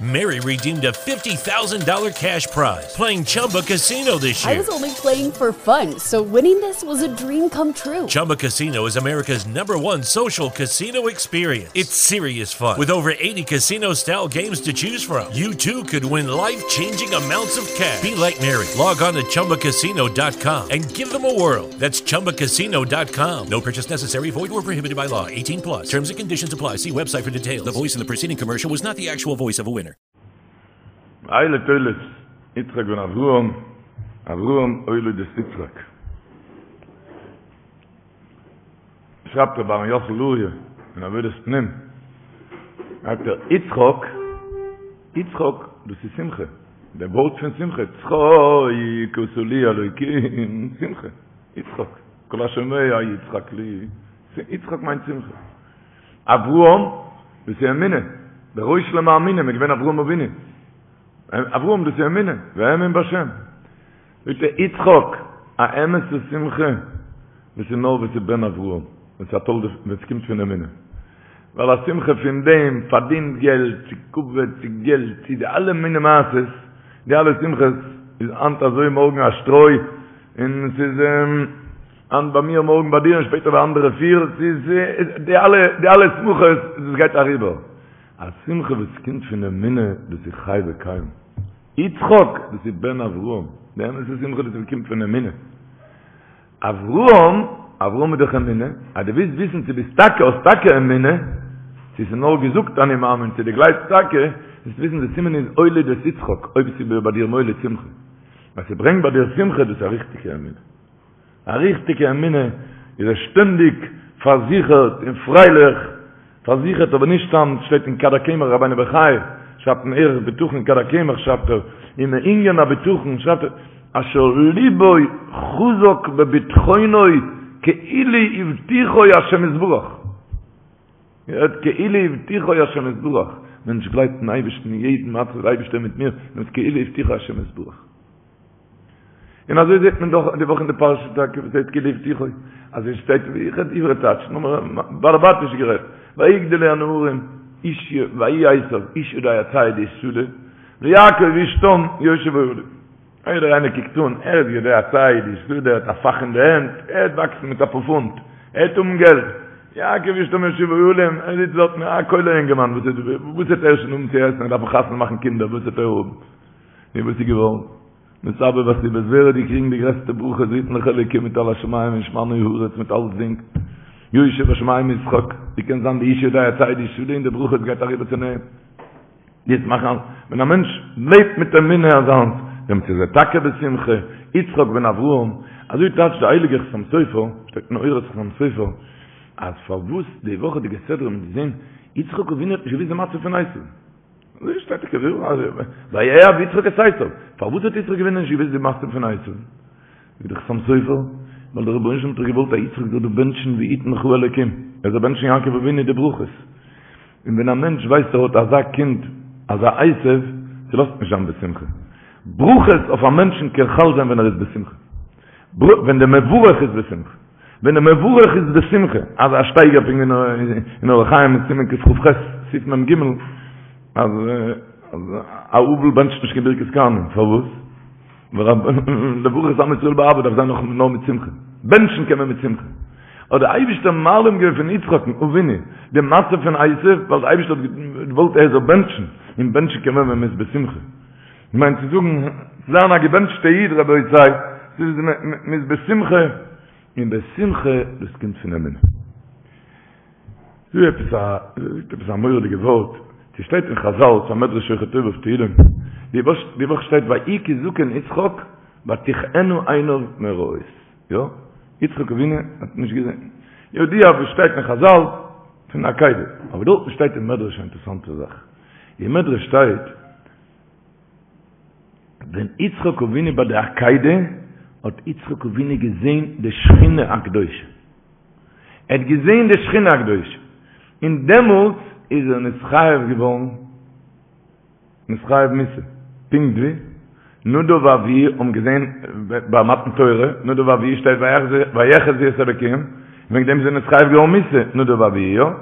Mary redeemed a $50,000 cash prize playing Chumba Casino this I year. was only playing for fun, so winning this was a dream come true. Chumba Casino is America's number one social casino experience. It's serious fun. With over 80 casino style games to choose from, you too could win life changing amounts of cash. Be like Mary. Log on to chumbacasino.com and give them a whirl. That's chumbacasino.com. No purchase necessary, void or prohibited by law. 18 plus. Terms and conditions apply. See website for details. The voice in the preceding commercial was not the actual voice of a winner. אלה תולדות יצחק בן אברהם, אברהם הוליד את יצחק. שרייבט רבי אהרן יוסל לוריא אין עבודת פנים, זאגט ער, יצחק, יצחק, דאס איז שמחה, דער ווארט פון שמחה, צחוק עשה לי אלוקים, שמחה, יצחק, כל השומע יצחק לי, יצחק מיינט שמחה. אברהם, דאס איז אמונה, דער ראש למאמינים איז געווען אברהם אבינו, אברהם דאס איז אמונה, והאמין בהשם. זאגט ער יצחק, א אמת'ע שמחה, דאס איז נאר ווען ס'איז בן אברהם, ווען ס'איז א תולדה, ווען ס'קומט פון אמונה. ווייל א שמחה פון דעם פארדינט געלט, צו כבוד, צו געלט, צו די אלע מיני מעשות, די אלע שמחות, איז היינט אזוי מארגן א שטרוי, און ס'איז היינט ביי מיר מארגן ביי דיר און שפעטער ביי אנדערע פיר, ס'איז די אלע די אלע שמחות דאס גייט אריבער. א שמחה וואס קומט פון אמונה דאס איז חי וקיים. יצחק דאס איז בן אברהם, די אמת'ע שמחה דאס איז קומט פון אמונה. אברהם, אברהם איז דאך אמונה, אז דו ווילסט וויסן צו ביסט טאקע האסט טאקע אמונה, צו ס'איז נאר געזאגט אני מאמין צו דו גלייבסט טאקע, זאלסט וויסן די סימן איז הוליד את יצחק, אויב ס'איז ביי דיר מוליד שמחה. אז ס'ברענגט ביי דיר שמחה דאס איז א ריכטיגע אמונה. א ריכטיגע אמונה איז ער שטענדיג פארזיכערט און פרייליך, פארזיכערט אבער נישט סתם, שטייט אין כד הקמח רבינו בחיי שרייבט אין ערך בטחון כד הקמח שרייבט ער, און מענין הבטחון שרייבט ער, אשר ליבו חזק בבטחונו כאילו הבטיחו השם יתברך. געהערט כאילו הבטיחו השם יתברך, מענטש גלייבט אין אייבערשטן אין יעדן מצב דער אייבערשטער מיט מיר, מיט כאילו הבטיחו השם יתברך. און אזוי זעט מען דאך די וואך אין די פרשה טאקע וואס הייסט כאילו הבטיחו, אז עס שטייט ווי איך רעד עברי טייטש, נאר באלעבאטיש גערעדט, ויגדלו הנערים איש ויהי עשו איש יודע ציד איש שדה, ויעקב איש תם יושב אהלים. יעדער איינער קוקט אן, ער איז יודע ציד, איש שדה, ער האט א פאך אין די הענט, ער וועט וואקסן מיט אפאר פונט, ער וועט האבן געלט. יעקב איש תם יושב אהלים, ער זיצט דארטן, א כולל אינגערמאן, וואס וואס וועט ער שוין האבן צו עסן, ער דארף חתונה מאכן קינדער, וואס וועט ער האבן? נו וואס איז געווארן? מסתבר בסיבות, ווער האט געקריגן די גרעסטע ברכות, ויתן לך אלוקים מטל השמים ומשמני הארץ מיט אלצדינג, יושב בשמים ישחק, ווי קען זיין די איש יודע ציד איש שדה און די ברכות גייט אריבער צו אים? יעצט מאכן אז ווען א מענטש לעבט מיט אמונה אזאנס, דעמאלטס איז ער טאקע בשמחה, יצחק בן אברהם, אזוי טייטשט דער הייליגער חתם סופר, שטייט אין אורות חתם סופר, אז פארוואס די וואכעדיגע סדרה האט מען געזען יצחק אבינו האט נישט געוואוסט די מצב פון עשו, אזוי שטייט טאקע ויאהב יצחק את עשו, פארוואס האט יצחק אבינו נישט געוואוסט די מצב פון עשו? זאגט דער חתם סופר, ווייל דער רבונו של עולם האט דאך געוואלט אז יצחק זאל דא בענטשן ויתן לך אלוקים, ער זאל בענטשן יעקב אבינו די ברכות. און ווען א מענטש ווייסט ער האט אזא קינד, אזא עשו, ס'לאזט נישט זיין בשמחה. ברכות אויף א מענטשן קען חל זיין ווען ער איז בשמחה. ווען דער מברך איז בשמחה. ווען דער מברך איז בשמחה, אזא שטייגער פונקט ווי אין אורח חיים אין סימן קכ"ח, סעיף מ"ג, אז א אבל בענטשט נישט קיין ברכת כהנים, פארוואס? לברך את עם ישראל באהבה דארף זיין נאר מיט שמחה, בענטשן קען מען מיט שמחה. האט דער אייבישטער מעלים געווען פון יצחק'ן אבינו די מצב פון עשו, ווייל דער אייבישטער האט געוואלט ער זאל בענטשן, און בענטשן קען מען ווען מען איז בשמחה. מיינט צו זאגן, צו זיין א געבענטשטע איד רבותי, ס'איז מען איז בשמחה, און בשמחה דאס קומט פון אמונה. דא עפעס א, זאגט עפעס א מורא'דיגע ווארט, ס'שטייט אין חזל, ס'א מדרש שוחר טוב אויף תהילים, די וואך די וואך שטייט ויהי כי זקן יצחק ותכהין עיניו מראות, יא, יצחק אבינו האט נישט געזען, ידוע וואס שטייט אין חזל פון עקידה, אבער דארטן שטייט אין מדרש א אינטערעסאנטע זאך, אין מדרש שטייט ווען יצחק אבינו ביי די עקידה האט יצחק אבינו געזען די שכינה הקדושה, ער האט געזען די שכינה הקדושה, און דעמאלטס איז ער נתחייב געווארן, נתחייב מיתה, פונקט ווי נדב ואביהוא האבן געזען ביי מתן תורה, נדב ואביהוא שטייט ויחזו את האלוקים, וועגן דעם איז ער נתחייב געווארן מיתה, נדב ואביהוא, יא?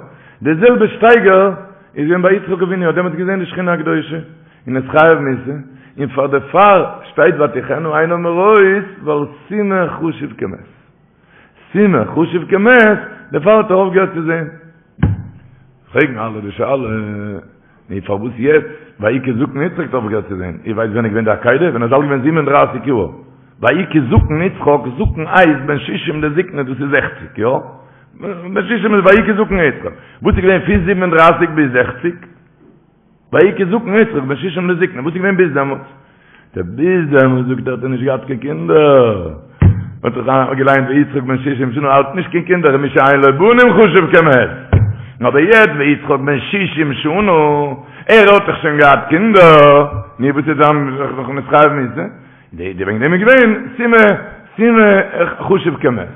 די זעלבע שטייגער. איז געווען ביי יצחק אבינו, האט דעמאלטס געזען די שכינה הקדושה, און נתחייב מיתה, און פאר דערפאר שטייט ותכהין עיניו מראות, ווייל סומא חשוב כמת. סומא חשוב כמת, דערפאר האט ער אויפגעהערט צו זען. פרעגן אלע די שאלה, נו פארוואס יעצט, ויהי כי זקן יצחק האט אויפגעהערט צו זען, איר ווייסט ווען איז געווען די עקידה? ווען ער איז אלט געווען זיבן און דרייסיג יאר. ויהי כי זקן יצחק, זקן הייסט בן שישים לזקנה, דאס איז זעכציג, יא? בן שישים איז ויהי כי זקן יצחק. וואס איז געווען פון זיבן און דרייסיג ביז זעכציג? ויהי כי זקן יצחק בן שישים לזקנה, וואס איז געווען ביז דעמאלטס? דער ביז דעמאלטס זאגט ער האט ער נישט געהאט קיין קינדער. מ'האט דאך געליינט ויצחק בן שישים שנה האט נישט קיין קינדער ומי שאין לו בנים חשוב כמת. אבער יעצט ויצחק בן שישים שנה, ער האט דאך שוין געהאט קינדער, נו וואס איז דאן נאך נתחייב מיתה? די וועגן דעם איז געווען סומא סומא חשוב כמת.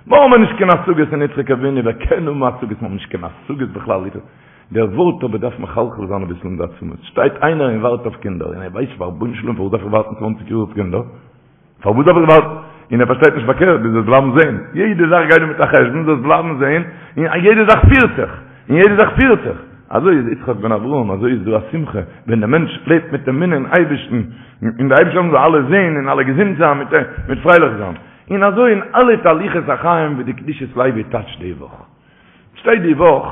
מיר האבן נישט קיין השגות אין יצחק אבינו, ווער קען האבן השגות? מיר האבן נישט קיין השגות בכלל. דער ווארט אבער דארף מחלחל זיין אביסל אין די עצמות. שטייט איינער און ווארט אויף קינדער, און ער ווייסט פאר רבונו של עולם פארוואס דארף איך ווארטן צוואנציג יאר אויף קינדער? פארוואס דארף איך ווארטן? און ער פארשטייט נישט פארקערט, דו זאלסט בלייבן זען. יעדע זאך גייט דא מיט א חשבון, זאלסט בלייבן זען, און יעדע זאך פירט זיך, און יעדע זאך פירט זיך. אזוי איז יצחק בן אברהם, אזוי איז דא א שמחה, ווען דער מענטש לעבט מיט אמונה אין אייבערשטן, און דער אייבערשטער זאל אלע זען און אלע געזונט זיין, מיט פרייליך זיין. און אזוי אין אלע תהלוכות החיים ווי די קדושת לוי טייטשט די וואך. שטייט די וואך.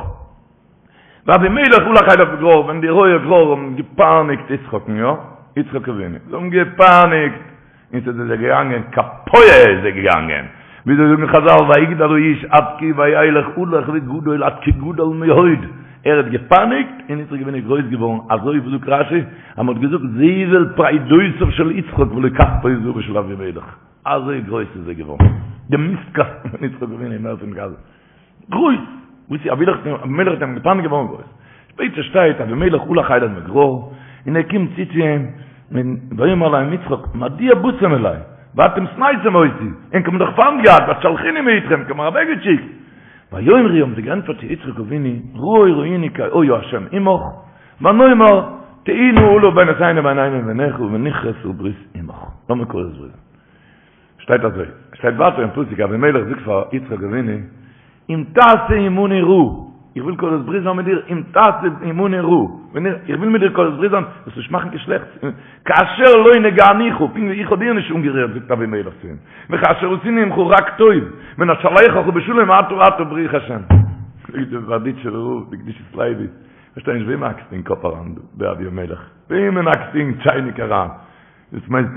ואבימלך הלך אליו מגרר, ווען די רועי גרר האבן געפייניגט יצחק'ן, יא, יצחק אבינו, זיי האבן געפייניגט, און ס'איז זיי געגאנגען קאפויער איז זיי געגאנגען, וויאזוי זאגן חזל ויגדל האיש עד כי וילך הלוך וגדול עד כי גדל מאוד, ער האט געפייניגט און יצחק אבינו איז גרויס געווארן, אזוי ווי זאגט רשי, אז מ'האט געזאגט זבל פרדותיו של יצחק ולא כספו וזהבו של אבימלך, אזוי גרויס איז ער געווארן, די מיסט קאסטן פון יצחק אבינו איז מער פון גאזע. גרויס! וואס איז אבימלך אבימלך האט אים געפייניגט געווארן גרויס. שפעטער שטייט אבימלך הלך אליו מגרר, און ער קומט צו צו אים, און ויאמר אליהם יצחק, מדוע באתם אלי, ואתם שנאתם אותי, ענק האבן דאך פיינט געהאט, ותשלחוני מאתכם, ענק האבן מיר אוועקגעשיקט. ויאמרו האבן זיי געענטפערט צו יצחק אבינו, ראה ראינו כי היה השם עמך, ונאמר תהי נא אלה בינותינו ובינינו וביניך ונכרתה ברית עמך. לאמיר כורת ברית זיין. שטייט אזוי, שטייט ווייטער אין פסוק אבימלך זאגט פאר יצחק אבינו, אם תעשה עמנו רעה, איך וויל כורת ברית זיין מיט דיר, אם תעשה עמנו רעה, איך וויל מיט דיר כורת ברית זיין, זאלסט נישט מאכן קיין שלעכטס, כאשר לא נגענוך, פונקט ווי איך האב דיר נישט אנגערירט, זאגט אבימלך צו אים, וכאשר עשינו עמך רק טוב, ונשלחך בשלום אתה עתה ברוך השם. זאגט דער בארדיטשובער רב, די קדושת לוי, כ'פארשטיי נישט וועם האקסטו אין קאפ אריין דא, דער אבימלך, וועמען האקסטו אין טשייניק אריין? דאס מיינט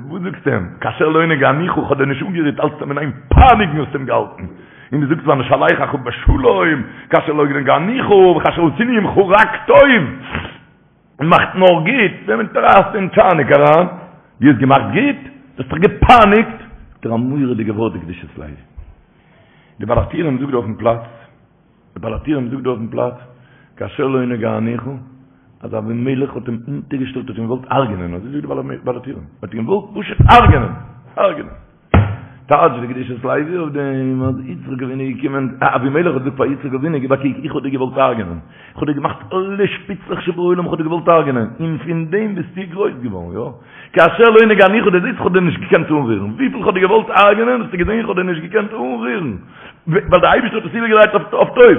וואס זאגסטו אים? כאשר לא נגענוך כ'האב דיר נישט אנגערירט האלטסט אים אין איין פייניגן האסט אים געהאלטן און דו זאגסט ונשלחך בשלום כאשר לא נגענוך וכאשר עשינו עמך רק טוב מאכט נאר גוט וועמען טרייסטו אין טשייניק אריין? דו האסט געמאכט גוט? דו האסט דאך געפייניגט! זאגט ער א מורא'דיגע ווארט די קדושת לוי די בעל הטורים זאגט דא אויפן פלאץ דער בעל הטורים זאגט דא אויפן פלאץ, כאשר לא נגענוך, אז אבימלך האט אים אונטערגעשטעלט האט אים געוואלט הרג'נען, אזוי זאגט דער בעל הטורים, האט אים געוואלט פשוט הרג'נען, הרג'נען. טייטשט די קדושת לוי אויף דעם, אז יצחק אבינו איז געקומען, אבימלך האט געזאגט פאר יצחק אבינו, גיב א קוק, איך האב דיר געוואלט הרג'נען, איך האב דיר געמאכט אלע שפיצלעך שבעולם, איך האב דיר געוואלט הרג'נען, און פון דעם ביסטו גרויס געווארן, יא? כאשר לא נגענוך, דו זעסט איך האב דיר נישט געקענט אנרירן, וויפיל איך האב דיר געוואלט הרג'נען, האסטו געזען איך האב דיר נישט געקענט אנרירן. ווייל דער אייבערשטער האט עס איבערגעדרייט אויף טוב.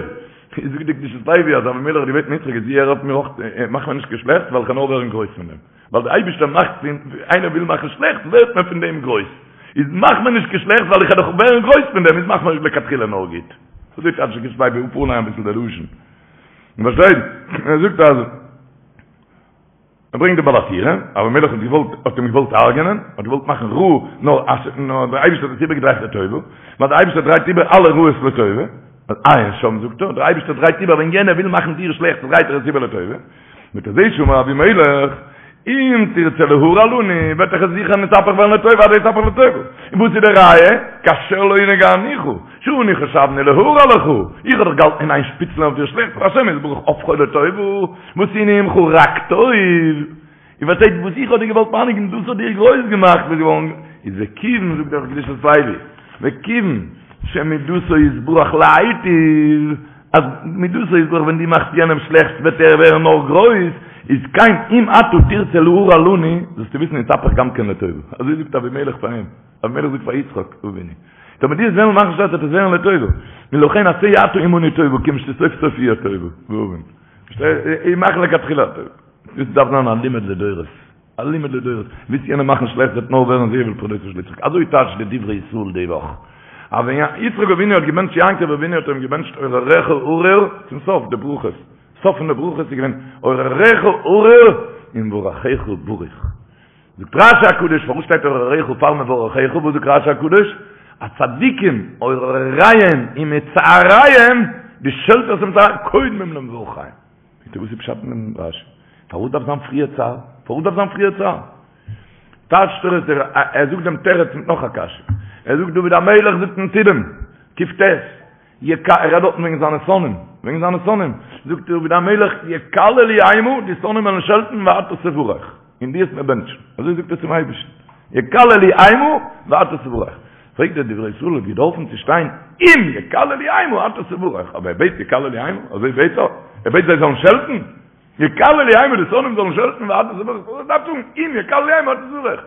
זאגט די קדושת לוי אז אבימלך האט געבעטן יצחק איז הער אויף מיר אויך, מאך מיר נישט קיין שלעכטס ווייל איך קען נאר ווערן גרויס פון דעם. ווייל דער אייבערשטער מאכט פון, איינער וויל מאכן שלעכטס ווערט מען פון דעם גרויס. איז מאך מיר נישט קיין שלעכטס ווייל איך וועל דאך ווערן גרויס פון דעם, איז מאך מיר לכתחילה נאר גוט. אזוי טייטשט די קדושת לוי אפארליינען אביסל די לשון. פארשטייט? ער זאגט אז. ער ברענגט די בעל הטורים, אבימלך האט געוואלט, האט אים געוואלט הרג'נען, האט געוואלט מאכן רע, נאר אז, נאר דער אייבערשטער האט עס איבערגעדרייט לטובה, ווייל דער אייבערשטער דרייט איבער אלע רעות לטובה, עיין שם זאגט ער, דער אייבערשטער דרייט איבער ווען יענער וויל מאכן דיר שלעכטס דרייט ער עס איבער לטובה, מיט אזוי שאמר אבימלך, אם תרצה להרע לנו, וועט דאך עס זיכער נתהפך ווערן לטובה, אז יתהפך לטובה. און וואס איז די ראיה? כאשר לא נגענוך, שאנו חשבנו להרע לך, איך האב דאך געהאלטן אין איין שפיצלען אויף דיר שלעכטס, והשם יתברך הפכו לטובה, ועשינו עמך רק טוב, איר פארשטייט וואס איך האב דיר געוואלט פייניגן, דאס האט דיר גרויס געמאכט, ביסט געווארן, איז וכיוון, זאגט דער קדושת לוי, וכיוון שמידותו יתברך להיטיב, אז מידותו יתברך ווען דו מאכסט יענעם שלעכטס וועט ער ווערן נאר גרויס, איז כן אם אתה תרצה להרע לנו, זאלסטו וויסן יתהפך גם כן לטובה, אזוי זאגט אבימלך פאר אים, אבימלך זאגט פאר יצחק אבינו, טאמער דו וועסט וועלן מאכן שלעכטס וועט עס ווערן לטובה, ולכן עשה אתה עמנו טובה, כיוון שסוף סוף יהיה טובה, והבן. איך מאך לכתחילה א טובה. דאס דארף זיין א לימוד לדורות. א לימוד לדורות. ווילסט יענעם מאכן שלעכט וועט נאר ווערן זבל פרדותיו של יצחק. אזוי טייטשט די דברי ישראל די וואך. אז ווען יצחק אבינו האט געבענטשט יעקב אבינו האט ער אים געבענטשט אורריך ארור צום סוף די ברכות. סוף פון די ברכות איז געווען אורריך ארור ומברכיך ברוך. זאגט רשי הקדוש פארוואס שטייט אורריך פאר מברכיך? וואס זאגט רשי הקדוש? אז צדיקים אורריהם ומצעריהם די שעלטערס און מצעריהם קודמים למברכיהם. זאגט ער וואס איז פשט אין דעם רשי? פארוואס דארף זיין פריער צער? פארוואס דארף זיין פריער צער? טייטשט ער עס, ער זאגט דעם תירוץ מיט נאך א קשיא. ער זאגט דוד המלך זאגט אין תהילים, קט, יק' ער רעדט דארטן וועגן זיינע שונאים, וועגן זיינע שונאים, זאגט דוד המלך, יקללו המה, די שונאים וועלן שעלטן ואתה תברך, און דו וועסט מיר בענטשן, אזוי זאגט ער צום אייבערשטן, יקללו המה ואתה תברך. פרעגט דער דברי ישראל האט געדארפן צו שטיין אם יקללו המה אתה תברך, אבער ער בעט יקללו המה, אזוי בעט ער? ער בעט זיי זאלן שעלטן? יקללו המה די שונאים זאלן שעלטן ואתה תברך, ער דארף זאגן אם יקללו המה אתה תברך.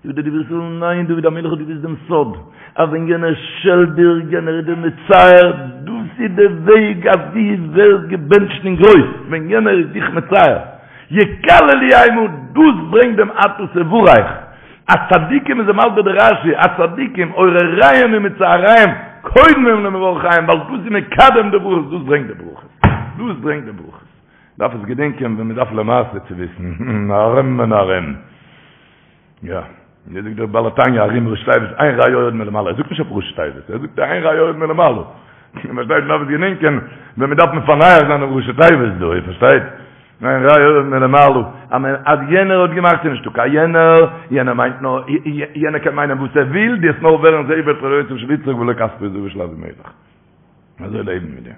זאגט דער דברי ישראל, ניין דוד המלך האט געוואוסט דעם סוד, אז ווען יענער שעלט דיר, יענער איז דיר מצער, דאס איז די וועג אז דו ווערסט געבענטשט אין גרויס, ווען יענער איז דיך מצער, יקללו המה, דאס ברענגט דעם אתה תברך, אז צדיקים איז מסביר די רשי, אז צדיקים אורריהם ומצעריהם קודמים למברכיהם, ווייל דאס איז מקדם די ברכות, דאס ברענגט די ברכות, דאס ברענגט די ברכות. דארף עס געדענקען ווען מען דארף למעשה צו וויסן, ארום און ארום. יא, ווי זאגט דער בעל התניא ארום ראשי תיבות, אין רע יורד מלמעלה, ער זאגט נישט אויף ראשי תיבות, ער זאגט אין רע יורד מלמעלה. איר פארשטייט, מען דארף עס געדענקען ווען מען דארף מפענח זיין דעם ראשי תיבות דא, איר פארשטייט? אין רע יורד מלמעלה, אז מען, אז יענער האט געמאכט איז נישטא קיין יענער, יענער מיינט נאר, יענער קען מיינען וואס ער וויל, דו וועסט נאר ווערן זבל פרדותיו של יצחק ולא כספו וזהבו של אבימלך. אזוי לעבן מיט דעם.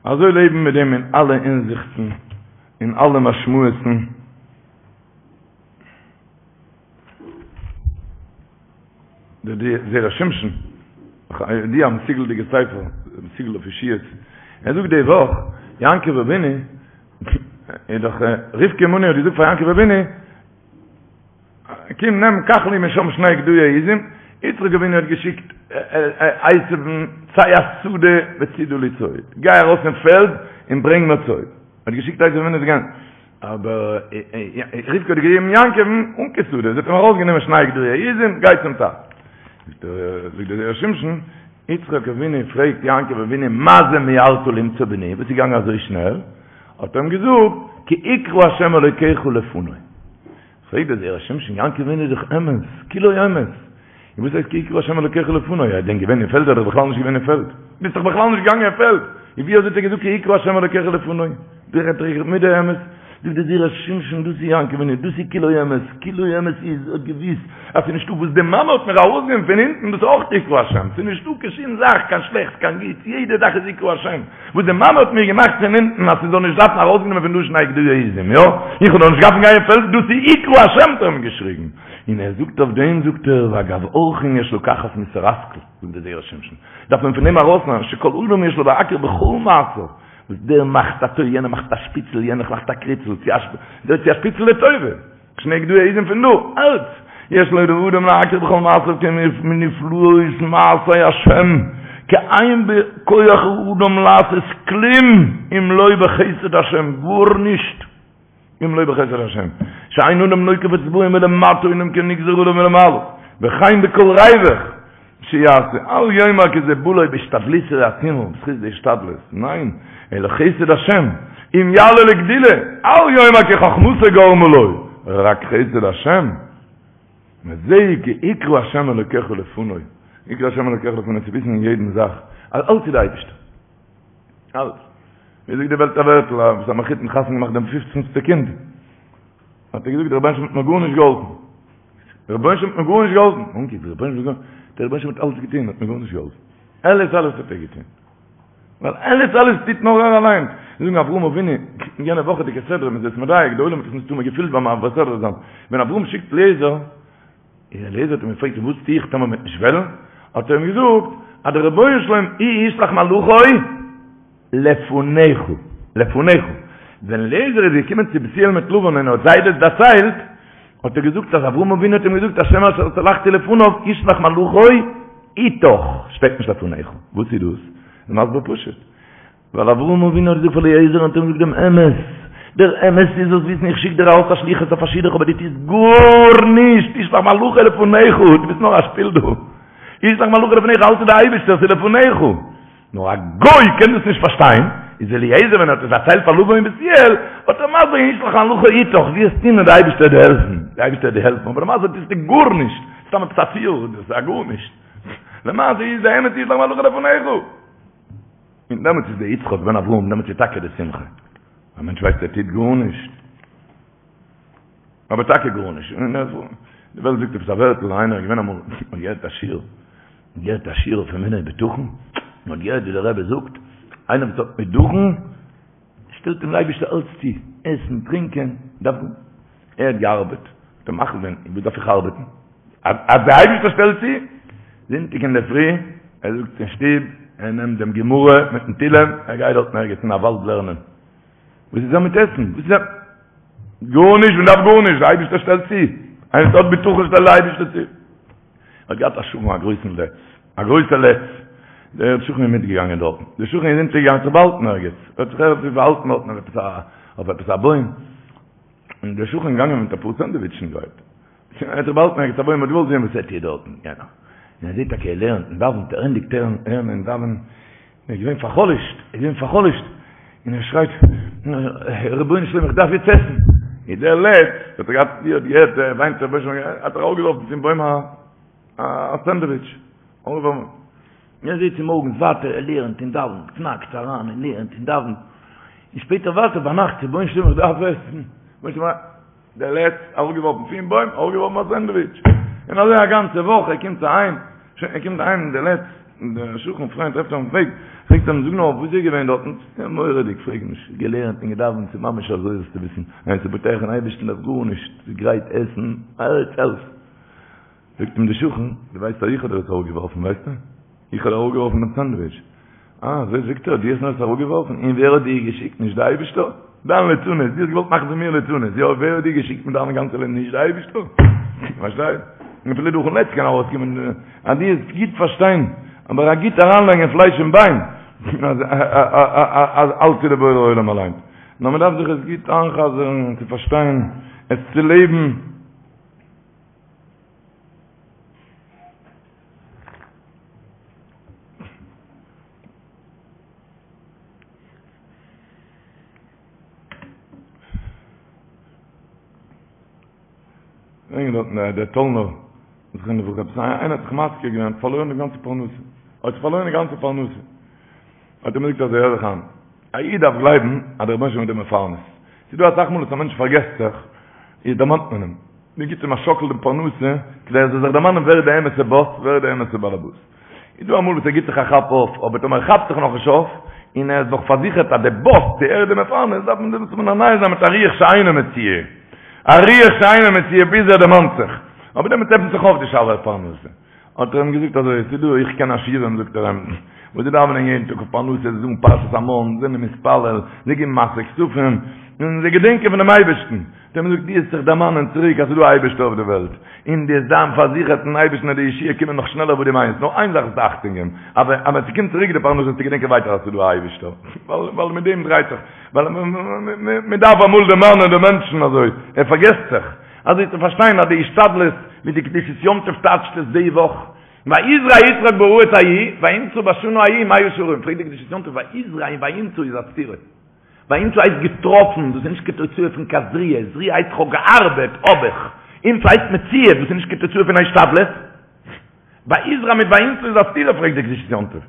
אזוי לעבן מיט דעם אין אלע הינזיכטן, אין אלע משמעות'ן. דער זרע שמשון, די א מסוגל'דיגע ספר, מסוגל אויף ישועות, ער זאגט די וואך, יעקב אבינו, איז דאך רבקה אמנו האט געזאגט פאר יעקב אבינו, קום נעם קח לי משם שני גדיי עזים, יצחק אבינו האט געשיקט עשו'ן צא השדה וצידה לי ציד, גיי ארויס אין פעלד און ברענג מיר ציד, האט געשיקט עשו אבינו צו גיין, אבער רבקה האט געגעבן יעקב'ן אן קיין שדה, זי האט אים ארויסגענומען שני גדיי עזים, גיי צום טאטן. זאגט דער זרע שמשון, יצחק אבינו פרעגט יעקב אבינו מה זה מיהרת למצוא בני, וואס איז געגאנגען אזוי שנעל? האט ער אים געזאגט, כי הקרה השם אלוקיך לפני. פרעגט דער זרע שמשון, יעקב אבינו איז דאך אמת, כולו אמת. און וואס הייסט כי הקרה השם אלוקיך לפני? ער איז דען געווען אין פעלד? ער איז דאך בכלל נישט געווען אין פעלד. ביסט דאך בכלל נישט געגאנגען אין פעלד. און ווי אזוי האט ער געזאגט כי הקרה השם אלוקיך לפני? דער רעדט דאך מיט די אמת. זאגט דער זרע שמשון, דאס איז יעקב אבינו, דאס איז כולו אמת. כולו אמת איז, ער האט געוואוסט אז ס'איז נישטא וואס די מאמע האט מיר ארויסגענומען פון אונטן, דאס איז אויך הקרה השם. ס'איז נישטא קיין שום זאך, קיין שלעכטס, קיין גוטס, יעדע זאך איז הקרה השם. וואס די מאמע האט מיר געמאכט פון אונטן אז ס'זאל נישט דארפן ארויסגענומען פון דא שני גדיי עזים, יא? איך האב דאך נישט געדארפן גיין אין פעלד, דאס איז הקרה השם האט ער אים געשריגן. און ער זאגט אויף דעם זאגט ער ואגב אורחין יש לקחת מוסר השכל, זאגט דער זרע שמשון, דארף מען פון דעם ארויסנעמען שכל אדם יש לו להכיר בכל מעשיו, וואס דער מאכט א טוי יענער מאכט א שפיצל יענער מאכט א קריצל, צו א שפיצל לטובה. שני גדיי עזים פון דא, אלץ, יש לו לאדם להכיר בכל מעשיו כי מנפלאות מעשי השם, כי אין בכח האדם לעשות כלום אם לא בחסד השם, גארנישט אם לא בחסד השם, שאין אדם נוקף אצבעו מלמטה אלא אם כן נגזר עליו מלמעלה, וכן בכל ריווח שיעשה, אל יאמר כי זה בא לו בהשתדלותו העצומה, בזכות די השתדלות, ניין, אלא חסד השם, אם יעלה לגדולה, אל יאמר כי חכמתו גרמה לו, רק חסד השם, וזהו כי הקרה השם אלוקיך לפני, הקרה השם אלוקיך לפני, צו וויסן אין יעדן זאך, אז אלץ איז די אייבערשטער, אלץ, ווי זאגט די וועלט א ווערטל, אז א מחותן חתונה געמאכט דעם פופצנסטע קינד, האט ער געזאגט דער רבונו של עולם האט מיר גארנישט געהאלפן. דער רבונו של עולם האט מיר גארנישט געהאלפן. אנקי, דער רבונו של עולם, דער רבונו של עולם האט אלעס געטון, האט מיר גארנישט געהאלפן. אלעס אלעס האט ער געטון. ווייל אלעס אלעס טוט נאר ער אליין. זיי זאגן אברהם אבינו, אין יענע וואכעדיגע סדרה, מ'איז עס מדייק, די עולם האט עס מסתמא געפילט ביים מעביר סדרה זיין. ווען אברהם שיקט אליעזר, און אליעזר האט אים געפרעגט וואס טו איך טאמער מ'וועט נישט וועלן? האט ער אים געזאגט אז דער רבונו של עולם הוא ישלח מלאכו לפניך, לפניך. ווען אליעזר איז געקומען צו בתואל מיט לבן און האט זיי דאס דערציילט, האט ער געזאגט אז אברהם אבינו האט אים געזאגט השם אשר התהלכתי לפניו ישלח מלאכו איתך, שטייט נישט לפניך. וואס איז דאס? איז מסביר פשוט. ווייל אברהם אבינו האט געזאגט פאר אליעזר און האט אים געזאגט דעם אמת, דער אמת איז זאלסט וויסן איך שיק דיר ארויס א שליחות אויף א שידוך אבער דו טוסט גארנישט, ישלח מלאכו לפניך, דו ביסט נאר א שפיל דא, ישלח מלאכו לפניך אלץ איז די אייבערשטער ס'איז לפניך, נאר א גוי קען דאס נישט פארשטיין, איז אליעזר ווען ער האט עס דערציילט פאר לבן און בתואל, האט ער מסביר געווען ישלח מלאכו אתך, וועסט טון און די אייבערשטער וועט דיר העלפן, די אייבערשטער וועט דיר העלפן, אבער למעשה טוסטו גארנישט, סתם עפעס א ציור, דאס איז א גארנישט, למעשה איז די אמת ישלח מלאכו לפניך. און דעמאלטס איז דער יצחק בן אברהם, דעמאלטס איז טאקע די שמחה. א מענטש ווייסט ער טוט גארנישט. אבער טאקע גארנישט. און די וועלט זאגט עפעס א ווערטל, איינער איז געווען אמאל, האט געהערט א שיעור, האט געהערט א שיעור אויף אמונה ובטחון, און האט געהערט ווי דער רבי זאגט, איינער וואס האט בטחון, שטעלט אים דער אייבערשטער אלץ צו, עסן, טרינקען, דארף גארנישט. ער האט געארבעט, האט ער מחליט געווען, וואס דארף איך ארבעטן? אז דער אייבערשטער שטעלט צו, זונטאג אינדערפרי, ער זאגט אין שטוב, ער נעמט דעם גמרא מיטן תהילים, ער גייט דארטן ערגעץ אין א וואלד לערנען. וואס איז ער מיט עסן? וואס איז ער? גארנישט, מען דארף גארנישט, דער אייבערשטער שטעלט צו. איינער וואס האט בטחון שטעלט דער אייבערשטער צו. ער האט געהאט א שכן א גרויסן לץ, א גרויסער לץ. דער שכן איז מיטגעגאנגען דארטן. דער שכן איז אונטערגעגאנגען זיך באהאלטן ערגעץ. ער האט זיך ערגעץ באהאלטן דארטן אויף עפעס א, אויף עפעס א בוים. און דער שכן איז געגאנגען מיט אפאר סענדוויטשן גרייט. ער האט זיך באהאלטן ערגעץ א בוים, האט געוואלט זען וואס ער טוט דארטן, יענער. און ער זעט טאקע ער לערנט און דאווענט, ער ענדיגט לערנען און דאווענען, ער איז געווען פאר'חלש'ט, ער איז געווען פאר'חלש'ט, און ער שרייט, רבונו של עולם איך דארף יעצט עסן. איז דער לץ, האט ער געהאט, ווי ער האט געהערט, ער וויינט רבונו של עולם, האט ער אראפגעווארפן פון בוים א א סענדוויטש. אראפגעווארפן. און ער זעט צומארגנס ווייטער, ער לערנט און דאווענט, קנאקט אריין און לערנט און דאווענט. און שפעטער ווייטער ביינאכט, רבונו של עולם איך דארף עסן. רבונו של עולם, דער לץ, אראפגעווארפן פון בוים, אראפגעווארפן א סענדוויטש. און אזוי א גאנצע וואך, ער קומט אהיים, שוין, ער קומט אהיים, דער לץ, דער שכן פריינט טרעפט אים אויפן וועג, פרעגט אים, זאג נאר, וואס איז געווען דארטן? מורא'דיג, פרעג נישט, געלערנט און געדאווענט, ס'איז ממש אזוי זאלסטו וויסן, ווער ס'איז בוטח אין אייבערשטן דארף גארנישט, ס'איז גרייט עסן, אלץ אלץ. זאגט אים דער שכן, דו ווייסט אז איך האב דיר עס אראפגעווארפן, ווייסטו? איך האב דיר אראפגעווארפן דעם סענדוויטש. אה, אזוי זאגט ער, דו האסט מיר עס אראפגעווארפן? און ווער האט דיר געשיקט? נישט דער אייבערשטער? דיין ליצנות, דו האסט געוואלט מאכן פון מיר ליצנות, יא, ווער האט דיר געשיקט מיט דיין גאנצע ליצנות? נישט דער אייבערשטער? פארשטייסט? און אפילו דורכ'ן לץ קען ארויסקומען, אז דו וועסט גוט פארשטיין, אבער א גוט אריינלייגן אין פלייש און ביין, אז אז אלץ איז דער בורא עולם אליין. נאר מען דארף זיך עס גוט איינ'חזר'ן, צו פארשטיין, עס צו לעבן. ברענגען דארטן דער טאלנער זכרונו לברכה עפעס איינער האט זיך מזכיר געווען האט פארלוירן די גאנצע פרנסה האט פארלוירן די גאנצע פרנסה האט ער מיר געזאגט אזוי הער זיך איין א איד דארף גלייבן אז דער רבונו של עולם איז דער מפרנס ס'איז דא אסאך מאל וואס א מענטש פארגעסט זיך איז דערמאנט מען אים מען גיט אים א שאקל די פרנסה, כדי ער זאל זיך דערמאנען ווער איז די אמת'ע באס, ווער איז די אמת'ע באלעבאס. איז דא אמאל וואס ער גיט זיך א כאפ אויף, אבער טאמער ער כאפט זיך נאכנישט אויף, און ער איז נאך פארזיכערט אז די באס, די ער איז די מפרנס, דארף מען דעמאלטס מנענע זיין מיט א רוח שאינה מצויה. א רוח שאינה מצויה ביז ער דערמאנט זיך. אבער דעמאלטס עפנט זיך אויף די שערי פרנסה. האט ער אים געזאגט אזוי, ס'איז דא, איך קען עשירים, זאגט ער אים, וואס זיי דאווענען יעדן טאג אויף פרנסה, זיי זאגן פרשת המן, זענען מתפלל, זיי געבן מעשר כספים, און זיי געדענקען פונעם אייבערשטן. האט ער אים געזאגט, דו וועסט זיך דערמאנען צוריק אז ס'איז דא א אייבערשטער אויף די וועלט, און דו וועסט זיין פארזיכערט אין אייבערשטן אז די ישועה קומען נאך שנעלער ווי דו מיינסט, נאר איין זאך זאלסטו אכטונג געבן, אז ווען ס'קומט צוריק די פרנסה זאלסטו געדענקען ווייטער אז ס'איז דא א אייבערשטער, ווייל מיט דעם דרייט זיך, ווייל מ'דארף אמאל דערמאנען די מענטשן אזוי, ער פארגעסט זיך. אזוי צו פארשטיין אז די השתדלות ווי די קדושת יום טוב טייטשט עס די וואך, ויזרע יצחק בארץ ההיא וימצא בשנה ההיא מאה שערים, פרעגט די קדושת יום טוב ויזרע און וימצא איז א סתירה, וימצא הייסט געטראפן, דאס איז נישט קיין תוצאה פון קיין זריעה, זריעה הייסט כ'האב געארבעט, האב איך, ימצא הייסט מציאה, דאס איז נישט קיין תוצאה פון השתדלות, ויזרע מיט וימצא איז א סתירה פרעגט די קדושת יום טוב.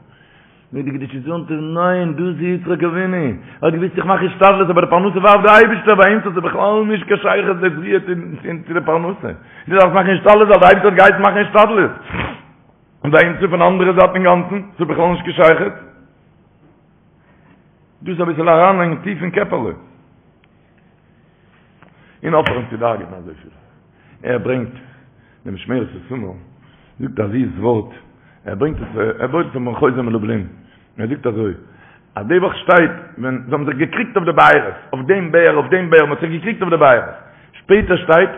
זאגט די קדושת יום טוב, ניין, דאס איז יצחק אבינו, ער האט געוואוסט איך מאך השתדלות אבער די פרנסה ווארפט די אייבערשטער, וימצא איז בכלל נישט קיין שייכות די זריעה צו די פרנסה, דו דארפסט מאכן השתדלות ווייל די אייבערשטער האט געהייסן מאכן השתדלות, און וימצא פון אנדערע זייט אינגאנצן, ס'איז בכלל נישט קיין שייכות. דאס אביסל אריינלייגן טיף אין קעפעלע. און אויפהערן צו דאגה'ן אזויפיל. ער ברענגט דעם משמרת איתמר, זאגט א זיס ווארט, ער ברענגט עס, ער בויט עס אויפן חוזה מלובלין, ער זאגט אזוי, אז די וואך שטייט ווען זיי האבן זיך געקריגט אויף די בארות, אויף דעם באר, אויף דעם באר, מען האט זיך געקריגט אויף די בארות, שפעטער שטייט,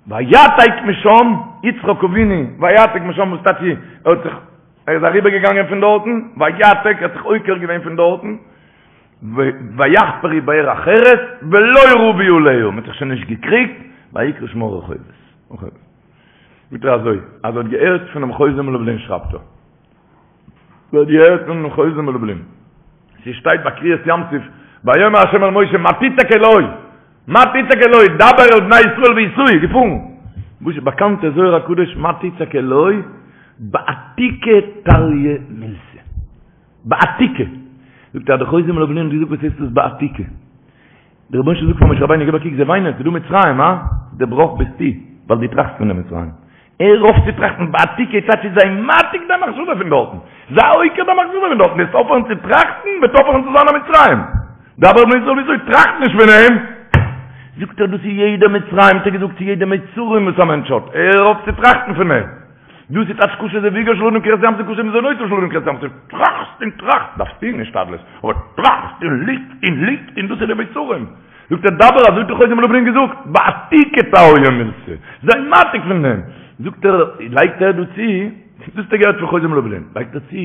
ויעתק משם יצחק אבינו, ויעתק משם וואס טייטש ער האט זיך, ער איז אריבער געגאנגען פון דארטן, ויעתק, ער האט זיך עוקר געווען פון דארטן. ויחפרו באר אחרת ולא רבו עליה, מען האט זיך שוין נישט געקריגט, ויקרא שמה רחובות. זאגט ער אזוי, אז ער האט געהערט פונעם חוזה מלובלין שרייבט ער. ער האט געהערט פונעם חוזה מלובלין. ס'שטייט ביי קריעת ים סוף, ויאמר ה' אל משה מה תצעק אלי, מה תצעק אלי, דבר אל בני ישראל ויסעו, געפארן. וואס איז באקאנט דער זוהר הקדוש מה תצעק אלי, בעתיקא תליא מילתא. בעתיקא. זאגט ער אז דער חוזה מלובלין האט געזאגט וואס הייסט דאס בעתיקא? דער רבונו של עולם זאגט פאר משה רבינו גיב א קוק זיי וויינען ס'איז דא מצרים הא? דער בראך ביסטו ווייל דו טראכסט פון די מצרים. הער אויף צו טראכטן בעתיקא טייטש איז זיי מעתיק דיין מחשבה פון דארטן. זיי עוקר דיין מחשבה פון דארטן וועסט אויפהערן צו טראכטן וועט אויפהערן צו זיין א מצרים. דבר אל בני ישראל ויסעו טראכט נישט פון אים. זאגט ער דאס איז יעדע מצרים האט ער געזאגט צו יעדע מצרים וואס א מענטש האט הער אויף צו טראכטן פון אים. דאס איז טייטש קשה זיווגו של אדם כקריעת ים סוף קשה מזונותיו של אדם כקריעת ים סוף, טראכסט און טראכסט, דארפסט טון השתדלות, אבער טראכסט און ליגסט און ליגסט און דאס איז די מיצרים. זאגט ער דבר אזוי האט דער חוזה מלובלין געזאגט, בעתיקא תליא מילתא, זיי מעתיק פון דעם, זאגט ער, לייגט ער דא צו, דאס האט ער געהערט פון חוזה מלובלין, לייגט ער צו,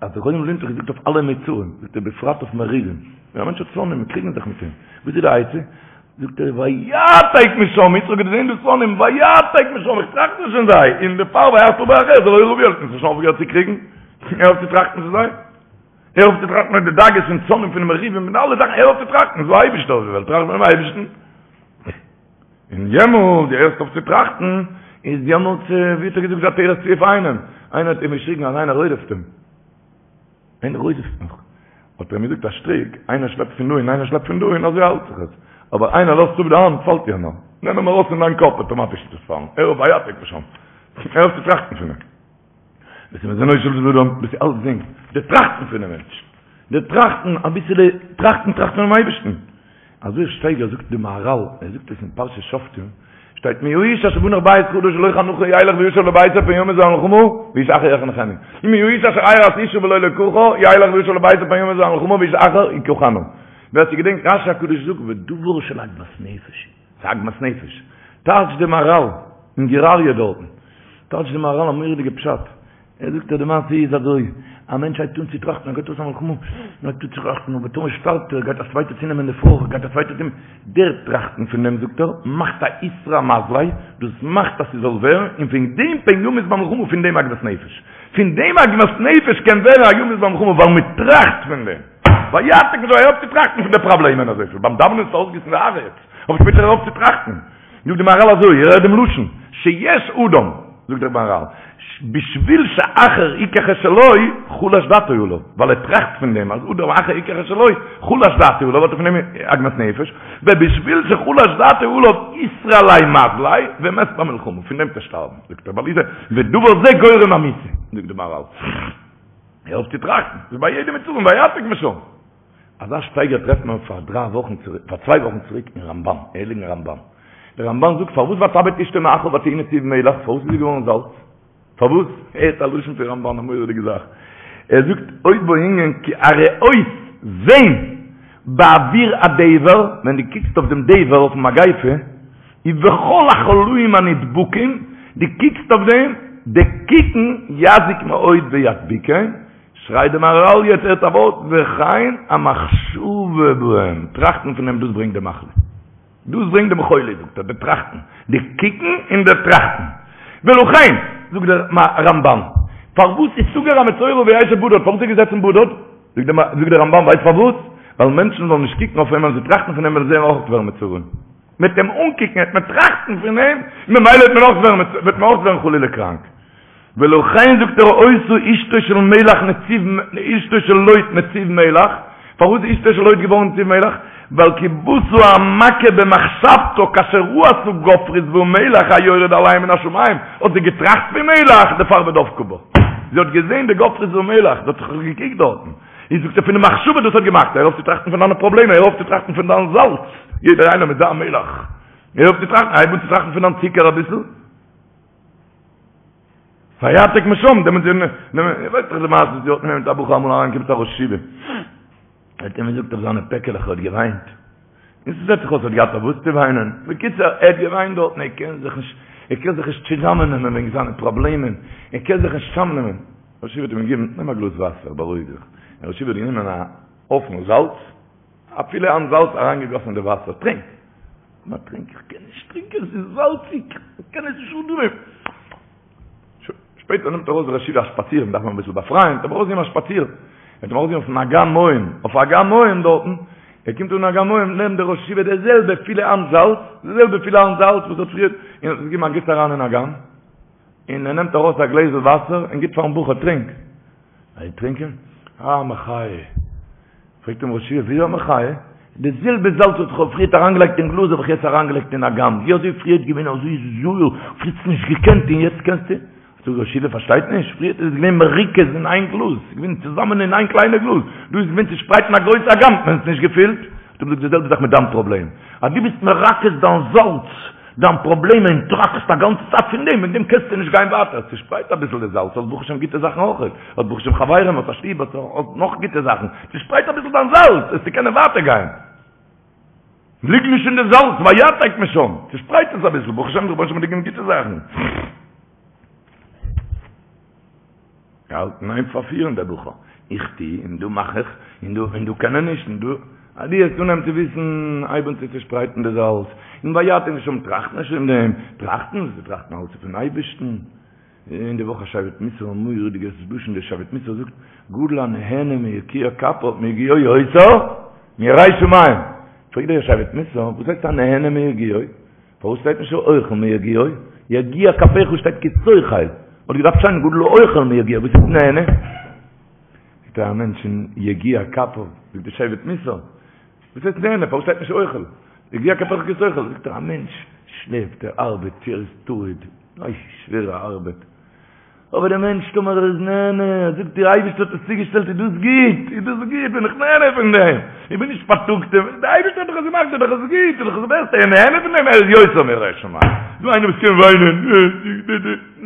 אז דער חוזה מלובלין האט דאך געזאגט אויף אלע מיצרים, זאגט ער בפרט אויף מריבים, ווען א מענטש האט שונאים און קריגן זיך מיט אים, וואס איז די עצה? זאגט ער ויעתק משם, יצחק האט געזען די שונאים, ויעתק משם, איך טראכט נישט פון זיי, און דערפאר ויחפר באר אחרת ולא רבו עליה, שוין אויפגעהערט צו קריגן, הער אויף צו טראכטן פון זיי, הער אויף צו טראכטן פון די דאגות פון שונאים פון די מריבים פון אלע זאכן, הער אויף צו טראכטן, ס'איז דא א אייבישטער אויף די וועלט, טראכט פונעם אייבישטן. און יעמאלט דו הערסט אויף צו טראכטן, איז יעמאלט, ווי האט ער געזאגט די עטרת צבי אויף איינעם, איינער האט אים געשריגן אז איינער רודפ'ט אים, איינער רודפ'ט מיך, האט ער אים געזאגט א שטריק, איינער שלעפט פון דא און איינער שלעפט פון דא און אזוי האלט זיך עס, אבער איינער לאזט אפ די האנט פאלט יענער, נעם אים ארויס פון דיין קאפ אטאמאטיש וועט עס פאלן, הער אויף ויעתק משם, הער אויף צו טראכטן פון אים. דאס איז מזונו של אדם, דאס איז אלצדינג, די טראכטן פונעם מענטש, די טראכטן, אביסעלע טראכטן, טראכטן פונעם אייבערשטן. אזוי שטייגער זאגט די מהרל, ער זאגט עס אין פרשת שופטים, שטייט מי האיש אשר בנה בית חדש ולא חנכו ילך וישוב לביתו פן ימות במלחמה ואיש אחר יחנכנו. ומי האיש אשר ארש אשה ולא לקחה ילך וישוב לביתו פן ימות במלחמה ואיש אחר יקחנה. ווער ס'געדענקט רשי הקדוש זאגט ודבר של עגמת נפש. ס'איז עגמת נפש. טייטש די מהרל אין גור אריה דארטן. טייטש די מהרל א מורא'דיגע פשט. ער זאגט אז די מעשה איז אזוי, א מענטש הייבט אן צו טראכטן, ער גייט אויס א מלחמה, און הייבט אן צו טראכטן, אבער טאמער שטארבט ער, גייט א צווייטער צונעמען די פרוי, גייט א צווייטער צונעמען, דער טראכטן פון דעם זאגט ער, מאכט א איתרע מזליה, דאס מאכט אז ס'זאל ווערן, און פון דעם פן ימות במלחמה, פון דעם עגמת נפש. פון דעם עגמת נפש קען ווערן א ימות במלחמה, ווייל מ'טראכט פון דעם. ויעתק משם, הער אויף צו טראכטן פון די פראבלעמען אזויפיל, ביים דאווענען איז אויסגיסן די הארץ, אבער שפעטער הער אויף צו טראכטן. זאגט די מהרל אזוי, איר הערט דעם לשון, שיש אדם, זאגט דער מהרל, בשביל שאחר יקח את שלו, חלש דעתו עליו, ווייל ער טראכט פון דעם אז אדם אחר יקח את שלו, חלש דעתו עליו, האט ער פון דעם עגמת נפש, ובשביל שחלש דעתו עליו, איתרע ליה מזליה, ומת במלחמה, פון דעם צו שטארבן, זאגט ער, ווייל איז ודבר זה גורם המיתה, זאגט די מהרל. הער אויף צו טראכטן, ס'איז ביי יעדע מצרים, ויעתק משם. אזא שטייגער טרעפט מען פאר דריי וואכן צוריק, פאר צוויי וואכן צוריק אין רמבן, הייליגן רמבן. דער רמבן זאגט פארוואס ותבט אשתו מאחריו ותהי נציב מלח, פארוואס איז זי געווארן זאלץ? פארוואס? הערט א לשון פון רמבן, א מורא'דיגע זאך. ער זאגט עוד בו ענין כי הראות זען באוויר הדבר, ווען דו קוקסט אויף דעם דבר, אויפן מגיפה, ובכל החולאים הנדבקים, דו קוקסט אויף דעם, די קוקן יזיק מאוד וידביקם, שרייט די מהרל יעצט הערט א ווארט, וכן המחשבה בהם, טראכטן פון דעם דאס ברענגט די מחלה, דאס ברענגט דעם חולי זאגט ער, די טראכטן, די קוקן און די טראכטן, ולכן, זאגט דער רמבן, פארוואס איז סגר המצורע וישב בדד, פארוואס איז ער געזעצן בדד? זאגט דער רמבן ווייסט פארוואס? ווייל מענטשן זאלן נישט קוקן אויף אים ווען זיי טראכטן פון אים וועלן זיי אויך ווערן מצורעים. מ'וועט אים אנקוקן וועט מען טראכטן פון אים, ממילא וועט מען אויך ווערן וועט מען אויך ווערן חלילה קראנק. ולכן זאגט ער היתה אשתו של מלח נציב אשתו של לוט נציב מלח, פארוואס איז אשתו של לוט געווארן נציב מלח? ווייל כי באתה המכה במחשבתה כאשר ראתה גופרית ומלח היורד עליהם מן השמים, האט זי געטראכט פון מלח, דערפאר ודבקה בה. זי האט געזען די גופרית ומלח, זי האט זיך געקוקט דארטן. איז זאגט ער פון די מחשבה דאס האט געמאכט, הער אויף צו טראכטן פון דיינע פראבלעמען, הער אויף צו טראכטן פון דיין זאלץ, יעדער איינער מיט זיין מלח, הער אויף צו טראכטן, הייב אן צו טראכטן פון דיין צוקער אביסל. ויעתק משם, דעמאלטס איז, איר ווייסט דאך די מעשה וואס האט מיט א בחור אמאל אריינגעקומען צו א ראש ישיבה, ער האט אים געזאגט אויף זיינע פעקעלעך ער האט געוויינט, און ס'זעט זיך אויס ער האט געהאט אויף וואס צו וויינען, בקיצור ער האט געוויינט דארטן, ער קען זיך נישט, ער קען זיך נישט צוזאמעננעמען וועגן זיינע פראבלעמען, ער קען זיך נישט צוזאמנעמען. ראש ישיבה האט אים געגעבן, נעם א גלאז וואסער, בארואיג זיך. דער ראש ישיבה האט גענומען א. הויפן זאלץ, א פילע האנט זאלץ אריינגעגאסן אין די וואסער, טרינק! נא טרינק, איך קען נישט טרינקען, עס איז זאלציג, איך קען עס נישט אננעמען. שפעטער נעמט ארויס דער ראש ישיבה א שפאציר, מען דארף אים אביסל באפרייען, האט אים ארויסגעגעבן א שפאציר, ער האט אים ארויסגעגעבן אויפן אגם מים, אויף אגם מים דארטן, ער קומט אן אגם מים, נעמט דער ראש ישיבה די זעלבע פילע האנט זאלץ, די זעלבע פילע האנט זאלץ וואס האט פריער, און האט עס געגעבן א גיס אריין אין אגם, און ער נעמט ארויס א גלעזל וואסער און גיט פארן בחור, טרינק. ער טרינקען, אה, מחיה. פרעגט אים ראש ישיבה, וויאזוי א מחיה? די זעלבע זאלץ וואס איך האב פריערט אריינגעלייגט אין גלאז האב איך יעצט אריינגעלייגט אין אגם, ווי אזוי פריערט געווען אזוי זויער, פריערט האסט נישט געקענט און יעצט קענסטו? זאגט ראש ישיבה, פארשטייט נישט, פריערט איז עס געווען מרוכז אין איין גלאז, ס'איז געווען צוזאמען אין איין קליינע גלאז, דא איז געווען צושפרייט אין א גרויסע אגם, האט מען עס נישט געפילט. האט אים געזאגט די זעלבע זאך מיט דיין פראבלעם, אז דו ביסט מרכז דיין זאלץ, דיין פראבלעם און טראכסט א גאנצע צייט פון דעם, וועגן דעם קענסטו נישט גיין ווייטער, צושפרייט אביסל די זאלץ, האסט ברוך השם גוטע זאכן אויך, האסט ברוך השם חברים, האסט א שטוב, האסט נאך גוטע זאכן, צושפרייט אביסל דיין זאלץ, וועסטו קענען ווייטער גיין. ליג נישט אין די זאלץ, ויעתק משם, צושפרייט עס אביסל, ברוך השם דער רבונו של עולם האט דיר געגעבן גוטע זאכן. געהאלטן אין איין פארפירן דער בחור, איך טו און דא מאך איך, און דא און דא קען ער נישט, און דא, אז דו וועסט אנהייבן צו וויסן, הייב אן צו צושפרייטן די זאלץ, און ויעתק משם, טראכט נישט פון דעם, טראכטן, זיי טראכטן אלץ פון אייבערשטן. אין די וואך א שבט מוסר א מורא'דיגע לשון דער שבט מוסר זאגט, גדול הנהנה מיגיע כפיו מיגיעו יותר מירא שמים, פרעגט דער שבט מוסר, וואס הייסט הנהנה מיגיעו? פארוואס שטייט נישט האוכל מיגיעו? יגיע כפיך שטייט כי תאכל, וואלט געדארפט שטיין גדול האוכל מיגיעו, וואס איז נהנה? זאגט ער א מענטש אין יגיע כפיו, זאגט די שבט מוסר, וואס הייסט נהנה? פארוואס שטייט נישט אוכל? יגיע כפיך כי תאכל, זאגט ער א מענטש שלעפט, ער ארבעט, ער איז טרוד, אוי שווערע ארבעט, אבער דער מענטש טאמער ער איז נהנה, ער זאגט דער אייבערשטער האט עס צוגעשטעלט איז דאס גוט, איז דאס גוט, בין איך נהנה פון דעם, איך בין נישט פארטאגט, דער אייבערשטער האט דאך עס געמאכט, איז דאך עס גוט, איז דאך עס בעסטע, ער איז נהנה פון דעם, ער איז יותר מירא שמים, דא איינער וואס קען וויינען,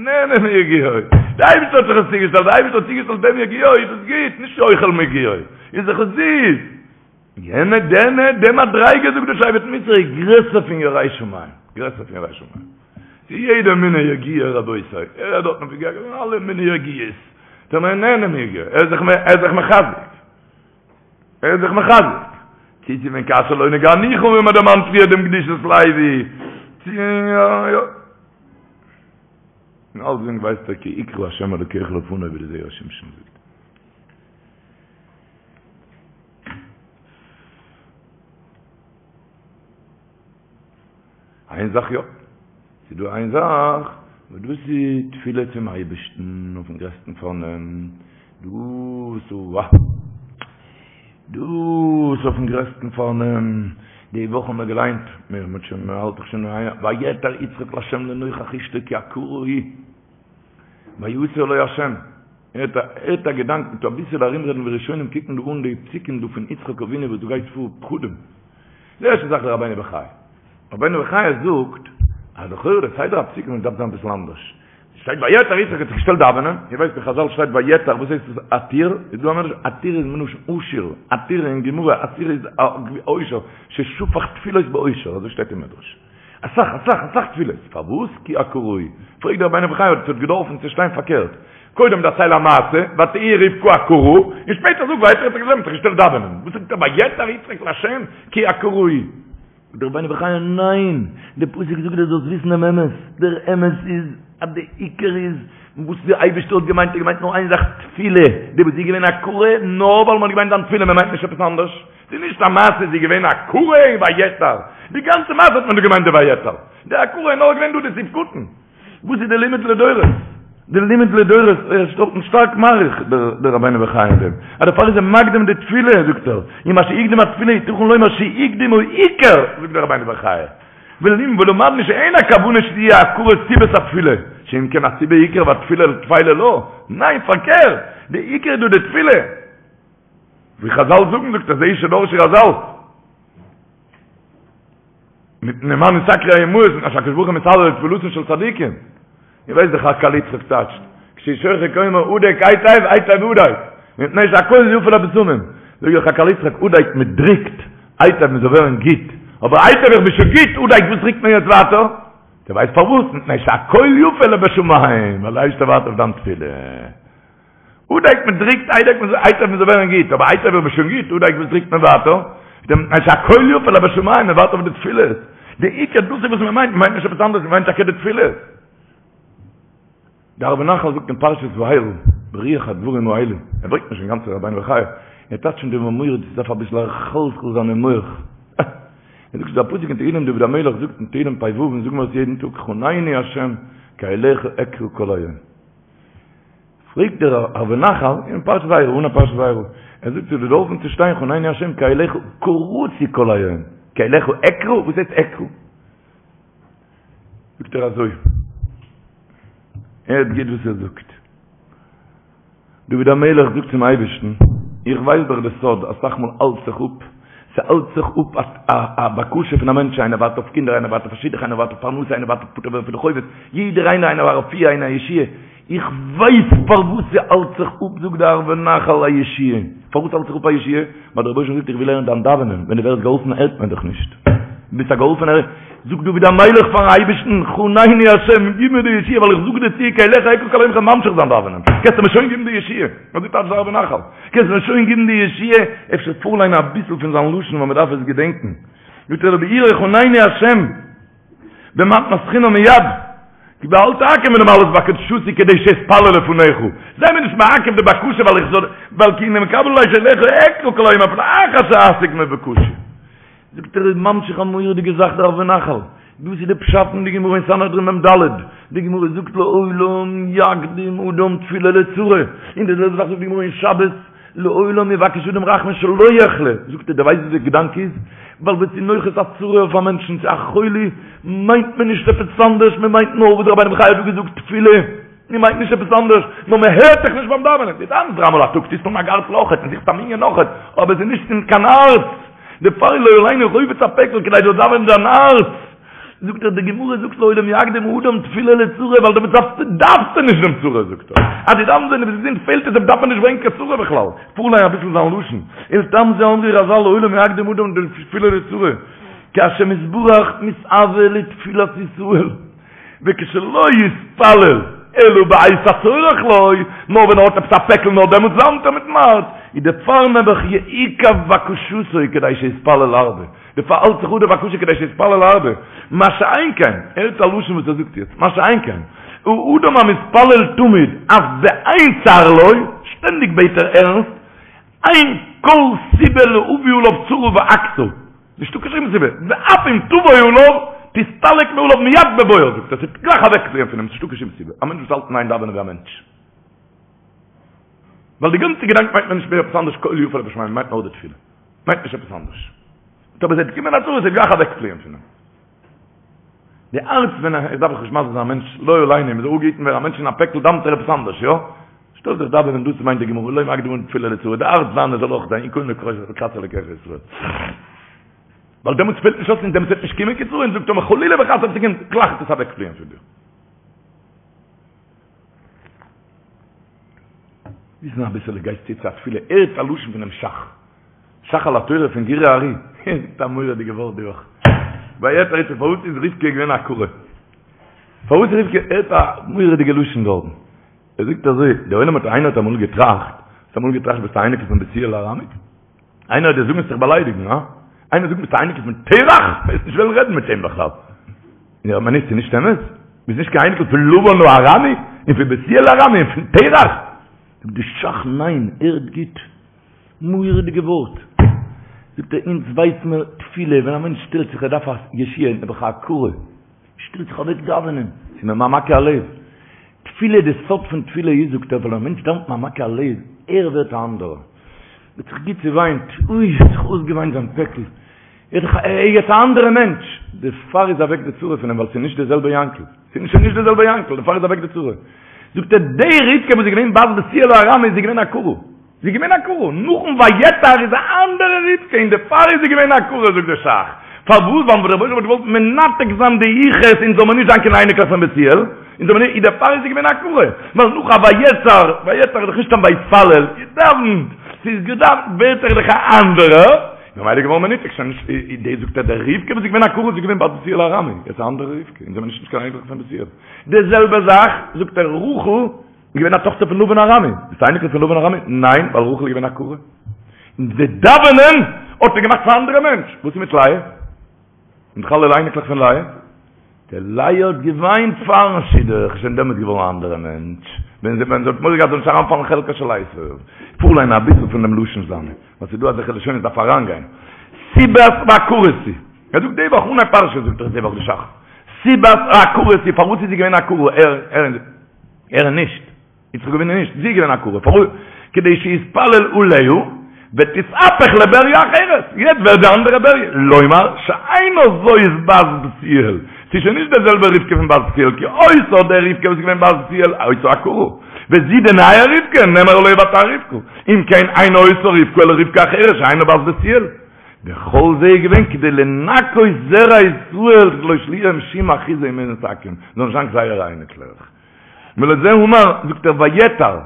נהנה מיגיעו, דער אייבערשטער האט דאך עס צוגעשטעלט, דער אייבערשטער האט צוגעשטעלט דעם יגיעו, איז דאס גוט, נישט אוכל מיגיעו, איז דאך עס זיס. יענע דענע די מדריגה זאגט דער שבט מוסר איז גרעסער פון ירא שמים, גרעסער פון ירא שמים. ס'איז יעדע מיני יגיעה רבותי, ער רעדט דארטן פון יגיעה, אלע מיני יגיעות, דער מען נהנה מיגיעו, ער איז זיך ער איז זיך מחזק, ער איז זיך מחזק. צו צו ווען כאשר לא נגענוך ווי מען דערמאנט פריער דעם קדושת לוי, צו יא יא. און אלסדינג ווייסט ער כי יקרא השם אלוקיך לפניו ווי די זרע שמשון זאגט. איין זאך יא, ס'איז דא איין זאך, וואס דאס איז תפילה צום אייבערשטן אויפן גרעסטן פארנעם, דאס אוה, דאס אויפן גרעסטן פארנעם, די וואך האבן מיר געליינט, מיר האט שוין, מען האלט דאך שוין, ויעתר יצחק לה' לנוכח אשתו כי עקרה היא, ויעתר לו ה'. הערט א הערט א געדאנק מיט אביסעלע ארומרעדן ווי ראשונים קוקן דא אן די פסוקים דא פון יצחק אבינו וואס דא גייט פאר פחדים. די ערשטע זאך דער רבינו בחיי. רבינו בחיי זאגט אז לכאורה די סדר הפסוקים דארף זיין אביסל אנדערש. שטייט ויעתר יצחק האט זיך געשטעלט דאווענען, איר ווייסט אין חזל שטייט ויעתר וואס הייסט עס עתיר? איז דא א מדרש עתיר איז מלשון עשיר, עתיר אין גמרא עתיר איז עושר, ששפך תפילות בעושר אזוי שטייט אין מדרש. אסאך אסאך אסאך תפילות, פארוואס כי עקרה היא? פרעגט דער רבינו בחיי האט עס געדארפן צו שטיין פארקערט, קודם דערצייל א מעשה, ותהי רבקה עקרה, און שפעטער זאג ויעתר יצחק לה' האט זיך געשטעלט דאווענען, וואס זאגט ער ויעתר יצחק לה' כי עקרה היא? זאגט דער רבינו בחיי ניין, די פסוק זאגט דיר זאלסט וויסן דעם אמת, דער אמת איז אז די עיקר איז וואס די אייבערשטער האט געמיינט, ער האט געמיינט נאר איין זאך תפילה, די וואס איז געווען עקרה נאר ווייל מען האט געמיינט דיין תפילה, מען מיינט נישט עפעס אנדערש. ס'איז נישט א מעשה זי איז געווען עקרה און ויעתר, די גאנצע מעשה האט מען דא געמיינט די ויעתר, די עקרה איז נאר געווען דא די סעיף קטן. וואס איז די לימוד לדורות? די לימוד לדורות, ער איז דארטן שטארק מאריך דער רבינו בחיי אין דעם, אז דערפאר איז ער מקדים די תפילה, זאגט ער, ומה שהקדים התפילה יתכן לומר שהקדים העיקר, זאגט דער רבינו בחיי, ולמדנו שאין הכוונה שתהיה העקרה סיבת התפילה, שאם כן הסיבה עיקר והתפילה טפלה לה, ניין פארקערט, די עיקר איז דא די תפילה. ווי חזל זאגן זאגט ער זה שדרשו חזל מפני מה נתעכרו האמהות מפני שהקדוש ברוך הוא מתעלה לתפילתן של צדיקים איר ווייסט דאך עקל יצחק טייטשט כשהוא שוחק אומר הדק היטב היטב הדק מפני שהכל יפה לבשמים זאג איך עקל יצחק הדק מען דריקט היטב מען זאל ווערן גוט אבער היטב איך בין שוין גוט הדק וואס דריקט מען יעצט ווייטער דו ווייסט פארוואס מפני שהכל יפה לבשמים ווייל דער אייבערשטער ווארט אויף דיין תפילה. הדק מען דריקט איידער מען איידער מען זאל ווערן גוט, אבער איידער ווערט מען שוין גוט, הדק וואס דריקט מען ווייטער? דעם אז שהקול יפה לבשמים, מען ווארט אויף די תפילות. די עיקר דאס איז וואס מען מיינט, מען מיינט נישט עפעס אנדערש, מען מיינט טאקע די תפילות. דער ערבי נחל זאגט אין פרשת וארא, ברוח הדברים האלה, ער ברענגט נישט אינגאנצן רבינו בחיי, ער טייטשט אין דעם מורא'דיג, ס'דארף אביסל מחלחל זיין אין מח. ער זאגט ס'איז דא א פסוק אין תהילים דוד המלך זאגט אין תהילים פ"ו און זאגן מיר עס יעדן טאג חנני ה' כי אליך אקרא כל היום. פרעגט דער ערבי נחל אין פרשת וארא אן א פרשת וארא, ער זאגט ס'האט געדארפן צו שטיין חנני ה' כי אליך קראתי כל היום, כי אליך אקרא? וואס הייסט אקרא? זאגט ער אזוי, הערט גוט וואס ער זאגט, דוד המלך זאגט צום אייבערשטן, איך ווייס דאך די סוד, אסאך מאל האלט זיך אפ, ס'האלט זיך אפ א בקשה פון א מענטש, איינער ווארט אויף קינדער, איינער ווארט אויף א שידוך, איינער ווארט אויף פרנסה, איינער ווארט אויף פטור ווערן פון די חובות, יעדער איינער, איינער ווארט אויף רפואה, איינער א ישועה, איך ווייס פארוואס ס'האלט זיך אפ, זאגט דער ערבי נחל א ישועה. פארוואס האלט זיך אפ א ישועה? ווייל דער רבוש"ע זאגט איך וויל הערן דיין דאווענען, ווען דו ווערסט געהאלפן הערט מען דיך נישט. דו ביסט א געהאלפענער, זאגט דוד המלך פארן אייבערשטן, חנני השם, גיב מיר די ישועה, ווייל איך זאג דיר צו, כי אליך אקרא כל היום כ'וועל ממשיך זיין דאווענען, קענסטו מיר שוין גיבן די ישועה. אזוי טייטשט דער ערבי נחל, קענסט מיר שוין גיבן די ישועה, אפשר פארליינען אביסל פון זיין לשון ווייל מ'דארף עס געדענקען. זאגט ער לביאורו חנני השם, במתנת חינם מיד, כי ואל תעכב מלמלאות בקשתי כדי שאתפלל לפניך, זיי מיר נישט מעכב די בקשה ווייל איך זאל, ווייל כי הנה מקבל עלי שאליך אקרא כל היום אפילו אחר שאשיג מבוקשי. זאגט ער איז ממשיך א מורא'דיגע זאך דער ערבי נחל, דאס איז די פשט אין די גמרא אין סנהדרין מ"ד, די גמרא זאגט לעולם יקדים אדם תפילה לצרה, און די זעלבע זאך זאגט די גמרא אין שבת, לעולם יבקש אדם רחמים שלא יחלה, זאגט ער, דו ווייסט וואס די געדאנק איז? ווייל ווען ס'איז נוחת א צרה אויף א מענטשן, צו א חולי, מיינט מען נישט עפעס אנדערש, מען מיינט נאר וואס רבינו בחיי האט דא געזאגט, תפילה, מען מיינט נישט עפעס אנדערש, נאר מען הערט זיך נישט ביים דאווענען, דו דאווענסט דריי מאל א טאג, טוסט אן א גארטל אויכעט, און זוכסט א מנין אויכעט, אבער עס איז נישט אין קיין הארץ, דערפאר איז לא עלינו חפץ הפעקל כדי דו זאלסט דאווענען דיין הארץ. זאגט ער די גמרא זאגט לעולם יקדים אדם תפילה לצרה ווייל דעמאלטס דארפסטו דארפסטו נישט דעם צרה זאגט ער אז דו דאווענסט ווען דו ביסט געזונט פעלט עס דארף מען נישט ברענגען קיין צרה בכלל פארליין אביסל זיין לשון ולטעם זה אמרו רז"ל לעולם יקדים אדם תפילה לצרה כי השם יתברך מתאווה לתפילת ישראל וכשלא יתפלל אלא בעת הצורך לו, נאר ווען ער האט עפעס א פעקל נאר דעמאלטס דאווענט ער מיטן הארץ, איז דערפאר נעבעך יעוכב בקשתו כדי שיתפלל הרבה. דערפאר האלט זיך אפ די בקשה כדי שיתפלל הרבה, מה שאין כן, הערט א לשון וואס ער זאגט יעצט, מה שאין כן, האדם המתפלל תמיד אף באין צר לו, שטענדיג בעט ער ערנסט, אין כל סיבה להביא עליו צרה ועקתה, נישטא קיין שום סיבה, ואף אם תבוא עליו, תסתלק מעליו מיד בבואה, זאגט ער, ס'וועט גלייך אוועקפליען פון אים, ס'נישטא קיין שום סיבה, א מענטש וואס האלט אין איין דאווענען ווי א מענטש. ווייל די גאנצע געדאנק מיינט מען נישט מער עפעס אנדערש קול יפה לבשמים, מיינט נאר די תפילה. מיינט נישט עפעס אנדערש. אבער ס'וועט קומען א צרה, ס'וועט גלייך אוועקפליען פון אים. די הארץ ווען איך דארף איך נישט מסביר זיין א מענטש לא עלינו, מ'זאל אפגעהיטן ווערן א מענטש אין א פעקל דאוונט ער עפעס אנדערש, יא? שטעל זיך דאווענען דאס מיינט די גמרא לעולם יקדים אדם תפילה לצרה, די הארץ זיינע זאל אויך זיין קוים לקראת אלוקיך ישראל. ווייל דעמאלטס פעלט נישט אויס און דעמאלטס וועט נישט קומען קיין צרה און זאגט טאמער חלילה וחס אויב ס'קומט גלייך וועט עס אוועקפליען פון דיר. וויסן אביסעלע גייסט צו צו א תפילה הערט א לשון פונעם שך שך על התורה פון גורי הארי ער זאגט א מורא'דיגע ווארט די וואך ויעתר יצחק פארוואס איז רבקה געווען א עקרה פארוואס איז רבקה הערט א מורא'דיגע לשון דארטן ער זאגט אזוי דער עולם האט איינער האט אמאל געטראכט האסט אמאל געטראכט ביסט א אייניקל פון בתואל הארמי איינער וועט דיר זאגן וועסט זיך באליידיגן, הא? איינער זאגט ביסט א אייניקל פון תרח? וועסט נישט וועלן רעדן מיט אים בכלל. יא, אבער נישט, ס'איז נישט אמת. ביסט נישט קיין אייניקל פון לבן הארמי, און פון בתואל הארמי, און פון תרח. זאגט די שך, ניין, הערט גוט. מורא'דיגע ווארט. זאגט ער, אונז ווייס מיר תפילה, ווען א מענטש שטעלט זיך ער דארף א ישועה, נעבעך א עקרה. שטעלט זיך אוועק דאווענען, ס'איז ממעמקי הלב. תפילה, די סוד פון תפילה איז, זאגט ער, ווייל א מענטש דאווענט ממעמקי הלב, ער ווערט א אנדערער. האט זיך גוט צעוויינט, אוי, האט זיך אויסגעוויינט זיין פעקל, ער איז דאך יעצט א אנדערע מענטש, דערפאר איז אוועק די צרה פון אים, ווייל ס'איז נישט די זעלבע יענקל, ס'איז שוין נישט די זעלבע יענקל, דערפאר איז אוועק די צרה. זאגט ער, די רבקה וואס איז געווען בת בתואל הארמי איז זי געווען עקרה. זי איז געווען עקרה, נאכן ויעתר איז א אנדערע רבקה און דערפאר איז זי געווען עקרה זאגט דער שך, פארוואס ווייל דער רבונו של עולם האט געוואלט מנתק זיין די יחוס אונז זאל מען נישט זיין קיין אייניקלעך פון בתואל, אונז זאל מען נישט, דערפאר איז זי געווען עקרה, ווייל נאך א ויעתר, ויעתר איז דאך נישט סתם ויתפלל, געדאווענט, ס'איז געדאווענט ווערט ער דאך א אנדערע, ממילא איז געווארן מנותק, שוין נישט, דאס זאגט ער די רבקה וואס איז געווען עקרה איז געווען בת בתואל הארמי, יעצט א אנדערע רבקה, אונז זעמיר נישט קיין אייניקלעך פון בתואל, די זעלבע זאך זאגט ער רחל. איז געווען א טאכטער פון לבן הארמי. ביסט א אייניקל פון לבן הארמי? ניין, ווייל רחל איז געווען עקרה. און די דאווענען האט איר געמאכט פאר א אנדערע מענטש. וואס איז מיט לאה? און דאך אלע אייניקלעך פון לאה? די לאה האט געוויינט פארן שידוך, איז שוין דעמאלט געווארן א אנדערע מענטש. ווען זי ווען זי האט מורא געהאט זאל נישט אריינפאלן חלקה של עשו. פארליינען אביסל פון דעם לשון זיינע, ווייל ס'איז דא אזעלכע לשונות דארף אריינגיין. סיבת העקרות היא. ער זאגט די וואך אנהייב פרשה זאגט ער די וואך די שך. סיבת העקרות היא, פארוואס איז זי געווען עקרה, ער ער ער נישט. יצחק אבינו נישט, זי איז געווען עקרה, פארוואס? כדי שיתפלל עליה ותתהפך לבריה אחרת, יעצט ווערט די אנדערע בריה, לומר שאינה זאת בת בתואל, ס'איז שוין נישט די זעלבע רבקה פון בת בתואל, כי אותה די רבקה וואס איז געווען בת בתואל היתה עקרה, וזו די נייע רבקה נאמר עליה ותהר רבקה, אם כן אינה אותה רבקה אלא רבקה אחרת שאינה בת בתואל. וכל זה איז געווען כדי לנקות זרע ישראל שלא יהיה להם שום אחיזה אין מנת עכו"ם, זאל נישט זיין זייערע אייניקלעך. ולזה אמר, זאגט ער ויעתר,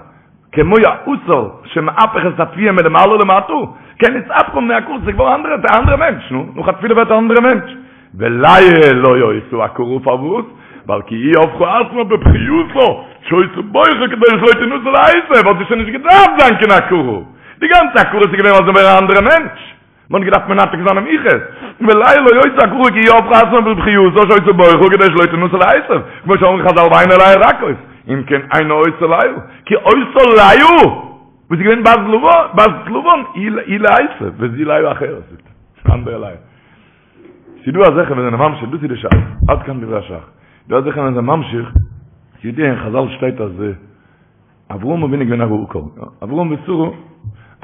כמו העתר שמהפך את התבואה מלמעלה למטה, כן נתהפכה מעקרות, ס'איז געווארן אנדערע, א אנדערע מענטש, נו, נאך א תפילה ווערט א אנדערע מענטש. ולאה לא היתה עקרה פארוואס? ווייל כי היא הפכה עצמה בבכייתה, שהיתה בוכה כדי שלא תנשא לעשו, האט זי שוין נישט געדארפט זיין קיין עקרה. די גאנצע עקרות איז געווען ווייל זי ווערט א אנדערע מענטש. מען האט געדארפט מנתק זיין דעם יחוס, ולאה לא היתה עקרה כי היא הפכה עצמה בבכייתה שהיתה בוכה כדי שלא תנשא לעשו, כמו שאמרו חזל ועיני לאה רכות, אם כן אינה אותה לאה, כי אותה לאה וואס איז געווען בת לבן, בת לבן היא לעשו, וזו לאה אחרת, אנדערע לאה. ס'דא אזעלכע וואס זענען ממשיך, דאס איז די שאלה, עד כאן דברי הש"ך. דא אזעלכע וואס זענען ממשיך, ס'ידוע אין חזל שטייט אז אברהם אבינו איז געווען א עקר, אברהם ושרה,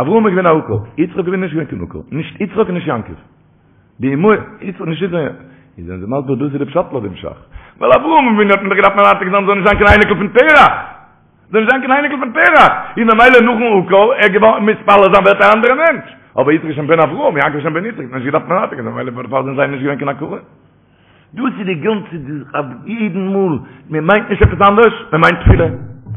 אברהם איז געווען א עקר, יצחק אבינו איז נישט געווען קיין עקר, נישט יצחק און נישט יעקב. די אמהות, יצחק נישט יצחק, איז זענען זיי מסביר דאס איז די פשט לויט דעם ש"ך. ווייל אברהם אבינו האט מען דאך געדארפט מנתק זיין זאל נישט זיין קיין אייניקל פון תרח. זאל נישט זיין קיין אייניקל פון תרח. איז ממילא נאכן עקר, ער געווארן מתפלל זיין ווערט א אנדערע מענטש. אבער יצחק איז שוין בן אברהם, יעקב איז שוין בן יצחק, האט מען נישט געדארפט מנתק זיין, ממילא דערפאר זענען זיי נישט געווען קיין עקרה. דאס איז די גאנצע אויף יעדן מאל, מען מיינט נישט עפעס אנדערש, מען מיינט תפילה,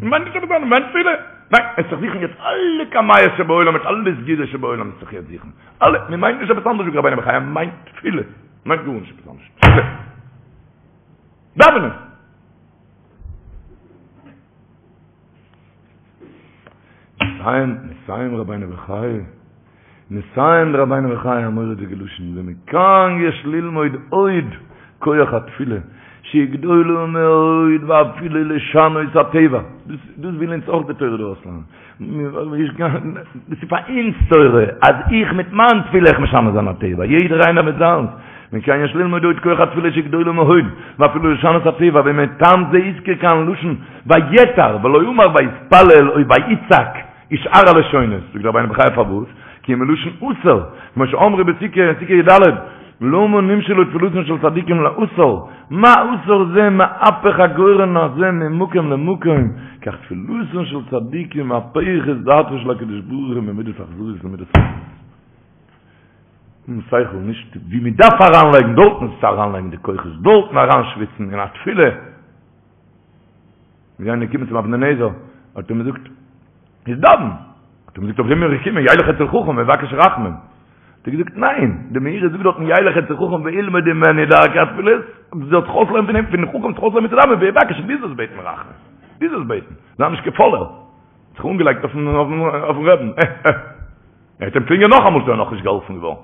מען מיינט נישט עפעס אנדערש, מען מיינט תפילה, ניין, עס זיך זוכן יעצט אלע קמיעות שבעולם מיט אלע סגולות שבעולם עס זיך יעצט זוכן, אלע, מען מיינט נישט עפעס אנדערש זאגט רבינו בחיי, מען מיינט תפילה, מען מיינט גארנישט עפעס אנדערש, תפילה, דאווענען. מסיים, מסיים רבינו בחיי, מסיים רבינו בחיי א מורא'דיגע לשון, ומכאן יש ללמוד עוד כח התפילה, שהיא גדולה מאוד ואפילו לשנות הטבע, דאס דאס וויל אונז אויך די תורה דא אויסלערנען, דאס איז פאר אונז תורה, אז איך מיט מיין תפילה איך משנה זיין הטבע, יעדער איינער מיט זיינס, מכאן יש ללמוד עוד כח התפילה שהיא גדולה מאוד, ואפילו לשנות הטבע, ומטעם זה הזכיר כאן לשון ויעתר, ולא אמר ויתפלל או ויצעק, ושאר הלשונות, זאגט רבינו בחיי פארוואס? כי מלשון עתר, כמו שאמרו בסוכה, אין סוכה י"ד, למה נמשלו תפילתן של צדיקים לעתר, מה עתר זה מהפך הגורן הזה ממקום למקום, כך תפילתן של צדיקים מהפכת דעתו של הקדוש ברוך הוא ממידת אכזריות למידת רחמנות. און שכל נישט ווי מען דארף אריינלייגן דארטן איז צו אריינלייגן די כוחות דארטן אריינשוויצן אין א תפילה. מיר זענען געקומען צום אבני נזר, האט ער מיר געזאגט, איז דאווען. האט ער מיר געזאגט, אויף דעם בין איך געקומען, ילך אצל חכם ויבקש רחמים. האט ער געזאגט, ניין, די מאירי זאגט דארטן ילך אצל חכם וילמד ממנו דרכי התפילות, דו זאלסט זיך אויסלערנען פון אים, פון חכם זיך אויסלערנען צו דאווענען, ויבקש, דו זאלסט בעטן רחמים. דו זאלסט בעטן. זיי נישט קיין פאלער. זיך אנגעלייגט אויפן אויפן רעבן. אה אה. ער האט אים קלינגען נאכאמאל, איז ער נאכנישט געהאלפן געווארן.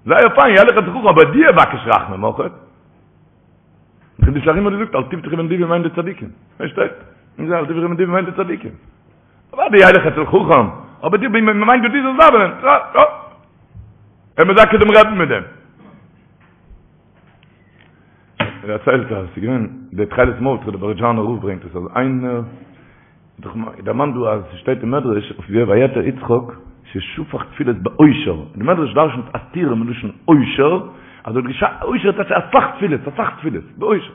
זייער פיין, ילך אצל חכם, אבער דו יבקש רחמים אויך. חידושי הרי"ם האט געזאגט אל תבטחו בנדיבים מיינט די צדיקים. פארשטייט? און זיי אל תבטחו בנדיבים מיינט די צדיקים. אוודאי ילך אצל חכם, אבער דו מיינט דו זאלסט דאווענען. יא. ער מזכה דעם רעבן מיט דעם. ער דערציילט אז ס'איז געווען דער תכלת מרדכי דער בערזשאנער רב ברענגט עס אז איינער דאך דערמאנט דא אז ס'שטייט אין מדרש אויף ויעתר יצחק ששפך תפילות בעושר, די מדרש דרשנ'ט עתירה מלשון עושר, אז ער האט געשא עושר טייטש אסאך תפילות, אסאך תפילות, בעושר.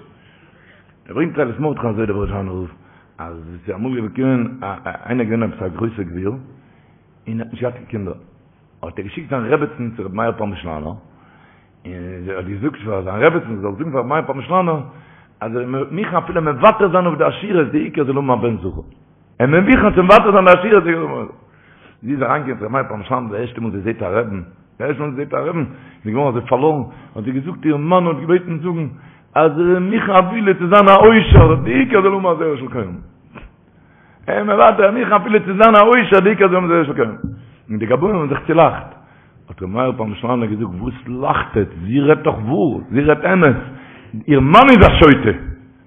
ער ברענגט תכלת מרדכי אזוי דער בערזשאנער רב, אז עס איז אמאל געקומען איינער געווען עפעס א גרויסער גביר, און האט נישט געהאט קיין קינדער, האט ער געשיקט זיין רעבעצן צו רבי מאיר פרעמישלאנער, און זי האט געזאגט פאר זיין רעבעצן זי זאל זאגן פאר רבי מאיר פרעמישלאנער אז ער איז מוכן אפילו מוותר זיין אויף די עשירות די עיקר זאל האבן א בן זכר. ער איז מוכן צו מוותר זיין די עשירות די עיקר זאל האבן א בן זכר. זי איז אריינגעקומען צו רבי מאיר פרעמישלאנער די ערשטע מאל זי זעט א רעבן, די ערשטע מאל זי זעט א רעבן, איז זי געווארן אזוי פארלוירן, האט זי געזאגט איר מאן האט געבעטן זאגן אז ער איז מוכן אפילו צו זיין א עושר די עיקר זאל האבן א זרע של קיימא. ער מוותר מוכן אפילו צו זיין א עושר די עיקר זאל מען זיך קענען. און די גבאים האבן זיך צולאכט. האט ר' מאיר פרעמישלאנער געזאגט וואס לאכט עטץ, זי רעדט דאך וואר, זי רעדט אמת, איר מאן איז א שוטה,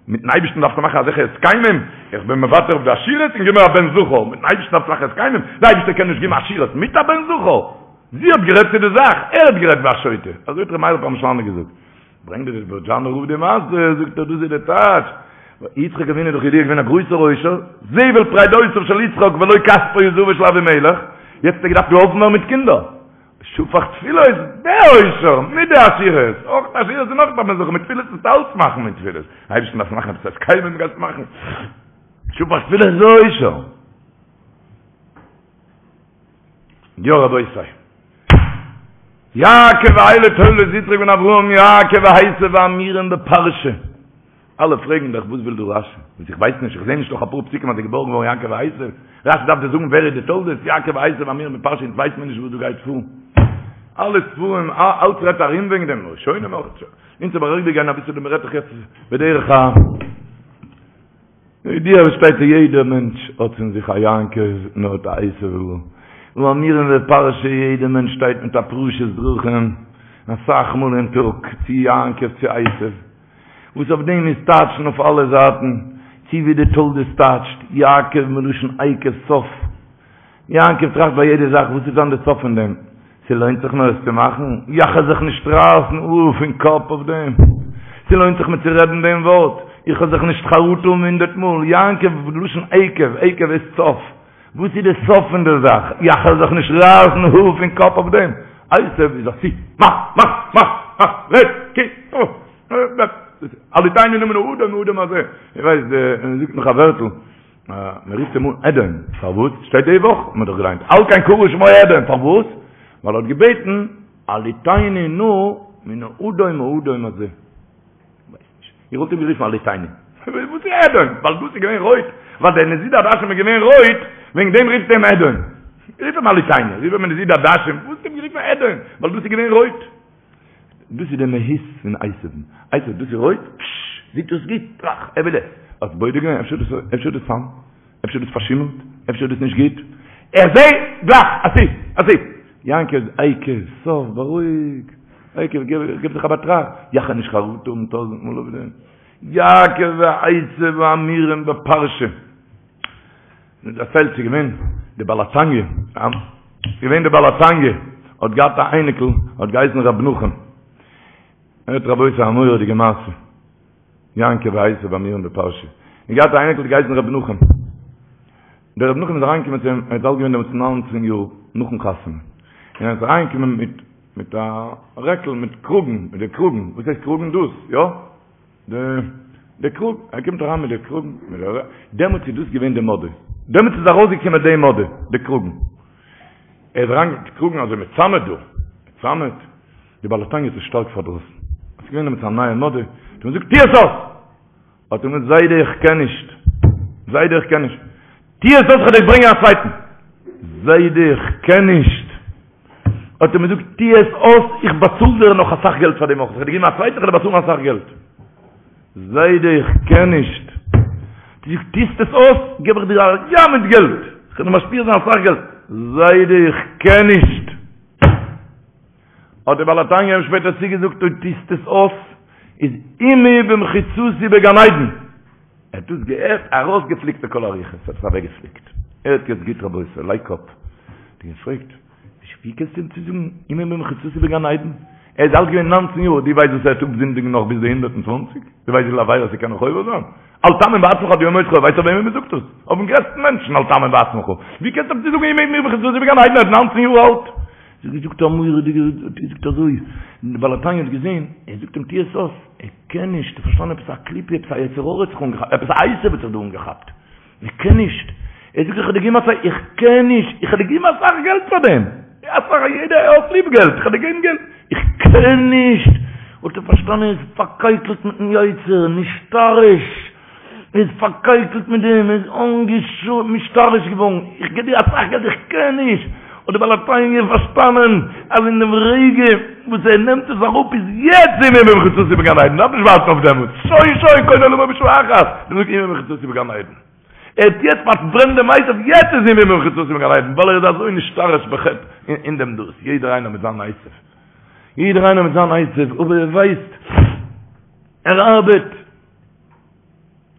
מיטן אייבערשטן דארפסטו מאכן אזעלכע הסכמים, איך בין מוותר אויף די עשירות און גיב מיר א בן זכר, מיטן אייבערשטן דארפסטו מאכן הסכמים, די אייבערשטער קען נישט געבן עשירות מיט א בן זכר, זי האט גערעדט צו די זאך, ער האט גערעדט ווי א שוטה, אזוי האט ר' מאיר פרעמישלאנער געזאגט. ברענגט דער בערזשאנער רב די מעשה, זאגט ער דאס איז די טייטש, יצחק אבינו איז דאך ידוע געווען א גרויסער עושר, זבל פרדותיו של יצחק ולא כספו וזהבו של אבימלך, יעצט האט ער געדארפט געהאלפן ווערן מיט קינדער, שפך תפילות, דער עושר, מיט די עשירות, אויך די עשירות און אויך דארף מען זיך מיט תפילות נישט אלץ מאכן מיט תפילות, אייבערשטן דארף מאכן עפעס הסכמים גייסט מאכן, שפך תפילות איז עושר. יא רבותי. יעקב ואלה תולדות יצחק בן אברהם יעקב ועשו האמורים בפרשה. אלע פרעגן דאך וואס וויל דא רשי? וואס איך ווייס נישט, איך זעה נישט נאך אפאר פסוקים אז ער געבארן געווארן יעקב ועשו. רשי דארף דיר זאגן ווער איז די תולדות יעקב ועשו האמורים בפרשה אונז ווייסט מיר נישט וואס דא גייט פאר. אלע ספרים אלץ רעדט ארום וועגן דעם ראשונים אויך. אונז אבער אריבערגיין אביסל דעם רעדט דאך יעצט בדרך ה. ידוע וואס שטייט יעדער מענטש האט אין זיך א יעקב און האט א עשו האמורים בפרשה יעדער מענטש שטייט מיט א פרשת דרכים אסאך מאל אין טאג צו יעקב צו עשו וואס אויף דעם איז טייטשן אויף אלע זייטן צו ווי די תולדות טייטשט יעקב מלשון עקב סוף יעקב טראכט ביי יעדע זאך וואס איז דאן די סוף פון דעם? ס'לוינט זיך מיר עס צו מאכן? יאך וועל זיך נישט רייסן האר פון קאפ אויף דעם? ס'לוינט זיך מיר צו רעדן דעם ווארט? איך וועל זיך נישט חרטה האבן הונדערט מאל? יעקב, לשון עקב, עקב איז סוף. וואס איז די סוף פון די זאך? יאך וועל זיך נישט רייסן האר פון קאפ אויף דעם? עשו איז עשו, מאך, מאך, מאך, מאך, רעד, קוק, הלעיטני נא מן האדום האדום הזה. איך ווייס, מ'זאגט נאך א ווערטל. מען רופט אים אן אדום, פארוואס? שטייט די וואך, האט מען דאך געליינט, על כן קרא שמו אדום, פארוואס? ווייל ער האט געבעטן, הלעיטני נא מן האדום האדום הזה. כ'ווייס נישט. איך וואלט אים גערופן הלעיטני. וואס איז אדום? ווייל דאס איז געווען רויט, ווייל דער נזיד עדשים איז געווען רויט, וועגן דעם רופט אים אדום. רוף אים הלעיטני, רוף אים נזיד עדשים, וואס האסטו אים גערופן אדום? ווייל דאס איז געווען רויט. דאס איז די מהות פון עשו'ן. עשו, דאס איז רויט, פששש, זעט אויס גוט, טראך, ער וויל עס. האסט בודק געווען, אפשר איז דאס, אפשר איז דאס סם? אפשר איז דאס פארשימלט? אפשר איז דאס נישט גוט? איך זע, גלייך, עשו, עשו. יעקב, עקב, סוף, בארואיג. עקב, גיב זיך א באטראכט. יאך וועל נישט חרטה האבן טויזענט מאל אויף דעם. יעקב ועשו האמורים בפרשה. מען דערציילט ס'איז געווען די בעל התניא, ס'איז געווען די בעל התניא האט געהאט א אייניקל האט געהייסן ר' נחום, הערט רבותי א מורא'דיגע מעשה, יעקב ועשו האמורים בפרשה, ער האט געהאט א אייניקל האט געהייסן ר' נחום, דער ר' נחום איז אריינגעקומען צו אים, ער איז אלט געווען דעמאלטס ניינצן יאר נאכן חתונה, און ער איז אריינגעקומען מיט מיט א רעקל מיט קראגן, מיט די קראגן, וואס הייסט קראגן דאס, יא? די די קראג, ער קומט אריין מיט די קראגן, מיט די, דעמאלטס איז דאס געווען די מאדע, דעמאלטס איז ארויסגעקומען די מאדע, די קראגן. ער איז אריין מיט קראגן אזוי מיט סאמעט דא, מיט סאמעט, די בעל התניא האט עס שטארק פארדראסן. עס איז געווען דעמאלטס א נייע מאדע, האט אים געזאגט, טו עס אויס! האט ער געזאגט, זיידע איך קען נישט, זיידע איך קען נישט, טו עס אויס איך וועל דיר ברענגען א צווייטן. זיידע איך קען נישט. האט ער אים געזאגט, טו עס אויס, איך באצאל דיר נאך אסאך געלט פאר דעם אויך, איך וועל דיר געבן א צווייטן, איך וועל דיר באצאלן אסאך געלט. זיידע איך קען נישט. האט ער געזאגט, טוסט עס אויס, געב איך דיר א ים מיט געלט, איך וועל דיר משפיע זיין אסאך געלט. זיידע איך קען נישט. האט דער בעל התניא אים שפעטער צוגעזאגט, אויב טוסט עס אויס, איז עמי במחיצתי בגן עדן. ער האט דאס געהערט, ארויסגעפליקט לכל הרוחות, האט עס אוועקגעפליקט. הערט יעצט גוט רבותי, לייג קאפ. האט ער געפרעגט, ווי קענסטו אים צוזאגן עמי במחיצתי בגן עדן? ער איז אלט געווען ניינצן יאר, דו ווייסט וואס ער וועט אפזינדיגן נאך ביז די הונדערט און צוואנציג? דו ווייסט וויפיל עבירות ער קען נאך עובר זיין? אל תאמין בעצמך עד יום מותך, ווייסט אויף וועמען מ'זאגט דאס? אויפן גרעסטן מענטשן, אל תאמין בעצמך. ווי קענסטו אים צוזאגן עמי במחיצתי בגן עדן, ער איז ניינצן יאר אלט? זי האט געזאגט א מורא'דיגע, האט געזאגט אזוי, די בעל התניא האט געזען, ער זאגט אים טו עס אויס, ער קען נישט, ער האט פארשטאנען עפעס א קליפה, עפעס א יצר הרע האט זיך אנגעכאפט, עפעס א עשו האט זיך דא אנגעכאפט, ער קען נישט, ער זאגט איך האב דיר געגעבן אסאך, איך קען נישט, איך האב דיר געגעבן אסאך געלט פאר דעם, אסאך, יעדער האט ליב געלט, איך האב דיר געגעבן געלט, איך קען נישט, האט ער פארשטאנען ער איז פארקייקלט מיטן יצר, נשתרש. ער איז פארקייקלט מיט דעם, ער איז נשתרש געווארן, איך גיב דיר אסאך געלט, איך קען נישט, האט דער בעל התניא פארשטאנען אז אין דעם רגע וואס ער נעמט עס אראפ איז יעצט עמי במחיצתי בגן עדן, דארף נישט ווארטן אויף דעמאלטס, שוין שוין קונה עולמו בשעה אחת, דער זאגט עמי במחיצתי בגן עדן. ער האט יעצט פארברענט דעם עשו, יעצט איז ער במחיצתו בגן עדן, ווייל ער איז אזוי נשתרש בחטא אין דעם דאס, יעדער איינער מיט זיין עשו, יעדער איינער מיט זיין עשו, אבער ער ווייסט, ער ארבעט,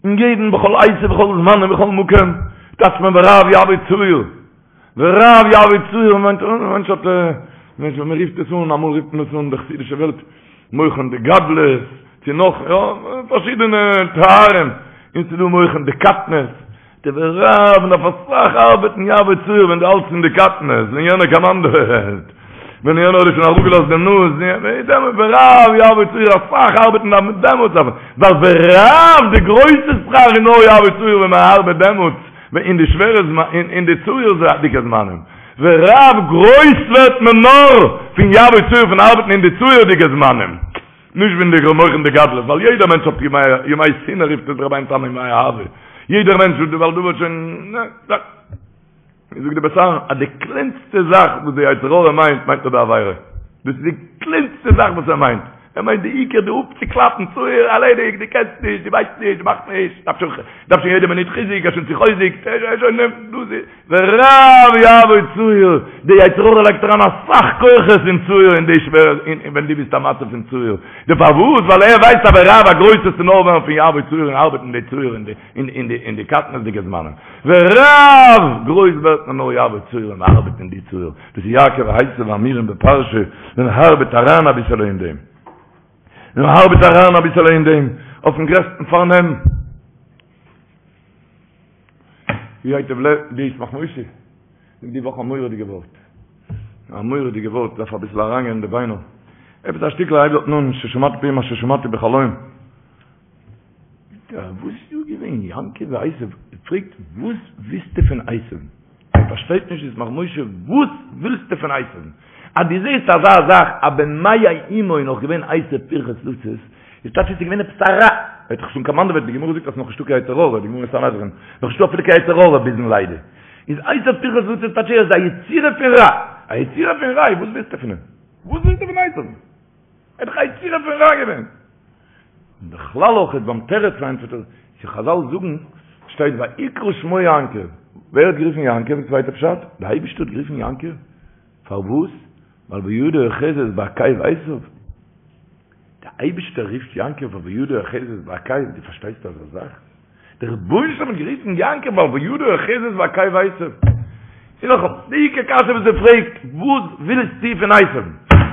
אין יעדן בכל עת ובכל זמן ובכל מקום, טייטשט מען ורב יעבוד צעיר, ורב יעבוד צעיר מיינט א מענטש האט מען רופט עס אן, אמאל רופט מען עס אן די חסידישע וועלט מוחין דגדלות, צו נאך יא, פארשידענע תארים, און ס'איז דא מוחין דקטנות, די ורב מען דארף אסאך ארבעטן יעבוד צעיר ווען דו האלטסט אין די קטנות, ווען יענער קאמאנדעוועט, ווען יענער האט דיר שוין אראפגעלאזט דעם נאז, ורב יעבוד צעיר אסאך ארבעטן דארף מען דעמאלטס, ווייל ורב די גרויסע שכר איז נאר יעבוד צעיר ווען מען ארבעט דעמאלטס, אין די שווערע זמנים, אין די צעיר'דיגע זמנים, ורב גרויס ווערט מען נאר פון יעבוד צעיר פון ארבעטן אין די צעיר'דיגע זמנים, נישט ווען די מוחין דגדלות, ווייל יעדער מענטש האט ימי שנאה רופט עס רבינו תם ימי אהבה, יעדער מענטש ווייל דא ווערט שוין, נע, זאגט די בית אהרן אז די קלענסטע זאך וואס די יצר הרע מיינט, מיינט ער די עבירה. דאס איז די קלענסטע זאך וואס ער מיינט. ער מיינט די עיקר די אפצוקלאפן, צעיר, ערלעדיגט, דו קענסט נישט, דו ווייסט נישט, דו מאכסט נישט, דארף שוין, דארף שוין יעדע מינוט חיזוק, ער איז שוין צוחוזק'ט, ער איז שוין, דאס איז, ורב יעבוד צעיר, די יצר הרע לייגט אריין אסאך כוחות אין צעיר אין די שווערע, אין ווען דו ביסט א מצב פון צעיר. די פארוואס? ווייל ער ווייסט אז ורב א גרויסע צו נאר ווערן פון יעבוד צעיר און ארבעטן די צעיר אין די אין די אין די קטנות'דיגע זמנים. ורב! גרויס ווערט מען נאר יעבוד צעיר און מ'ארבעט אין די צעיר. דאס איז יעקב ועשו האמורים בפרשה, מען ארבעט אריין אביסעלע אין דעם. מען ארבעט אריין אביסעלע אין דעם, אויפן גרעסטן פארנעם. ווי הייטב לב, די ישמח משה, זאגט די וואך א מורא'דיגע ווארט. א מורא'דיגע ווארט, דארף אביסל אריינגיין אין די ביינער. עפעס א שטיקל הייבט דארטן אן, ששמעתי מפי מה ששמעתי בחלום. וואס איז דא געווען? יעקב ועשו פרעגט וואס ווילסטו פון עשו? ער פארשטייט נישט ישמח משה וואס ווילסטו פון עשו? אז דו זעסט אזא זאך אז במעי אמו איז נאך געווען עשו פרחת לצאת, איז טייטש עס איז געווען עפעס א רע, ער האט דאך שוין קאמאנדעוועט, די גמרא זאגט אז נאך נישטא קיין יצר הרע, די גמרא אין סנהדרין, נאך נישטא אפילו קיין יצר הרע ביזן לידה, איז עשו פרחת לצאת טייטש ער איז א יצירה פון רע, א יצירה פון רע, וואס ווילסטו פון אים? וואס ווילסטו פון עשו? ער איז דאך א יצירה פון רע געווען. און בכלל אויך איז ביים תירוץ פארענטפערט ער, צו חזל זאגן, שטייט ויקרא שמו יעקב, ווער האט גערופן יעקב? צווייטע פשט, די אייבערשטער האט גערופן יעקב, פארוואס? ווייל וידו אוחזת בעקב עשיו, די אייבערשטער רופט יעקב ווייל וידו אוחזת בעקב, דו פארשטייסט אזא זאך? דער רבונו של עולם האט גערופן יעקב ווייל וידו אוחזת בעקב עשיו. און נאכאמאל, די עיקר קשיא וואס ער פרעגט, וואס ווילסטו פון עשיו?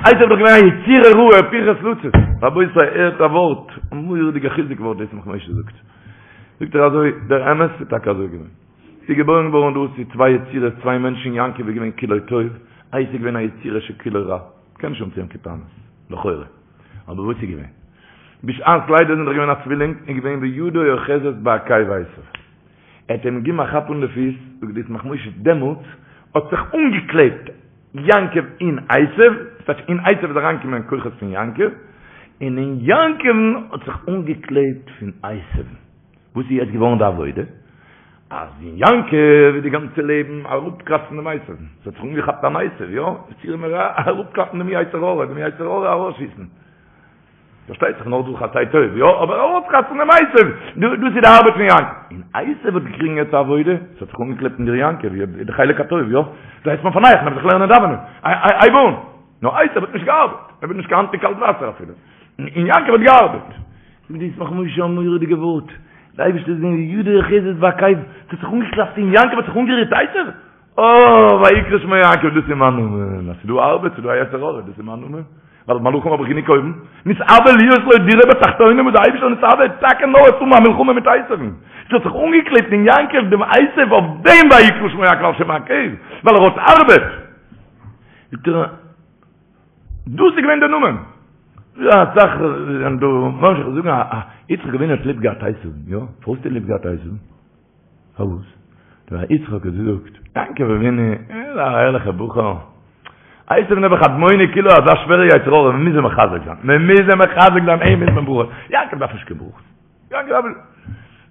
עשיו איז דאך געווען א יצירה רעה, פרחת לצאת. רבותי, הערט א ווארט, א מורא'דיגע חיזוק ווארט דאס ישמח משה זאגט. זאגט ער אזוי, דער אמת איז טאקע אזוי געווען. ס'איז געבוירן געווארן דא צו צוויי יצירות, צוויי מענטשן, יעקב איז געווען כולו טוב, עשיו איז געווען א יצירה שכולו רע. מ'קען נישט האבן צו אים קיין טענות, לכאורה. אבער וואס איז געווען? בשעת לידה זענען דאך געווען א צווילינג, איז געווען וידו אוחזת בעקב עשיו. ער האט אים געגעבן א כאפ אן די פיס, זאגט די ישמח משה, דעמאלטס האט זיך אנגעקלעבט יעקב אין עשיו, ס'טייטש אין עשיו איז אריינגעקומען כוחות פון יעקב, און אין יעקב'ן האט זיך אנגעקלעבט פון עשיו'ן. וואס איז יעצט געווארן די עבודה? אז אין יעקב איז די גאנצע לעבן אראפקראצן דעם עשיו, ס'האט זיך אנגעכאפט אן עשיו, יא, יצירה מרע, אראפקלאפן דעם יצר הרע, דעם יצר הרע ארויסשיסן. פארשטייט זיך נאר דורך עשה טוב, יא, אבער ארויסקראצן דעם עשיו, דאס איז די ארבעט פון יעקב. און עשיו האט געקריגן יעצט א עבודה, ס'האט זיך אנגעקלעפט אין דיר יעקב, די חלק הטוב, יא, דו הייסט מיר פארנייעך, נעם זיך לערנען דאווענען, הייב אן. נאר עשיו האט נישט געארבעט, ער וויל נישט קיין האנט אין קאלט וואסער אפילו. און יעקב האט געארבעט. זאגט די ישמח משה א מורא'דיגע ווארט, די אייבערשטער איז געווען וידו אוחזת בעקב, ס'האט זיך אנגעקלאפט אין יעקב האט זיך אנגערירט עשיו, אה, ויקרא שמו יעקב, דאס איז מיין נאמען, אז ס'איז דא ארבעט, ס'איז דא א יצר הרע, דאס איז מיין נאמען, ווייל מלאכים האב איך גענוג אויבן, נתאוה להיות לו דירה בתחתונים, וואס די אייבערשטער נתאוה טאקע נאר צו האבן א מלחמה מיט עשיו'ן, ס'האט זיך אנגעקלעבט אין יעקב דעם עשיו אויף דעם ויקרא שמו יעקב על שם העקב, ווייל ער האט ארבעט. זאגט ער, דאס איז געווען דער נאמען. יא, אסאך זענען דא ממשיך זאגן א יצחק אבינו האט ליב געהאט עשיו'ן, יא? פארוואס האט ער ליב געהאט עשיו'ן? פארוואס? ווייל יצחק האט געזאגט, יעקב אבינו, ער איז א ערליכער בחור. עשיו נעבעך אדמוני כולו אזא שווערע יצר הרע, מען מוז אים מחזק זיין, מען מוז אים מחזק זיין, אים מוז מען ברכות. יעקב דארף נישט קיין ברכות. יעקב דארף נישט.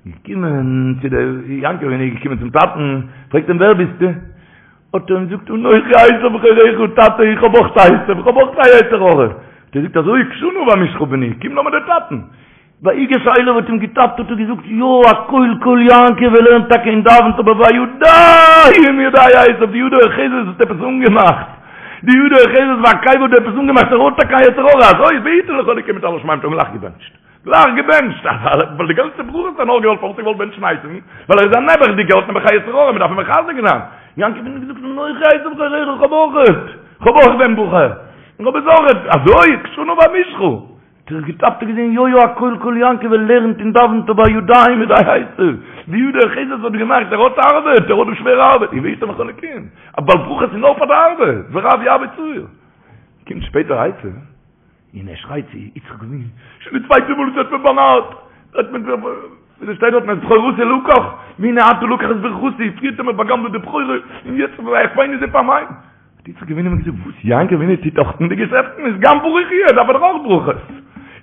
געקומען צו דער יעקב אבינו איז געקומען צום טאטן, פרעגט אים ווער ביסטו? האט ער אים געזאגט אנכי עשו בכורך, טאטע איך האב אויך עשו, איך האב אויך א יצר הרע. האט ער געזאגט אזוי קשה נא ואמושך בני, קום לאמיר דיר טאטן. ויגש אליו האט אים געטאפט האט ער געזאגט יא הקול קול יעקב ער לערנט טאקע און דאווענט אבער והידים ידי עשו די יד האוחזת האט עפעס אנגעמאכט די יד האוחזת בעקב האט עפעס אנגעמאכט ער האט טאקע א יצר הרע אזוי ויתן לך אלוקים מטל השמים האט אים גלייך געבענטשט גלייך געבענטשט ווייל די גאנצע ברכות האט ער נאר געוואלט פארוואס האט ער געוואלט בענטשן עשו'ן ווייל ער איז א נעבעכדיגער האט נעבעך א יצר הרע מען דארף אים מחזק זיין יעקב אבינו האט געזאגט אנכי עשו בכורך איך האב אויכעט איך האב אויך דעם בחור איך האב עס אויכעט אזוי קשה נא ואמושכה האט ער געטאפט און געזען יא יא הקול קול יעקב ער לערנט און דאווענט אבער הידים ידי עשו, די יד האוחזת האט געמאכט ער האט ארבעט ער האט דא שווערע ארבעט און ויתן לך אלקים ווייל ברכות איז נאר פאר די ארבעט ורב ירבה צער קומט שפעטער עשו און ער שרייט צו יצחק אבינו שוין די צווייטע מאל וואס ער האט מיר באנארט האט מען ווי שטייט דארט את בכורתי לקח והנה עתה לקח את ברכתי פריער האט ער מיר באגנבעט די בכורה און יעצט ויעקבני זה פעמים האט יצחק אבינו אים געזאגט, וואס יעקב אבינו טוט דאך אין די געשעפטן איז גם ברוך יהיה, דארף ער דאך אויך ברכות.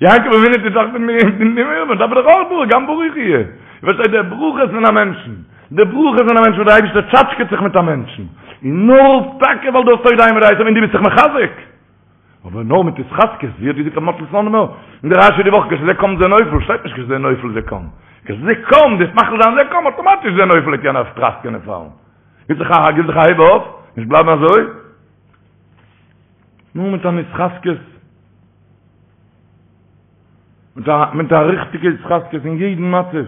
יעקב אבינו טוט דאך אין די מלחמה, דארף ער דאך אויך ברכות, גם ברוך יהיה. איר פארשטייט די ברכות פון א מענטשן, די ברכות פון א מענטשן וואס דער אייבערשטער טשאטשקעט זיך מיט א מענטשן, איז נאר טאקע ווייל דו האסט אויך מיט עשו און דו ביסט זיך מחזק. אבער נאר מיט התחזקות, ווי האט געזאגט רבי מאטל סלאנימער אין די רשי די וואך, כשזה קם זה נופל, שטייט נישט כשזה נופל זה קם. כשזה קם, דאס מחליט זיין זה קם, אטאמאטיש זה נופל, קען ער טראסקען און פאלן. גיב זיך א גיב זיך א הייב אויף, נישט בלייבן אזוי. נאר מיט אן התחזקות, מיט א מיט א ריכטיגע התחזקות אין יעדן מצב.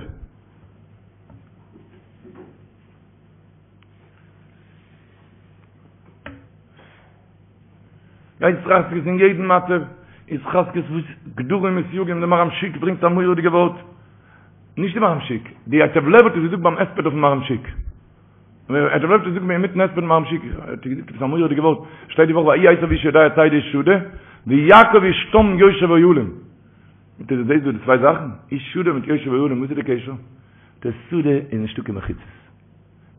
התחזקות אין יעדן מצב, התחזקות וואס גדרים וסייגים, דער מהר"ם שיק ברענגט א מורא'דיגע ווארט, נישט די מהר"ם שיק, די ייטב לב האט עס געזאגט ביים הספד אויפן מהר"ם שיק. ייטב לב האט עס געזאגט אינמיטן הספד מהר"ם שיק, האט ער געזאגט עפעס א מורא'דיגע ווארט, שטייט די וואך ויהי עשו איש יודע ציד איש שדה, ויעקב איש תם יושב אוהלים. זאגט ער דו זעסט דא די צוויי זאכן? איש שדה מיט יושב אוהלים, וואס איז די קשר? די שדה איז נישטא קיין מחיצות.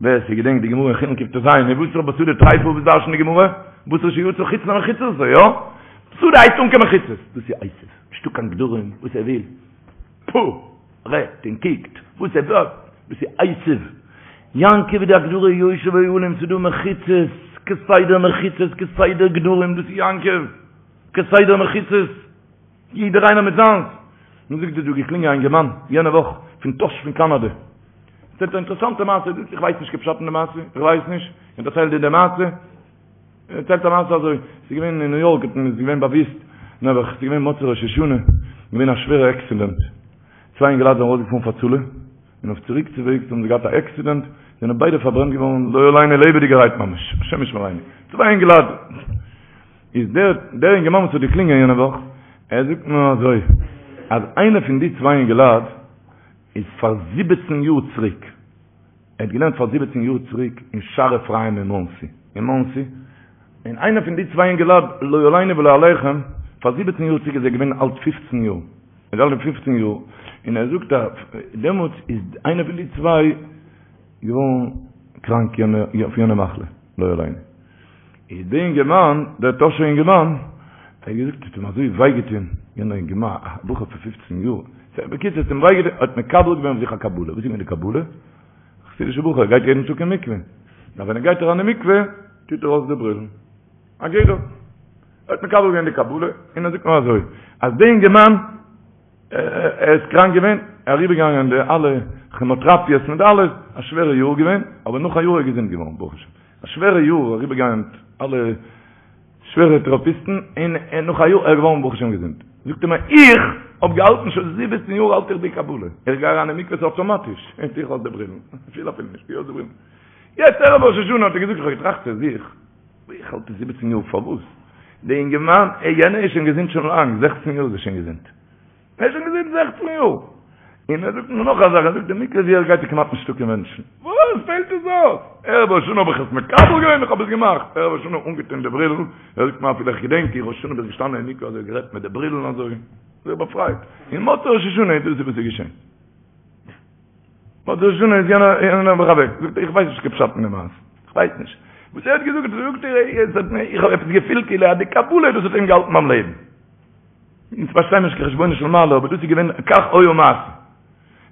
ווער ס'געדענקט די גמרא אין חולין קט"ז, מבשר בשדה טריפה וואס דרש'נט די גמרא? בשר שיצא חוץ למחיצתו, יא? שדה הייסט אן קיין מחיצות, דאס איז עשו, נישטא קיין גדרים, וואס ער וויל. פו! רעדט און קוקט וואס ער וויל, דאס איז עשו. יעקב איז די הגדרה יושב אוהלים, ס'איז דא מחיצות, כסדר מחיצות, כסדר גדרים, דאס איז יעקב, כסדר מחיצות, יעדער איינער מיט זיינס. מיר זאגט דא געקלינגען א אינגערמאן יענע וואך פון טאהש פון קאנאדע. דערציילט א אינטערעסאנטע מעשה, זאגט איך ווייס נישט קיין פשט אין די מעשה, איך ווייס נישט, איך דערצייל דיר די מעשה. ער דערציילט א מעשה אזוי, ס'איז געווען אין ניו יארק, האט מען איז געווען באוויסט, נעבעך, ס'איז געווען מוצאי ראש השנה, געווען א שווערע עקסידענט, צוויי אינגעלייט זענען ארויסגעפארן פאר הצלה, און אויף צוריק צו וועגס האבן זיי געהאט א עקסידענט, זענען ביידע פארברענט געווארן לא עלינו לעבעדיגערהייט ממש, השם ישמרינו, צוויי אינגעלייט, איז דער דער אינגערמאן וואס האט געקלינגען יענע וואך, ער זאגט מיר אזוי, אז איינער פון די צוויי אינגעלייט איז פאר זיבעצן יאר צוריק, ער האט געלערנט פאר זיבעצן יאר צוריק אין שער אפרים אין מאנסי, אין מאנסי, און איינער פון די צוויי אינגעלייט, לא עלינו ולא עליכם, פאר זיבעצן יאר צוריק איז ער געווען אלט פופצן יאר, ער איז אלט פופצן יאר, און ער זאגט אז דעמאלטס איז איינער פון די צוויי געווארן קראנק אויף יענע מחלה, לא עלינו. איז דער אינגערמאן, דער טאהשער אינגערמאן, ער האט געזאגט, ס'האט אים אזוי וויי געטון, יענער אינגערמאן, א בחור פון פופצן יאר, בקיצור, ס'האט אים וויי געטון, האט מקבל געווען אויף זיך א קבלה, וואס איז געווען די קבלה? א חסידישער בחור, ער גייט יעדן טאג אין מקווה, נאר ווען ער גייט אריין אין מקווה, טוט ער אויס די ברילן, א גדר. ער האט מקבל געווען די קבלה, און ער זאגט נאר אזוי, אז דער אינגערמאן, ער איז קראנק געווען, אריבערגעגאנגען די אלע כעמאטראפיעס מיט אלעס, א שווערע יאר געווען, אבער נאך א יאר איז ער געזונט געווארן ברוך השם, א שווערע יאר אריבערגעגאנגען אלע שווערע טעראפיסטן, און נאך א יאר איז ער געווארן ברוך השם געזונט. זאגט ער מיר, איך האב געהאלטן שוין זיבעצן יאר האלט איך די קבלה, איך גיי אריין אין מקווה ס'איז אויטאמאטיש, איך טו אויס די ברילן, איך פיל אפילו נישט, טו אויס די ברילן. יעצט ערב ראש השנה האט ער געזאגט, איך האב געטראכט צו זיך, איך האלט עס זיבעצן יאר פארוואס? די אינגערמאן, יענער איז שוין געזונט שוין לאנג, זעכצן יאר איז ער שוין געזונט. ער איז שוין געזונט זעכצן יאר! און ער זאגט מיר נאך א זאך, ער זאגט די מקווה ווי ער גייט איז כמעט נישטא קיין מענטשן. וואס פעלט עס אויס? ערב ראש השנה האב איך עס מקבל געווען, איך האב עס געמאכט. ערב ראש השנה אנגעטון די ברילן, ער זאגט מיר אפילו איך געדענק איך ראש השנה בין געשטאנען אין מקווה אזוי גערעדט מיט די ברילן אזוי, זיך באפרייט. און מוצאי ראש השנה איז דאס וואס איז געשען. מוצאי ראש השנה איז יענער יענער נעבעך אוועק. זאגט ער איך ווייס נישט קיין פשט אין די מעשה. איך ווייס נישט. וואס ער האט געזאגט זאגט ער, עס האט מיר, איך האב עפעס געפילט כאילו אז די קבלה דאס האט אים געהאלטן ביים לעבן. אונז פארשטייען נישט קיין חשבונו של מעלה, אבער דאס איז געווען כך היה מעשה.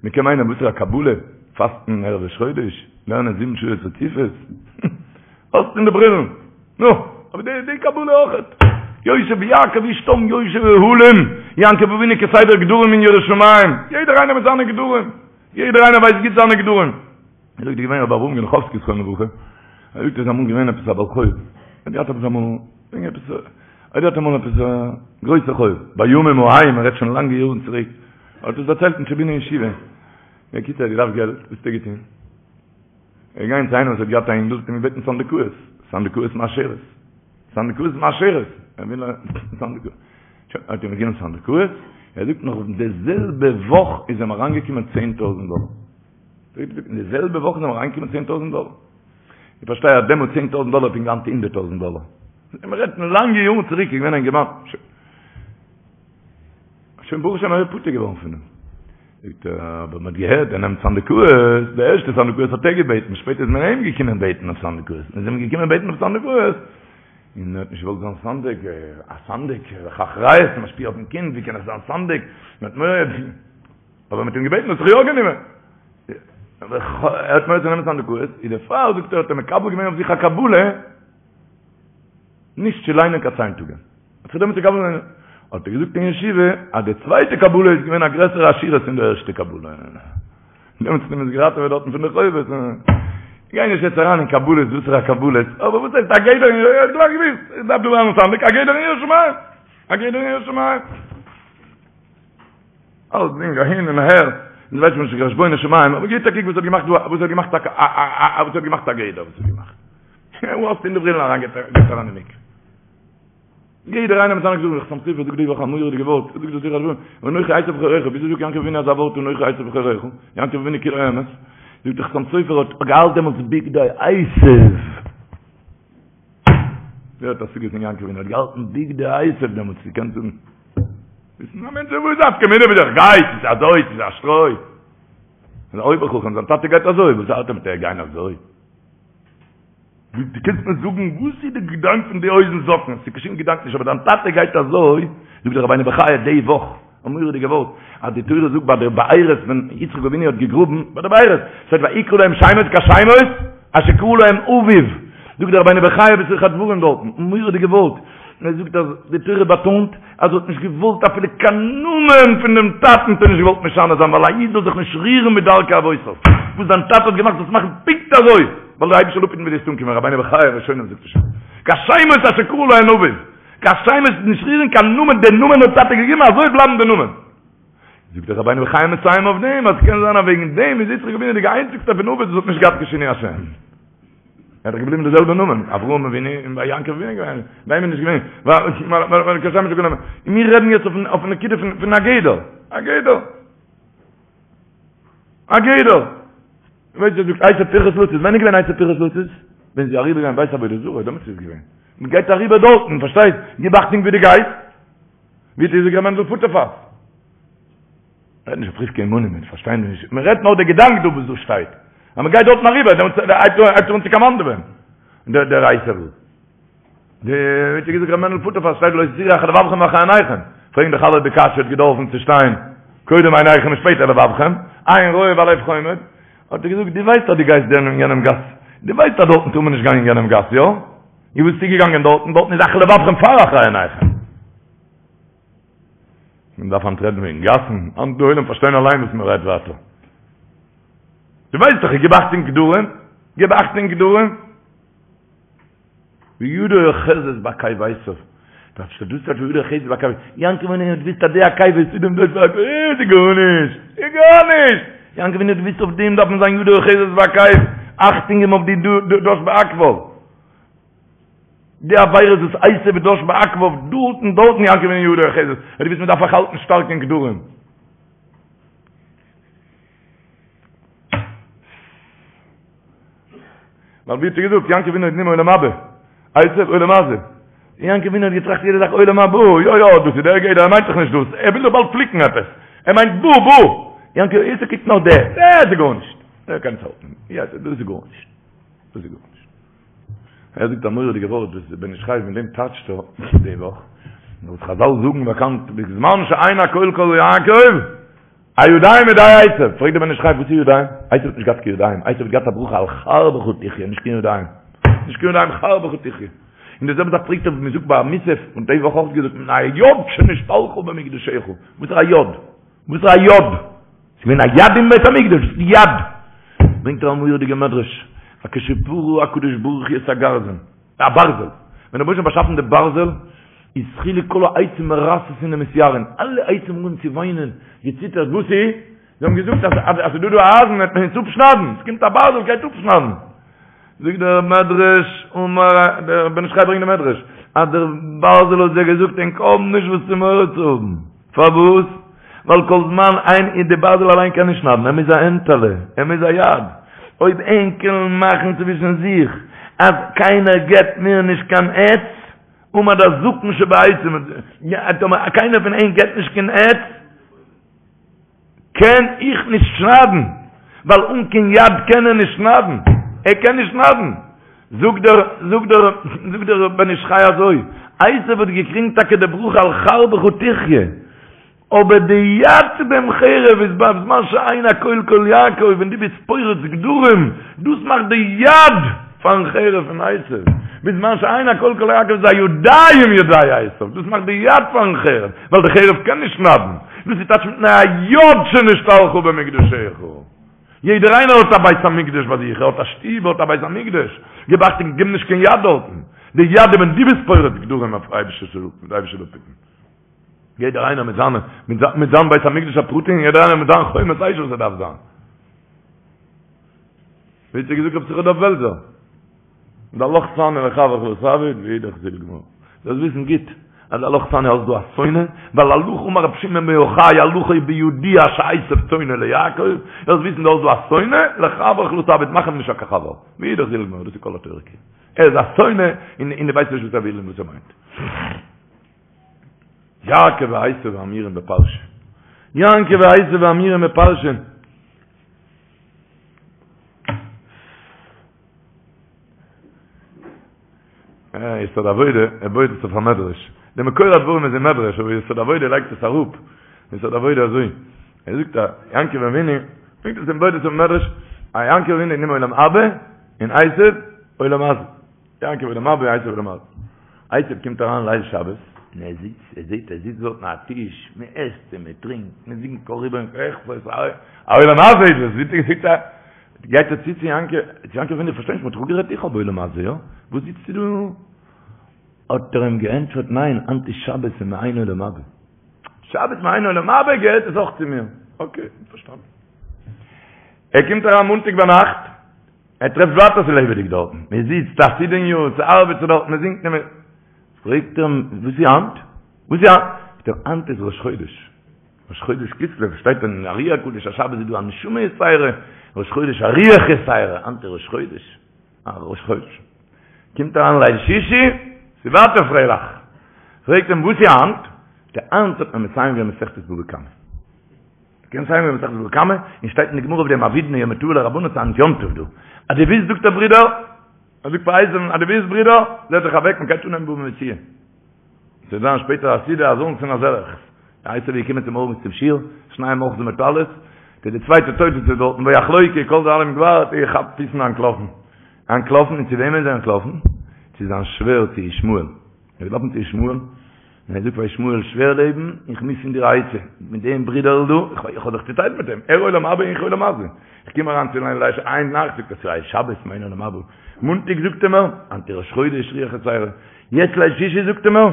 מען קען מיינען וואס איז א קבלה? פאסטן ערב ראש חודש? לערנען זיבן שעות רציפות? אויסטון די ברילן? נו, אבער די די קבלה אויכעט. יושב יעקב איש תם יושב אהלים. יעקב אבינו כסדר גדרים אין יראת שמים, יעדער איינער מיט זיינע גדרים, יעדער איינער ווייסט גוט זיינע גדרים. ער זאגט איז געווען רבי אברהם גענכאווסקי זכרונו לברכה, ער זאגט ער איז אמאל געווען עפעס א בעל חוב, ער האט געהאט עפעס אמאל, וועגן עפעס, ער האט געהאט אמאל עפעס א גרויסע חוב, בימים ההם, מען רעדט שוין לאנגע יארן צוריק, ער האט עס דערציילט אין טשעבינער ישיבה, בקיצור ער האט געדארפט געלט, וואס האט ער געטון? ער איז געגאנגען צו איינעם וואס האט געהאט א אינגל, האט אים געבעטן סנדקאות, סנדקאות מאשרת, סנדקאות מאשרת, ער וויל א סנדקאות, שוין, האט אים געגעבן סנדקאות, ער זאגט נאך די זעלבע וואך איז אים אריינגעקומען צען טויזנט דאלער. אין די זעלבע וואך איז אים אריינגעקומען צען טויזנט דאלער. איך פארשטיי אז דעמאלט צען טויזנט דאלער פונקט ווי היינט הונדערט טויזנט דאלער. מען רעדט פון לאנגע יארן צוריק איז געווען א אינגערמאן. שוין ברוך השם ער איז פטור געווארן פון דעם. זאגט ער, אבער מען האט געהערט ער נעמט סנדקאות, די ערשטע סנדקאות האט ער געבעטן, שפעטער איז מען אים געקומען בעטן אויף סנדקאות, מען איז אים געקומען בעטן אויף סנדקאות, און ער האט נישט געוואלט זיין סנדק, א סנדק, אחריות, משפיע אויפן קינד, ווי קען איך זיין סנדק, מען האט מורא. אבער מ'האט אים געבעטן האט זיך יא גענומען. ער האט מורא צו נעמען סנדקאות, איז דערפאר זאגט ער האט ער מקבל געווען אויף זיך א קבלה נישט צו ליינען קיין צייטונגען. האט זיך דעמאלטס מקבל געווען, האט ער געזאגט אין ישיבה אז די צווייטע קבלה איז געווען א גרעסערע עשירות פון די ערשטע קבלה. דעמאלטס האט מען עס געראטעוועט דארטן פון די חובות. גיי נישט יעצט אריין אין קבלות וואסערע קבלות, אבער וואס הייסט א גדר אין ער האט גלייך געוואוסט, איך דארף דא ווערן סנדק, א גדר אין יראת שמים, א גדר אין יראת שמים. אלסדינג אהין און אהער, און ווייסט מען נישט חשבונות שמים, אבער גיט א קוק וואס האט געמאכט דא, וואס האט געמאכט א א וואס האט געמאכט א גדר, וואס האט געמאכט. וואו האסטו אין די ברילן אריין גייט אריין אין מקווה. יעדער איינער מיט זיינע גדרים, חתם סופר זאגט די וואך א מורא'דיגע ווארט, זאגט דאס זיכער אנוכי עשו בכורך, וויאזוי זאגט יעקב אבינו אזא ווארט אנוכי עשו בכורך, יעקב אבינו כולו אמת, זאגט דער חתם סופר האט געהאלט דעמאלטס בגדי עשו. ווער האט השגות אין יעקב אבינו האט געהאלטן בגדי עשו דעמאלטס געקענט זאגן. וויסן א מענטש וואס איז נפקא מינה ווי דער גייט, ס'איז אזוי, ס'איז א שטרוי. און אויבער חכם, זיין טאטע גייט אזוי, וואס הארט אים מיט ער גיין אזוי? דו קענסט מיר זאגן וואס איז די געדאנק פון די הויזן זאקן? ס'איז קיין שום געדאנק נישט, אבער דיין טאטע גייט אזוי, זאגט דער רבינו בחיי די וואך, א מורא'דיגע ווארט, אז די תורה זאגט ביי די בארות ווען יצחק אבינו האט געגראבן ביי די בארות, שטייט ויקרא להם שמות כשמות אשר קרא להם אביו, זאגט דער רבינו בחיי בתוך הדברים דארטן, א מורא'דיגע ווארט, ער זאגט אז די תורה באטאנט אז ער האט נישט געוואלט אפילו קיין נאמען פון דעם טאטן האט ער נישט געוואלט משנה זיין ווייל א איד זאל זיך נישט רירן מדרכי אבותיו, וואס זיין טאטע האט געמאכט זאלסט מאכן פונקט אזוי, ווייל דער אייבערשטער זאל אפהיטן ווי דו וועסט אנקומען, רבינו בחיי ראשונים זאגט עס שוין, כשמות אשר קרא להם אביו. קיין שמות נישט רירן קיין נאמען, דער נאמען האט טאטע געגעבן אזוי בלייבן די נאמען. זאגט דער רבינו בחיי מסיים אויף דעם אז קען זיין אז וועגן דעם איז יצחק אבינו די איינציגסטע פון אבות וואס האט נישט געהאט קיין שינוי השם. ער האט דאך געבליבן די זעלבע נאמען, אברהם אבינו און ביי יעקב אבינו געווען, ביי אים איז נישט געווען, ווייל קיין שם נישט גענומען. און מיר רעדן יעצט אויפן אויפן נקודה פון פון א גדר, א גדר. א גדר. ווייסט ווער זאגט עשו פרחת לצאת? ווען איז געווען עשו פרחת לצאת? ווען זי אריבער געגאנגען בית עבודה זרה, דעמאלטס איז געווען. מען גייט אריבער דארטן, פארשטייסט? גיב אכטונג ווי דו גייסט. ווי האט געזאגט ר' מענדל פוטערפאס? רעדט נישט אויף רבקה אמנו, מיר פארשטיין נישט. מען רעדט נאר די געדאנק דא וואס דא שטייט. אז מען גייט דארטן אריבער, דעמאלטס הייבט ער אן צו קאמאנדעווען. דער דער עשו. די ווי האט געזאגט ר' מענדל פוטערפאס שטייט לא תתורו אחרי לבבכם ואחרי עיניכם. פרעגן דאך אלע די קשיא האט געדארפן צו שטיין קודם עיניכם און שפעטער לבבכם, עין רואה והלב חומד. האט ער געזאגט, דו ווייסט אז דו גייסט דען אין יענעם גאס, דו ווייסט אז דארטן טאר מען נישט גיין אין יענעם גאס, יא? און וואס ביסטו געגאנגען דארטן? דארטן איז אחרי לבבכם פאר אחרי עיניכם. מען דארף היינט רעדן וועגן גאסן, היינט די עולם פארשטיין אליין וואס מען רעדט ווייטער. דו ווייסט דאך, גיב אכטונג גדרים, גיב אכטונג גדרים. וידו אוחזת בעקב עשו. דאס איז דאס טייטש וידו אוחזת בעקב. יעקב אבינו האט געוואוסט אז די עקב איז דעם דאס בעקב. איז גארנישט. איז גארנישט. יעקב אבינו האט געוואוסט אויף דעם דארף מען זיין ידו אוחזת בעקב. אכטונג געבן אויף די דש בעקביו. די עבירות וואס עשו דש בעקביו דארטן דארטן יעקב אבינו ידו אוחזת. ער האט געוואוסט מען דארף זיך האלטן שטארק אין גדרים. ווייל ווי האט ער געזאגט, יעקב אבינו איז נאר עולם הבא, עשו עולם הזה. יעקב אבינו האט געטראכט יעדע זאך עולם הבא, יא יא, דאס איז דער גדר, ער מיינט דאך נישט דאס, ער וויל דאך באלד פליקן עפעס, ער מיינט בא בא, יעקב עשו קוקט נאר דער, דער איז גארנישט, ער קען עס האלטן, יא דאס איז גארנישט, דאס איז גארנישט. ער זאגט א מורא'דיגע ווארט וואס דער בן איש חי מיט דעם טייטשט ער די וואך, וואס חזל זאגן באקאנט, בזמן שאין הקול קול יעקב, הידיים ידי עשו, פרעגט דער בן איש חי וואס איז ידיים? עשו האט נישט געהאט קיין ידיים, עשו האט געהאט א ברכה על חרבך תחיה, נישט קיין ידיים, נישט קיין ידיים חרבך תחיה. און די זעלבע זאך פרעגט ער מען זאגט ביי מוסף, און די וואך אויך געזאגט מפני היד שנשתלחה במקדשך, וואס איז א יד? וואס איז א יד? ס'איז געווען א יד אין בית המקדש, וואס איז יד? ברענגט ער א מורא'דיגע מדרש, אז כשברא הקדוש ברוך הוא את הגרזן, א ברזל, ווען דער רבוש"ע האט באשאפן די ברזל, איז התחילו כל העצים מרתתין ומתייראים, אלע עצים האבן אנגעהויבן צו וויינען, געציטערט, וואס איז? זיי האבן געזאגט אז אז ס'איז דא דא א אייזן וועט מען אונז אפשניידן, עס קומט א ברזל גייט אפשניידן. זאגט דער מדרש, אמר, דער בן איש חי ברענגט די מדרש, אז דער ברזל האט זיי געזאגט ענק האבן נישט וואס צו מורא צו האבן, פארוואס? ווייל כל זמן איין און די ברזל אליין קען נישט שניידן, ער מוז א הענטעלע, ער מוז א יד, אויב ענק וועלן מאכן צווישן זיך אז קיינער געבט מיר נישט קיין עץ, עמד הזקן שבעצים, טאמער קיינער פון ענק געבט נישט קיין עץ, קען איך נישט שניידן, ווייל אן קיין יד קען ער נישט שניידן, ער קען נישט שניידן. זאגט דער, זאגט דער, זאגט דער בן איש חי אזוי, עשו האט געקריגן טאקע די ברכה על חרבך תחיה, אבער די יד צו דעם חרב איז בזמן שאין הקול קול יעקב, ווען דו ביסט פורץ גדרים, דאס מאכט די יד פארן חרב פון עשו, בזמן שאין הקול קול יעקב איז הידיים ידי עשו, דאס מאכט די יד פארן חרב, ווייל די חרב קען נישט שניידן, דאס איז טייטש מפני היד שנשתלחה במקדשך. יעדער איינער האט א בית המקדש ביי זיך, ער האט א שטוב, ער האט א בית המקדש, גיב אכטונג גיב נישט קיין יד דארטן, די יד איז ווען דו ביסט פורץ גדרים אויף אייבישטער זאל אפהיטן. יעדער איינער מיט זיינע, מיט זיין בית המקדש הפרטי און יעדער איינער מיט זיין חומת אש וואס ער דארף זיין. ווי האט ער געזאגט רבי יששכר דוב בעלזער? דעלך סני לחברך לא תעביד ואידך זיל גמור. זאלסט וויסן גוט אז דעלך סני האסט דא א שונא, ווייל הלכה אמר רבי שמעון בן יוחאי הלכה היא בידוע שעשו שונא ליעקב, זאלסט וויסן דו האסט דא א שונא, לחברך לא תעביד, מאך אים נישט קיין חבר. ואידך זיל גמור, דאס איז כל התורה כולה. ער איז א שונא און דו ווייסט נישט וואס ער וויל און וואס ער מיינט. יעקב ועשו האמורים בפרשה. יעקב ועשו האמורים בפרשה. יסוד העבודה, ער בויעט עס אויף א מדרש. דער מקור הדברים איז אין מדרש, אבער יסוד העבודה לייגט עס אראפ. יסוד העבודה אזוי. ער זאגט א יעקב אבינו, ברענגט עס אין בויעט עס אויף מדרש, א יעקב אבינו נעם עולם הבא, און עשו עולם הזה. יעקב עולם הבא, עשו עולם הזה. עשו קומט אריין ליל שבת, און ער זיצט, ער זעט, ער זיצט דארטן א טיש, מען עסט און מען טרינקט, מען זינגט קה ריבון כוחות, א עולם הזה איז דאס, זיצט ער, זיצט ער, גייט ער צו צו יעקב, צו יעקב אבינו, איך פארשטיי נישט, מען האט דאך אפגערעדט איך האב עולם הזה, יא? וואס זיצסטו דא? האט ער אים געענטפערט, ניין, היינט איז שבת און מעין עולם הבא. שבת מעין עולם הבא געהערט עס אויך צו מיר. אקעי, פארשטאנען. ער קומט אריין מאנטאג ביינאכט, ער טרעפט ווייטער ס'איז לעבעדיג דארטן, מען זיצט א סעודה'ניו, ס'ארבעט זיך דארט, מען זינגט און מען. פרעגט ער אים, וואס איז היינט? וואס איז היינט? זאגט ער, היינט איז ראש חודש. ראש חודש כסלו, שטייט אין ארי הקדוש אז שבת איז דא א נשמה יתירה, ראש חודש א רוח יתירה, היינט איז ראש חודש. א ראש חודש. קומט אריין ליל שישי, ס'איז ווייטער פרייליך. פרעגט אים, וואס איז היינט? זאגט ער, היינט האט מען מסיים געווען מסכת בבא קמא. קען מסיים געווען מסכת בבא קמא, און שטייט אין די גמרא אויף דעם עבידנא יומא טבא לרבנן ס'איז היינט יום טוב דא. אז דו ווילסט זאגט ער ברודער, ער זאגט פאר עשו'ן, אז דו ווילסט ברודער, זעץ זיך אוועק, מען גייט אנהייבן בבא מציעא. ס'וועט זיין שפעטער א סעודה אזאנס און אזעלעכס. עשו איז געקומען צומארגנס צום שיעור, שנים אוחזין בטלית, די צווייטע תוס' איז דארטן ויחלוקו כל דאלים גבר, האט ער געכאפט פיס און אנטלאפן. אנטלאפן, און צו וועמען איז ער אנטלאפן? צו זיין שווער צו ישמעאל. ער איז געלאפן צו ישמעאל, און ער זאגט פאר ישמעאל, שווער לעבן, איך מוז פון דיר א עצה, מיט דעם ברודער'ל דא, איך האב זיך צוטיילט מיט אים, ער עולם הבא איך עולם הזה. איך קום אריין צו ליל שישי איין נאכט, זאגט ער ס'איז שבת מעין עולם הבא. מאנטאג זאגט ער מיר, היינט איז ראש חודש רוח יתירה. יעצט ליל שישי זאגט ער מיר,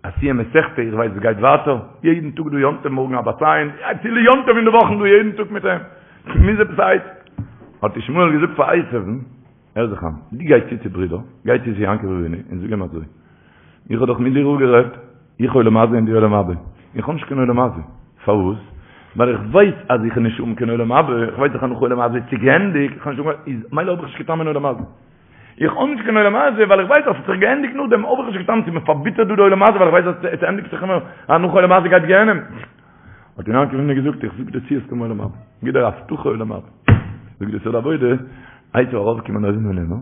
א סיום מסכתא, איך ווייס עס גייט ווייטער, יעדן טאג דא יום טוב, מארגן א בת עין, אפילו יום טוב אין די וואכן דא יעדן טאג מיט אים, מוז עפעס א עצה. האט ישמעאל געזאגט פאר עשו'ן, הער זיך איין, דו גיי צו צו ברודער, גיי צו צו יעקב אבינו און זאג אים אזוי, איך האב דאך מיט דיר אפגערעדט, איך עולם הזה און דו עולם הבא, איך האב נישט קיין עולם הזה, פארוואס? ווייל איך ווייס אז איך וועל נישט האבן קיין עולם הבא, איך ווייס דאך אז נאך עולם הזה איז צוגעענדיגט, איך האב נישט קיין, איז מילא האב איך נישט קיין טעם אין עולם הזה. איך האב נישט קיין עולם הזה ווייל איך ווייס אז ס'האט זיך געענדיגט נאכדעם האב איך נישט קיין טעם ס'איז מיר פארביטערט דא די עולם הזה ווייל איך ווייס אז עס ענדיגט זיך אימער אז נאך עולם הזה גייט גיהנום. האט אים יעקב אבינו געזאגט איך זאג דיר צו וועסט האבן עולם הבא, גיב דיר א הבטחה עולם הבא. זאגט די יסוד העבודה, עשו ארויפגעקומען אויבן אן ער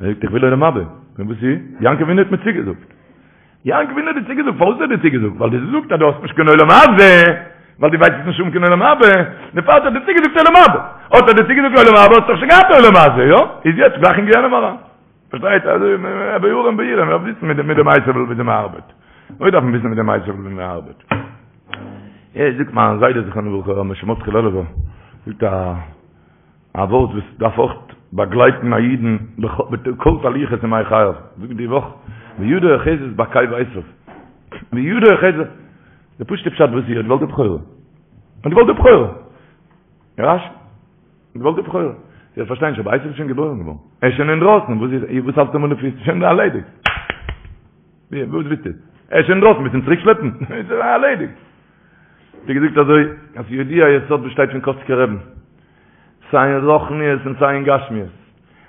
זאגט איך וויל עולם הבא, און וואס איז? יעקב אבינו האט מיר צוגעזאגט. יעקב אבינו האט דיר צוגעזאגט, פארוואס האט ער דיר צוגעזאגט? ווייל דו זאגסט אז דו האסט נישט קיין עולם הזה, ווייל דו ווייסט וועסט נישט האבן קיין עולם הבא, דערפאר האט ער דיר צוגעזאגט עולם הבא. האט ער דיר צוגעזאגט עולם הבא, האסט דאך שוין געהאט עולם הזה, יא? איז יעצט גלייך אין גיהנום אריין. פארשטייט אזוי בערים בעירם מ'דארף וויסן מיט מיט דעם עשו וויאזוי מ'ארבעט. אוי דארף מען וויסן מיט דעם עשו וויאזוי מ'ארבעט. ער זאגט מיין זיידע זכרונו לברכה ר' משה מרדכי לעלובער זאגט א א ווארט וואס דארף אויך באגלייטן א אידן בכל תהלוכות ימי חייו, זאגט די וואך וידו אוחזת בעקב עשו, וידו אוחזת, די פשוט'ע פשט וואס איז, ער האט געוואלט די בכורה, ער האט געוואלט די בכורה, רש"י, ער האט געוואלט די בכורה, איך פארשטיי נישט אבער עשו איז שוין געבוירן געווארן, ער איז שוין אינדרויסן, וואס איז, וואס האלטסטו אים אן די פיס, שוין ערלעדיגט, וואס ווילסטו, ער איז שוין אינדרויסן, ווילסט אים צוריק שלעפן, איז ערלעדיגט. האט ער געזאגט אזוי, אז ידוע היסוד וואס שטייט פון קאצקער רעבן, סיי אין רוחניות און סיי אין גשמיות,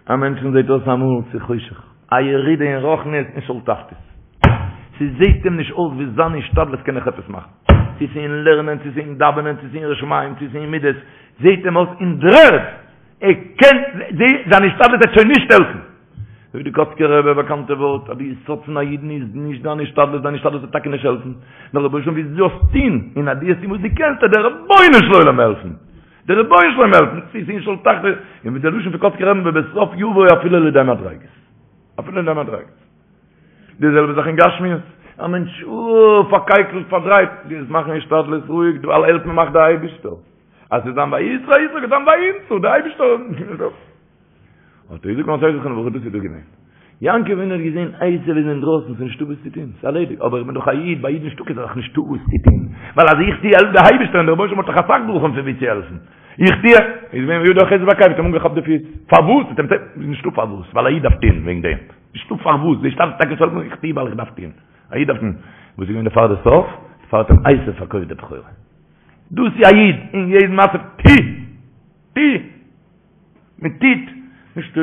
א מענטשן זעט אויס אמאל ס'איז חושך, א ירידה אין רוחניות אין שאול תחתית, ס'זעט אים נישט אויס ווי זיין השתדלות קען נאך עפעס מאכן, צו ס'איז אין לערנען, צו ס'איז אין דאווענען, צו ס'איז אין יראת שמים, צו ס'איז אין מידות, זעט אים אויס אין דר'ערד, ער קען, זיין השתדלות וועט שוין נישט העלפן. זאגט די קאצקער רבי א באקאנטע ווארט אז די יסוד פון א אידן איז נישט דיין השתדלות, דיין השתדלות וועט טאקע נישט העלפן, נאר רבונו של עולם ווי דו זאלסט טון, און אז דו וועסט טון וואס דו קענסט וועט דער רבונו של עולם העלפן, דער רבונו של עולם העלפן, צו ס'איז אין שאול תחתית, און ווי דער לשון פון קאצקער רבי'ן ובסוף יבוא אפילו לידי מדריגות, אפילו לידי מדריגות. די זעלבע זאך אין גשמיות, א מענטש אוי פארקייקלט פארדרייט, דו וועסט מאכן השתדלות רואיג, ווייל העלפן מאכט דער אייבישטער, אז ס'איז זיין ויזרע יצחק איז זיין וימצא, דער אייבישטער. האט ער געזאגט מיין זיידע זכרונו לברכה דאס איז דא געווען. יעקב אבינו האט געזען עשו איז אינדרויסן ס'איז נישטא וואס צו טון, ס'איז ערלעדיגט, אבער איך בין דאך א איד, ביי אידן נישטא קיין זאך נישטא וואס צו טון, ווייל אז איך טו העלפט דער אייבערשטער און דער רבונו של עולם האט דאך אסאך דרכים פון ווי צו העלפן, איך טו, איז געווען וידו אוחזת בעקב האט אים אנגעכאפט די פיס, פארוואס? האט אים נישטא פארוואס, ווייל א איד דארף טון וועגן דעם, נישטא פארוואס, די שטארקסט טאקע זאל איך טו ווייל איך דארף טון, א איד דארף טון, וואס איז געווען דערפאר די סוף? דערפאר האט אים עשו פארקויפט די בכורה. דאס איז א איד אין יעדן מצב, טו! טו! מען טוט נישט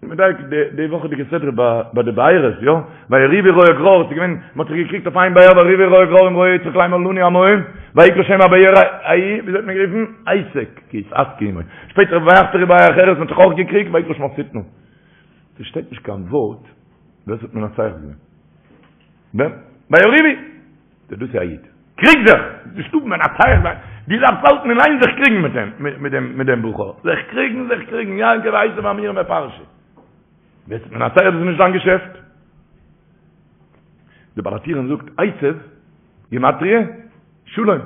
מדייק די וואכעדיגע סדרה ביי די בארות יא ויריבו רועי גרר ס'איז געווען מ'האט זיך געקריגט אויף איין באר ויריבו רועי גרר עם רועי יצחק לאמר לנו המים ויקרא שם הבאר ההיא וויאזוי האט מען גערופן עשק כי התעשקו עמו שפעטער ויחפרו באר אחרת מ'האט זיך אויך געקריגט ויקרא שמה שטנה ס'שטייט נישט קיין ווארט ווער ס'האט מנצח געווען ווען ויריבו דאס איז א איד. קריג זיך! נישטא מנצח זיין. דו דארפסט האלטן אין איין זיך קריגן מיט אים, מיט דעם, מיט דעם בחור. זיך קריגן, זיך קריגן, יעקב ועשו האמורים בפרשה. ווער ס'איז מנצח דאס איז נישט זיין געשעפט. די בעל הטורים זאגט עשו, גימטריא, שלום.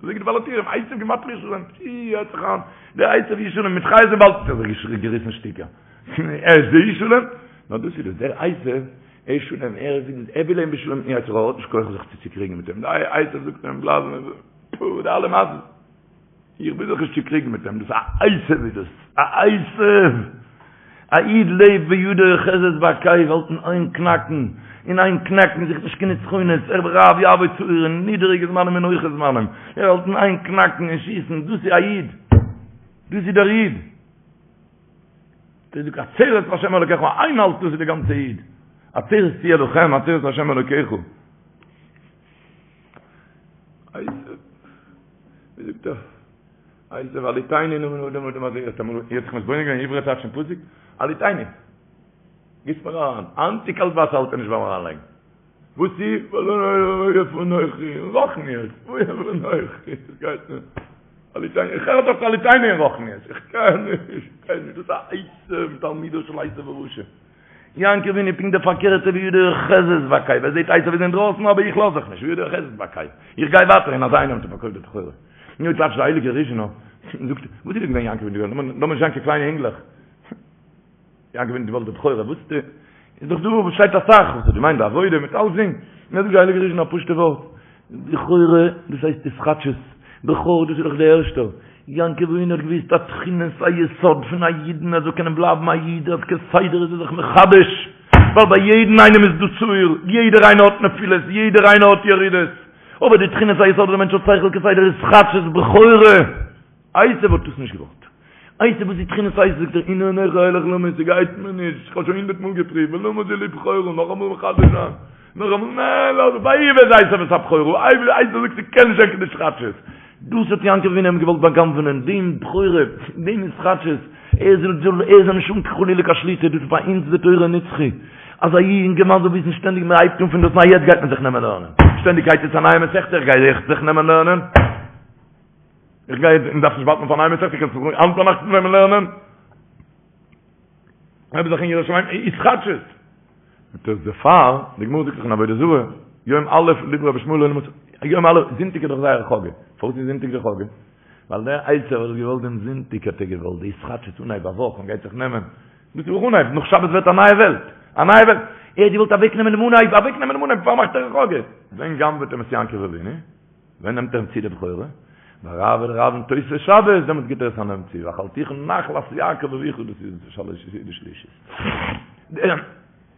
זאגט די בעל הטורים, עשו גימטריא שלום. פי, הערט זיך איין. דער עשו איז שלום, מיט חיות אין וואלד האט ער זיך געריסן שטיקער. ער איז דער איש שלום. נאר דאס איז דאס, דער עשו ער שלום, ער איז, ער וויל אים בשלום, יצר הרע האט נישט כח זיך צו צוקריגן מיט אים, די עשו זאגט אים בלאזן, פו, די אלע מעשות, איך וויל זיך נישט צוקריגן מיט אים, דאס א עשו איז דאס, א עשו, א איד לעבט וידו אוחזת בעקב, האלט אין איין קנאקן, אין איין קנאקן, זוכט נישט קיין נצחונות, ער רב יעבוד צעיר אין נידעריגע זמנים און הויכע זמנים, ער האלט אין איין קנאקן און שיסן, דאס איז א איד, דאס איז דער איד. דאס איז עצרת להשם אלוקיך, איינהאלט דאס איז די גאנצע איד. עצרת תהיה לכם, עצרת להשם אלוקיך. ווי זאגט ער? עשו הלעיטני נא מן האדם האדם הזה, האט אמאל איר זיך מתבונן געווען עברי טייטש פון פסוק? הלעיטני. גיסט מיר אריין. היינט קאלט וואסער האלט ער נישט ביים אריינלייגן. וואס איז? איפה אנכי? רוחניות. איפה אנכי? עס גייט נישט. הלעיטני, איך הער דאך הלעיטני אין רוחניות. איך קען נישט, איך קען נישט. דאס איז א עשו תלמידו של עשו הרשע. יעקב אבינו פונקט די פארקערטע וידו אוחזת בעקב. ער זעט עשו איז אינדרויסן אבער איך לאז זיך נישט. וידו אוחזת בעקב. איך גיי ווייטער און אזא איינער האט ער פארקויפט די בכורה. נו טייטשט די הייליגע ריזשינער. זאגט, וואס איז דא געווען יעקב אבינו? לאמיר נישט זיין קיין קליינע אינגלעך. יעקב אבינו געוואלט די בכורה, וואס די, איז דאך דא וואס שטייט אסאך, וואס האט געמיינט די עבודה מיט אלסדינג, און זאגט די הייליגע ריזשינער א פשוטע ווארט, בכורה, דאס הייסט התחדשות, בכור דאס איז דאך די ערשטע, יעקב אבינו האט געוויסט אז תכונת היסוד פון א אידן ער זאל קענען בלייבן א איד אז כסדר איז ער זיך מחדש, ווייל ביי יעדן איינעם איז דא שעיר, יעדער איינער האט נפילות, יעדער איינער האט ירידות, אבער די תכונת היסוד אז דער מענטש האט שכל כסדר התחדשות בכורה, עשו האט דאס נישט געוואלט. עשו וואס איז תכונת עשו זאגט ער הנה אנכי הולך למות ס'גייט מיר נישט איך האב שוין הונדערט מאל געפריווט ולמה זה לי בכורה נאכאמאל מחדש זיין נאכאמאל ניין לאז ויבז עשו את הבכורה עשו זאגט ס'קען נישט זיין קיין התחדשות דאס האט יעקב אבינו אים געוואלט בא'גנב'ענען דעם בכורה דעם התחדשות ער זאל זאל ער זאל נישט האבן חלילה קיין שליטה דאס איז ביי אונז די תורה נצחי אז א יונגערמאן זאל וויסן שטענדיג מען הייבט אן פון דאס ניי יעצט גייט מען זיך נעמען לערנען שטענדיג גייט יעצט א נייע מסכתא איך גיי זיך נעמען לערנען איך גיי און דארף נישט ווארטן פאר א נייע מסכתא, קענסט זיך היינט ביינאכט נעמען לערנען. גלייב זיך אין יראת שמים, התחדשות. זאגט ער דערפאר, די גמרא זאגט דאך אין עבודה זרה, יום א' לדברי רבי ישמעאל לא יום א', זונטאג איז דאך זייער חאגע, פארוואס איז זונטאג די חאגע? ווייל דער עשו האט געוואלט דעם זונטאג האט ער געוואלט די התחדשות אנהייב א וואך און גייט זיך נעמען, דאס איז אויך אנהייב, נאך שבת ווערט א נייע וועלט, א נייע וועלט, ער האט געוואלט אוועק נעמען דעם אנהייב, אוועק נעמען דעם אנהייב, דערפאר מאכט ער א חאגע. ווען גנב'עט אים עס יעקב אבינו? ווען נעמט ער אים צו די בכורה? ביי רב און רב תוספת שבת, דעמאלטס גיט ער עס א נעם צו, ואכלתיך נחלת יעקב אביך, דאס איז שלש סעודות שלישית. דער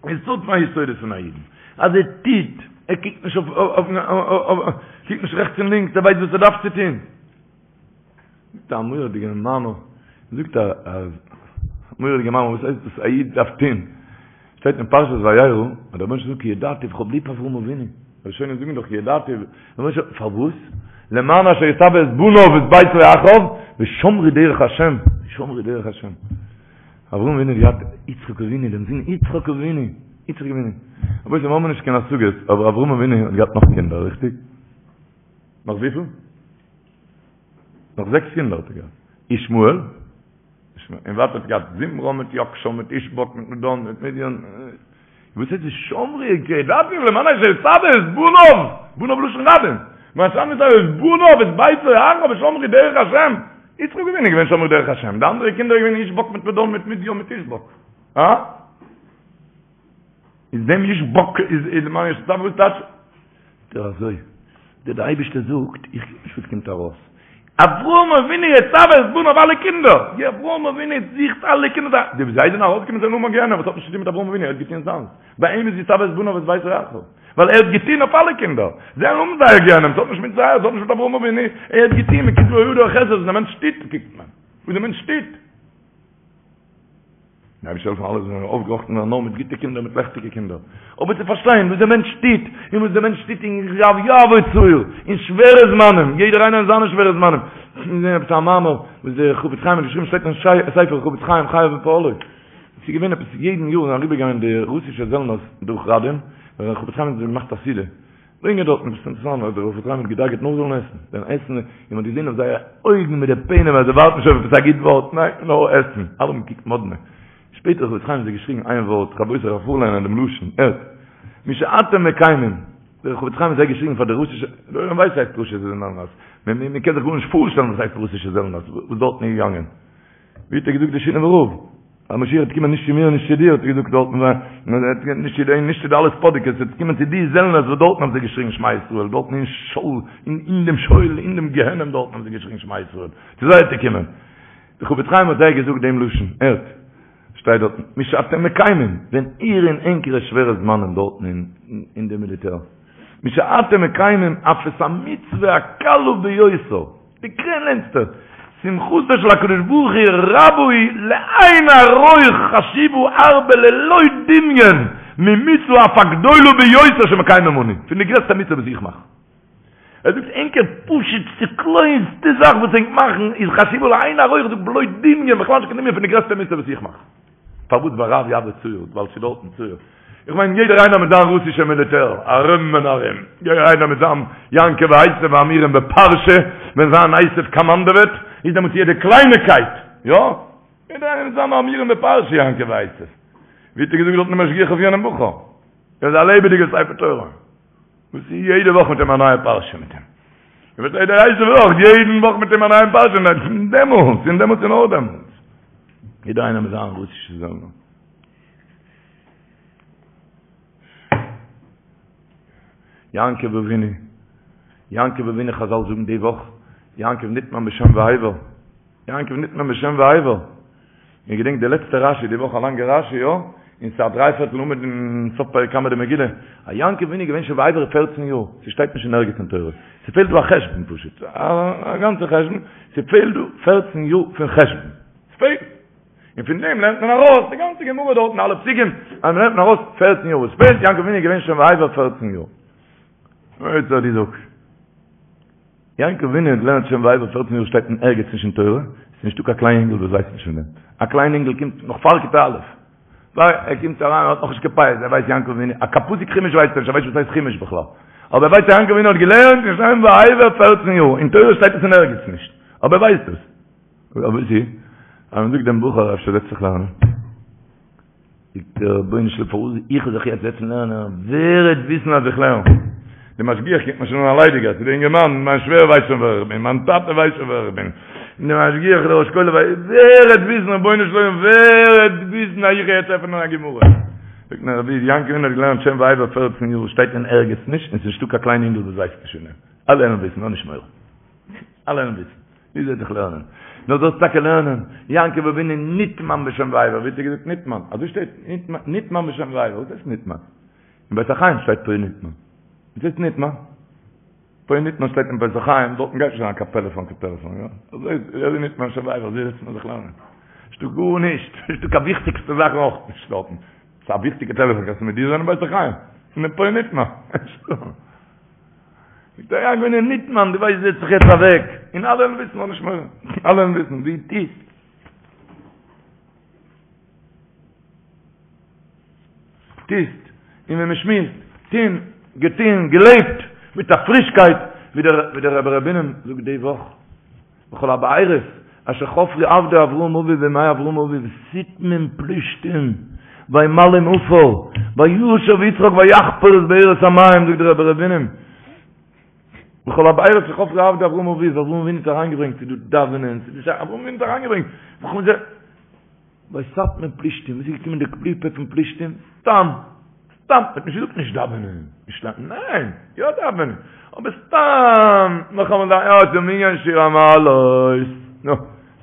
יסוד פון היסודות פון א אידן, אז ער טוט, ער קוקט נישט אויף, קוקט נישט רעכטס און לינקס, ער ווייסט וואס ער דארף צו טון. זאגט א מורא'דיגע מאמר, זאגט א מורא'דיגע מאמר, וואס הייסט דאס א איד דארף טון? שטייט אין פרשת וירא, אז דער רבונו של עולם זאגט כי ידעתיו, כ'האב ליב אברהם אבינו. ראשונים זאגן דאך כי ידעתיו, פארוואס? למען אשר יצוה את בניו ואת ביתו אחריו, ושמרו דרך השם, ושמרו דרך השם. אברהם אבינו האט געהאט יצחק אבינו, דעם זון יצחק אבינו, יצחק אבינו. רבותי, מיר האבן נישט קיין השגות, אבער אברהם אבינו האט געהאט נאך קינדער, ריכטיג? נאך וויפיל? נאך זעקס קינדער האט ער געהאט. ישמעאל, און ווייטער האט ער געהאט זמרן מיט יקשן מיט ישבק מיט מדן מיט מדיין. וואס איז ושמרו כי ידעתיו למען אשר יצוה את בניו, בניו לשון רבים, למען אשר יצוה את בניו ואת ביתו אחריו ושמרו דרך השם. יצחק אבינו איז געווען שומר דרך השם, די אנדערע קינדער איז געווען ישבק מיט מדן מיט מדיין מיט ישבק. הא? איז דעם ישבק איז למען אשר יצוה וואס טייטש? דער אזוי, דער דער אייבערשטער זאגט, איך קוק נישט וואס קומט ארויס. אברהם אבינו יצוה את בניו אלע קינדער, די אברהם אבינו זוכט אלע קינדער, די וואס זיי זענען ארויסגעקומען זענען אן גיהנום, וואס האט נישט צוטון מיט אברהם אבינו, ער האט געטון זיינס, ביי אים איז יצוה את בניו ואת ביתו אחריו, ווייל ער האט געטון אויף אלע קינדער, זיי האבן זייער גיהנום, ס'האט נישט מיט זיי, ס'האט נישט מיט אברהם אבינו, ער האט געטון, מען קוקט בידו החסד, וואס דער מענטש טוט קוקט מען, וואס דער מענטש טוט. דער אייבערשטער זאל העלפן אלע זאלן אויפגעראכטן ווערן נאר מיט גוטע קינדער מיט לעכטיגע קינדער, אבער צו פארשטיין וואס דער מענטש טוט, און וואס דער מענטש טוט אין רב יעבור צער, אין שווערע זמנים, יעדער איינער אין זיינע שווערע זמנים, געזען עפעס א מאמר וואס דער חפץ חיים האט געשריבן שטייט אין ספר חפץ חיים חייו ופועלו, עס איז געווען עפעס יעדן יאר זענען אריבערגעגאנגען די רוסישע זעלנערס דורך ראדין, ווען דער חפץ חיים האט געמאכט א סעודה, ברענגען דארטן עפעס אינטערעסאנט אז דער חפץ חיים האט געדאגה'ט נאר זאלן עסן, דעם עסן, און מען האט געזען אויף זייערע אויגן מיט די פענעם אז זיי ווארטן שוין אויף עפעס א גוט ווארט, ניין, נאר עסן, אלע האבן געקוקט מאדנע. שפעטער האט חפץ חיים זיי געשריגן איין ווארט, רבותי איך וועל פארליינען דעם לשון, הערט, משאתם מקיימים, דער חפץ חיים האט זיי געשריגן פאר די רוסישע, דער עולם ווייסט וואס הייסט רוסישע זעלנערס, מען קען זיך גארנישט פארשטעלן וואס הייסט רוסישע זעלנערס, וואס דארטן איז געגאנגען. ווי האט ער געזאגט די שינאווער רב? אז משיח וועט קומען נישט צו מיר און נישט צו דיר, האט ער געזאגט דארטן, נישט צו די, נישט צו די אלע ספאדיקעס, עס וועט קומען צו די זעלנערס וואס דארטן האבן זיי געשריגן שמע ישראל, דארטן אין שאול, אין דעם שאול, אין דעם גיהנום דארטן האבן זיי געשריגן שמע ישראל, צו זיי וועט ער קומען. דער חפץ חיים האט זיי געזאגט דעם לשון, הערט, שטייט דארטן, משאתם מקיימים, ווען איר אין ענקערע שווערע זמנים דארטן אין די מיליטער, משאתם מקיימים אף את המצוה הקלה ביותר, די קלענסטע, שמחתו של הקדוש ברוך הוא רבה היא לאין ערוך חשובה הרבה ללא דמיון ממצוה אף הגדולה ביותר שמקיימים אנו, פון די גרעסטע מצוה וואס איך מאך. ער זאגט ענקער פשוט'סטע קליינסטע זאך וואס ענק מאכן איז חשובה לאין ערוך זאגט בלא דמיון בכלל נישט קיין דמיון פון די גרעסטע מצוה וואס איך מאך. פארוואס ביי רב יעבור צער? ווייל ס'איז דארטן צער. איך מיין יעדער איינער מיט זיין רוסישע מיליטער ארום און ארום, יעדער איינער מיט זיין יעקב ועשו האמורים בפרשה, ווען זיין עשו קאמאנדעוועט, איז דעמאלטס יעדע קלייניקייט, יא? יעדער איינער מיט זיין האמורים בפרשה יעקב ועשו. ווי האט ער געזאגט דארטן די משגיח אויף יענעם בחור? ער איז א לעבעדיגע ספר תורה. וואס איז יעדע וואך מיט אים א נייע פרשה מיט אים. און וואס יעדע הייסע וואך, יעדן וואך מיט אים א נייעם פרשה, און דעמאלטס, און דעמאלטס און נאר דעמאלטס. יעדער איינער מיט זיין רוסישע זעלנער. יעקב אבינו, יעקב אבינו חזל זאגן די וואך, יעקב נטמן בשם ועבר. יעקב נטמן בשם ועבר. איר געדענקט די לעצטע רשי די וואך א לאנגע רשי יא? און ס'איז א דריי פערטל עמוד אין סוף פרק קמא דמגילה. אז יעקב אבינו איז געווען שם ועבר פערצן יאר. ס'שטייט נישט אין ערגעץ אין תורה. ס'פעלט דא א חשבון פשוט. א גאנצע חשבון. ס'פעלט דא פערצן יאר פון חשבון. ס'פעלט. און פון דעם לערנט מען ארויס די גאנצע גמרא דארט און אלע פסוקים. אז מ'לערנט מען ארויס פערצן יאר וואס פעלט. יעקב אבינו איז געווען שם ועבר פערצן יאר. אוי צו די זאגסט. יעקב אבינו האט געלערנט שם ועבר פערצן יאר שטייט אין ערגעץ נישט אין תורה, ס'איז נישטא קיין קליין אינגל וואס ווייסט נישט פון דעם, א קליין אינגל קומט נאך פאר כיתה א', פאר ער קומט אריין ער האט נאכנישט קיין פיאות, ער ווייסט יעקב אבינו, א קיין פסוק חומש ווייסט ער נישט, ער ווייסט נישט וואס הייסט חומש בכלל, אבער ער ווייסט אז יעקב אבינו האט געלערנט אין שם ועבר פערצן יאר, אין תורה שטייט עס אין ערגעץ נישט, אבער ער ווייסט עס. אבער וואס איז אז מען זאגט דעם בחור אפשר זעץ זיך לערנען? זאגט ער, רבונו של עולם פארוואס איך זאל זיך יעצט זעצן לערנען, ווער וועט וויסן אז איך לערן? די משגיח קוקט מיר שוין אן א ליידיגער, צו די אינגערמאן, מיין שווער ווייסט שוין ווער איך בין, מיין טאטע ווייסט שוין ווער איך בין, די משגיח, דער ראש כולל ווייסט, ווער וועט וויסן, רבונו של עולם, ווער וועט וויסן אז איך גיי יעצט עפענען א גמרא? זאגט מיר רבי, יעקב אבינו האט געלערנט שם ועבר פערצן יאר, שטייט אין ערגעץ נישט, און ס'איז נישטא קיין קליין אינגל וואס ווייסט נישט פון דעם, אלע וועלן וויסן, האב נישט מורא. אלע וועלן וויסן. ווי זאל זיך לערנען? נאר זאלסט טאקע לערנען. יעקב אבינו נטמן בשם ועבר. ווי האט ער געזאגט נטמן? אזוי שטייט נטמן בשם ועבר. וואס הייסט נטמן? אין בית החיים שטייט פה נטמן. וואס הייסט נטמן? פה נטמן שטייט אין בית החיים, דארטן גייט נישט אריין קיין פעלעפאן קיין טעלעפאן, יא? אזוי איז ער נטמן בשם ועבר, אזוי זעצט מען זיך לערנען. נישטא גארנישט, נישטא קיין וויכטיגסטע זאכן אויך נישט דארטן. ס'איז א וויכטיגע טעלעפאן, קענסטו מיט דיר זיין אין בית החיים? אין פה נטמן. נישטא. זאגט ער יעקב אבינו נטמן, דו ווייסט זעץ זיך יעצט אוועק, און אלע וועלן וויסן, האב נישט מורא, אלע וועלן וויסן, דו טוסט. טוסט, און ווען מען שמועסט, טון, געטון, געלעבט, מיט א פרישקייט, ווי דער ווי דער רבי ר' בונם זאגט די וואך, וכל הבארות אשר חפרו עבדי אברהם אביו בימי אברהם אביו סתמים פלישתים וימלאום עפר וישב יצחק ויחפר את בארות המים זאגט דער רבי ר' בונם וכל הבארות אשר חפרו עבדי אברהם אביו אברהם אבינו האט אריינגעברענגט צו דא דאווענען צו דא אברהם אבינו האט אריינגעברענגט וכל זה ויסתמום פלישתים וואס איז געקומען די קליפה פון פלישתים סתם סתם, מ'האט נישט געזאגט נישט דאווענען, נישט לערנען, ניין, יא דאווענען, אבער סתם, נאכאמאל דאווענען, יא, ס'איז מנין שיר המעלות, נו,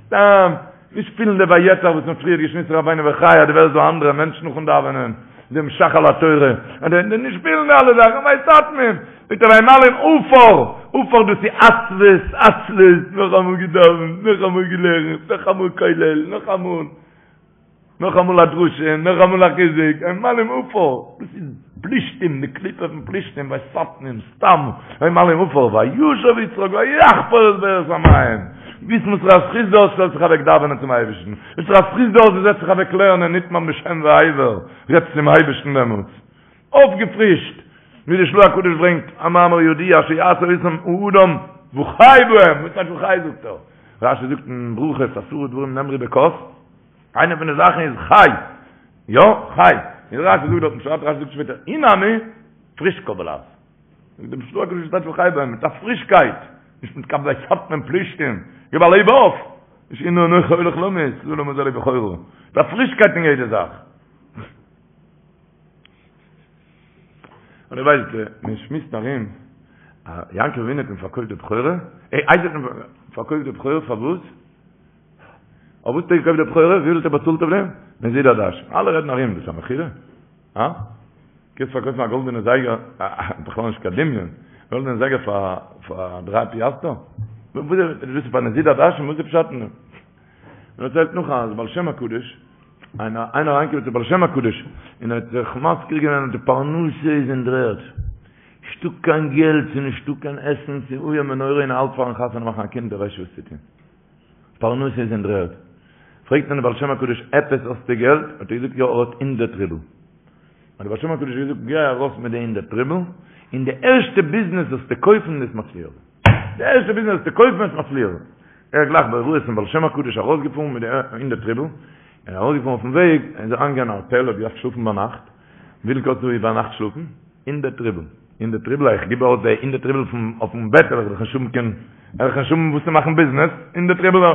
סתם, נישט פילן די ויעתר וואס מ'האט פריער געשמועסט רבינו בחיי, אז דו ווערסט דא אנדערע מענטש נאכן דאווענען, דעם ש"ך על התורה, נישט פילן די אלע זאכן, ויסתמום, זאגט ער וימלאום עפר, עפר דאס איז עצבות, עצלות, נאכאמאל געדאווענט, נאכאמאל געלערנט, נאכאמאל כולל, נאכאמאל. נאכאמאל א דרשה, נאכאמאל א חיזוק, וימלאום עפר, דאס איז פלישתים, די קליפה פון פלישתים, ויסתמום, סתם, וימלאום עפר, וישב יצחק ויחפר את בארות המים, וויסן וואס פאר א זכות דו האסט שטעלסט זיך אוועק דאווענען צום אייבערשטן, וואס פאר א זכות דו האסט דו זעצט זיך אוועק לערנען נטמן בשם ועבר, רעדסט צום אייבערשטן דעמאלטס, אויפגעפרישט, ווי די של"ה הקדוש ברענגט א מאמר ידוע שיעשה אותם האדם וחי בהם, וואס טייטש וחי זאגט ער? רשי זאגט אין ברכות עשרה דברים נאמרו בכוס, איינע פון די זאכן איז חי, יא, חי, און רשי זאגט דארטן פשט, רשי זאגט שפעטער, אי נמי, פרישקא בלע"ז. זאגט דער של"ה הקדוש טייטש וחי בהם, מיט א פרישקייט, נישט מיט קיין ויסתמום פלישתים, גיב א לעב אויף, נישט הנה אנכי הולך למות, לעולם הזה לבכורה, מיט א פרישקייט אין יעדע זאך. און איר ווייסט, מען שמועסט ארום, אז יעקב אבינו האט אים פארקויפט די בכורה, אה, עשו האט אים פארקויפט די בכורה פארוואס? אויף וואס האט ער געקויפט די בכורה? וויפיל האט ער באצאלט אויף דעם? נזיד עדשים. אלע רעדן ארום, דאס איז א מכירה? הא? קענסט פארקויפן א גאלדענע זייגער, בכלל נישט קיין דמיון, גאלדענע זייגער פאר פאר דריי פיאסטער? וואס איז דאס פאר נזיד עדשים? וואס איז פשט אין דעם? מען דערציילט נאך אז בעל שם הקדוש, איינער איינער אריינגעקומען צו בעל שם הקדוש, און ער האט זיך מזכיר געווען אז די פרנסה איז אין דר'ערד, נישטא קיין געלט, ס'איז נישטא קיין עסן, ס'איז איום ונורא און ער האלט פארן חתונה מאכן א קינד, ער ווייסט נישט וואס צו טון. פרנסה איז אין דר'ערד. פרעגט אים דער בעל שם הקדוש, עפעס האסטו געלט? האט ער געזאגט, יא, ער האט הונדערט רובל. האט דער בעל שם הקדוש געזאגט, גיי ארויס מיט די הונדערט רובל, און די ערשטע ביזנעס זאלסטו קויפן וועסט מצליח זיין. די ערשטע ביזנעס זאלסטו קויפן וועסט מצליח זיין. ער איז גלייך בהוראת פון בעל שם הקדוש ארויסגעפארן מיט די הונדערט רובל, און ארויסגעפארן אויפן וועג, איז ער אריינגעגאנגען אין א האטעל, האט געדארפט שלאפן ביינאכט, וויפיל קאסט דא איבערנאכט שלאפן? הונדערט רובל. הונדערט רובל, איך גיב אויס די הונדערט רובל אויפן בעט, וועל איך דאך נישט האבן קיין, וועל איך נישט האבן וואס צו מאכן ביזנעס, הונדערט רובל.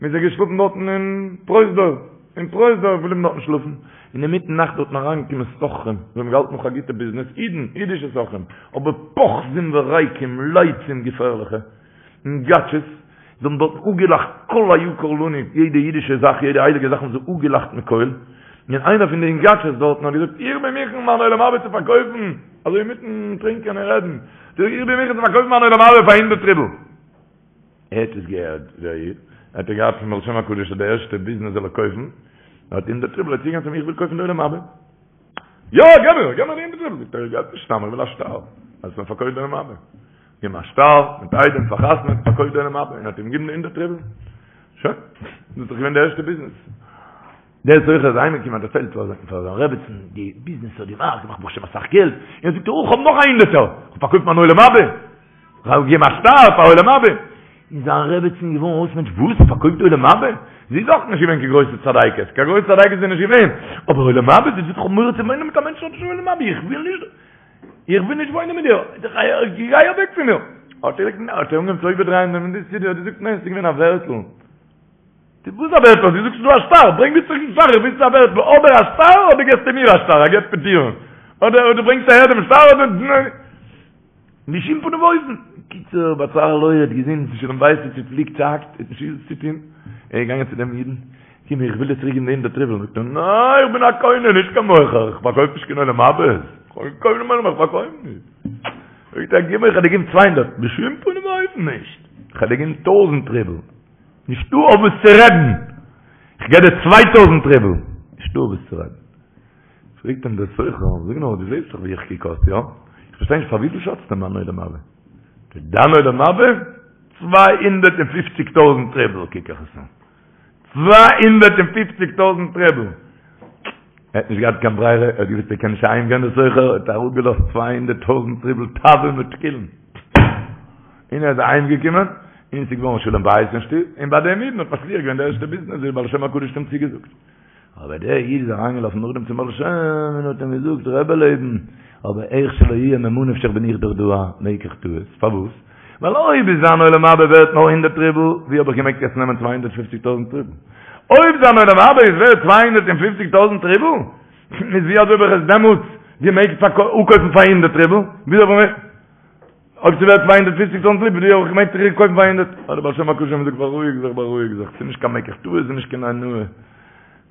מ'איז ער געשלאפן דארטן אין פרוזדור, אין פרוזדור געבליבן דארטן שלאפן, און אינמיטן נאכט דארטן אריינגעקומען סוחרים, זיי האבן געהאלטן נאך א גוטע ביזנעס, אידן, אידישע סוחרים, אבער פוחזים וריקים, לצים געפערליכע, יונגאטשעס, זיי האבן דארטן אפגעלאכט כל היקר לנו, יעדע אידישע זאך, יעדע הייליגע זאך האבן זיי אפגעלאכט מכל, און איינער פון די יונגאטשעס דארטן האט געזאגט, איך בין מוכן מיין עולם הבא צו פארקויפן, אזוי אינמיטן טרינקען און רעדן, איך בין מוכן צו פארקויפן מיין עולם הבא פאר הונדערט רובל. ער האט עס געהערט, דער איד, האט ער געהאט פון בעל שם הקדוש אז די ערשטע ביזנעס זאל ער קויפן, ער האט הונדערט רובל, ער איז צוגעגאנגען צו אים, איך וויל קויפן די עולם הבא. יא, געב מיר, געב מיר די הונדערט רובל. זאגט ער, איך געב נישט סתם, איך וויל א שטר, אז מען פארקויפט די עולם הבא. געבן א שטר, מיט עדים פארחתמעט, פארקויפט די עולם הבא, און האט אים געגעבן די הונדערט רובל. שוין, דאס איז דאך געווען די ערשטע ביזנעס. דער סוחר איז אהיימגעקומען האט דערציילט פאר זיין רעבעצן די ביזנעס האט געמאכט, געמאכט ברוך השם אסאך געלט, און זאגט ער, איך האב נאך א הונדערטער, איך האב פארקויפט מיין עולם הבא. כ'האב געגעבן א שטר פאר עולם הבא. און זיין רעבעצין איז געווארן אויס מענטש, וואס? פארקויפט עולם הבא? זי איז אויך נישט געווען קיין גרויסע צדיקת, קיין גרויסע צדיקת איז זי נישט געווען, אבער עולם הבא? זי זאגט איך האב מורא צו וואוינען מיט א מענטש וואס האט נישט עולם הבא, איך וויל נישט, איך וויל נישט וואוינען מיט דיר, גיי אוועק פון מיר. האט ער אנגעהויבן צו איבערדרייען דעם סידור, האט געזאגט ניין, עס איז געווען א ווערטל. וואס א ווערטל? דו זאגסט ס'איז דא א שטר, ברענג מיר צוריק דעם שטר, איך וויל ס'איז א ווערטל, אדער א שטר אדער געסטו מיר א שטר, א גט פטור, אדער דו ברענגסט אהער דעם שטר אדער בשום פנים ואופן. קיצור, בצר לו האט געזען ס'איז שלום בית איז צופליקט צוהאקט, ער האט נישט געוואוסט וואס צו טון, ער איז געגאנגען צו דעם אידן, קום איך וויל דיר צוריק געבן די הונדערט רובל, זאגט ער, ניין איך בין א קונה נישט קיין מוכר, איך פארקויף נישט קיין עולם הבא, איך קויף נישט איך פארקויף נישט. זאגט ער, גיב מיר איך וועל דיר געבן צוויי הונדערט, בשום פנים ואופן נישט, איך וועל דיר געבן טויזנט רובל. נישטא אויף וואס צו רעדן! איך געב דיר צוויי טויזנט רובל! נישטא אויף וואס צו רעדן. פרעגט אים דער סוחר, זאג נאר, דו זעסט דאך ווי איך קוק אויס, יא? איך פארשטיי נישט, פאר וויפיל שאצטו מיין עולם הבא? דיין עולם הבא? צוויי הונדערט און פופציג טויזנט רובל קוק איך עס אן. צוויי הונדערט און פופציג טויזנט רובל! ער האט נישט געהאט קיין ברירה, ער האט געוואוסט ער קען נישט אהיים גיין דער סוחר, האט אראפגעלאזט צוויי הונדערט טויזנט רובל טבין ותקילין. און ער איז אהיים געקומען, און עס איז געווארן שלום בית אין שטוב, און ביי דעם אידן האט מצליח געווען די ערשטע ביזנעס ווי דער בעל שם הקדוש האט אים צוגעזאגט. אבער דער איד איז אריינגעלאפן נאכדעם צום בעל שם און האט אים געזאגט, רבי לעבן, אבער איך שלא יהיה ממה נפשך בין איך דאך דא א מקח טעות, פארוואס? ווייל אויב איז זיין עולם הבא ווערט נאר הונדערט רובל, ווי האב איך געמעגט יעצט נעמען צוויי הונדערט פופציג טויזנט רובל? אויב זיין עולם הבא איז ווערט צוויי הונדערט און פופציג טויזנט רובל, איז ווי אזוי האב איך עס דעמאלטס געמעגט אפקויפן פאר הונדערט רובל? וויאזוי האב איך אויב ס'ווערט צוויי הונדערט פופציג טויזנט רובל, ווי האב איך געמעגט צוריק קויפן פאר הונדערט? האט דער בעל שם הקדוש אים געזאגט, בארואיג זיך, בארואיג זיך, ס'איז נישט קיין מקח טעות, ס'איז נישט קיין אונאה.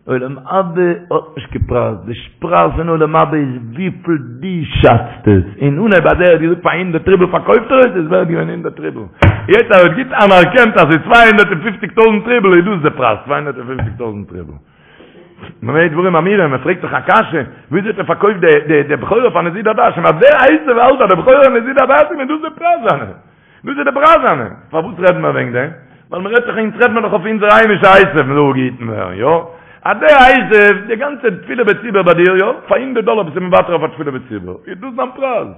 עולם הבא האט נישט קיין פרייז, די פרייז פון עולם הבא איז וויפיל דו שאצט עס, אין אנהייב אז ער האט געזאגט פאר הונדערט רובל פארקויפט ער עס, איז ווערט געווען הונדערט רובל, יעצט אז ער האט גוט אנערקענט אז ס'איז צוויי הונדערט און פופציג טויזנט רובל איז דאס די פרייז, צוויי הונדערט און פופציג טויזנט רובל. במה דברים אמורים, מען פרעגט זיך א קשיא, וויאזוי האט ער פארקויפט די די בכורה פאר נזיד עדשים, אז דער עשו האלט אז די בכורה איז נזיד עדשים איז דאס די פרייז זיינע, דאס איז די פרייז זיינע, פארוואס רעדן מיר וועגן דעם? ווייל מען רעדט דאך אונז רעדט מען דאך אויף אונזער היימישע עשו מען זאל געהיטן ווערן, יא? אז דער עשו, די גאנצע תפילה בציבור ביי דיר, יא? פאר הונדערט דאלער ביסטו מוותר אויף א תפילה בציבור, איז דאס דיין פרייז?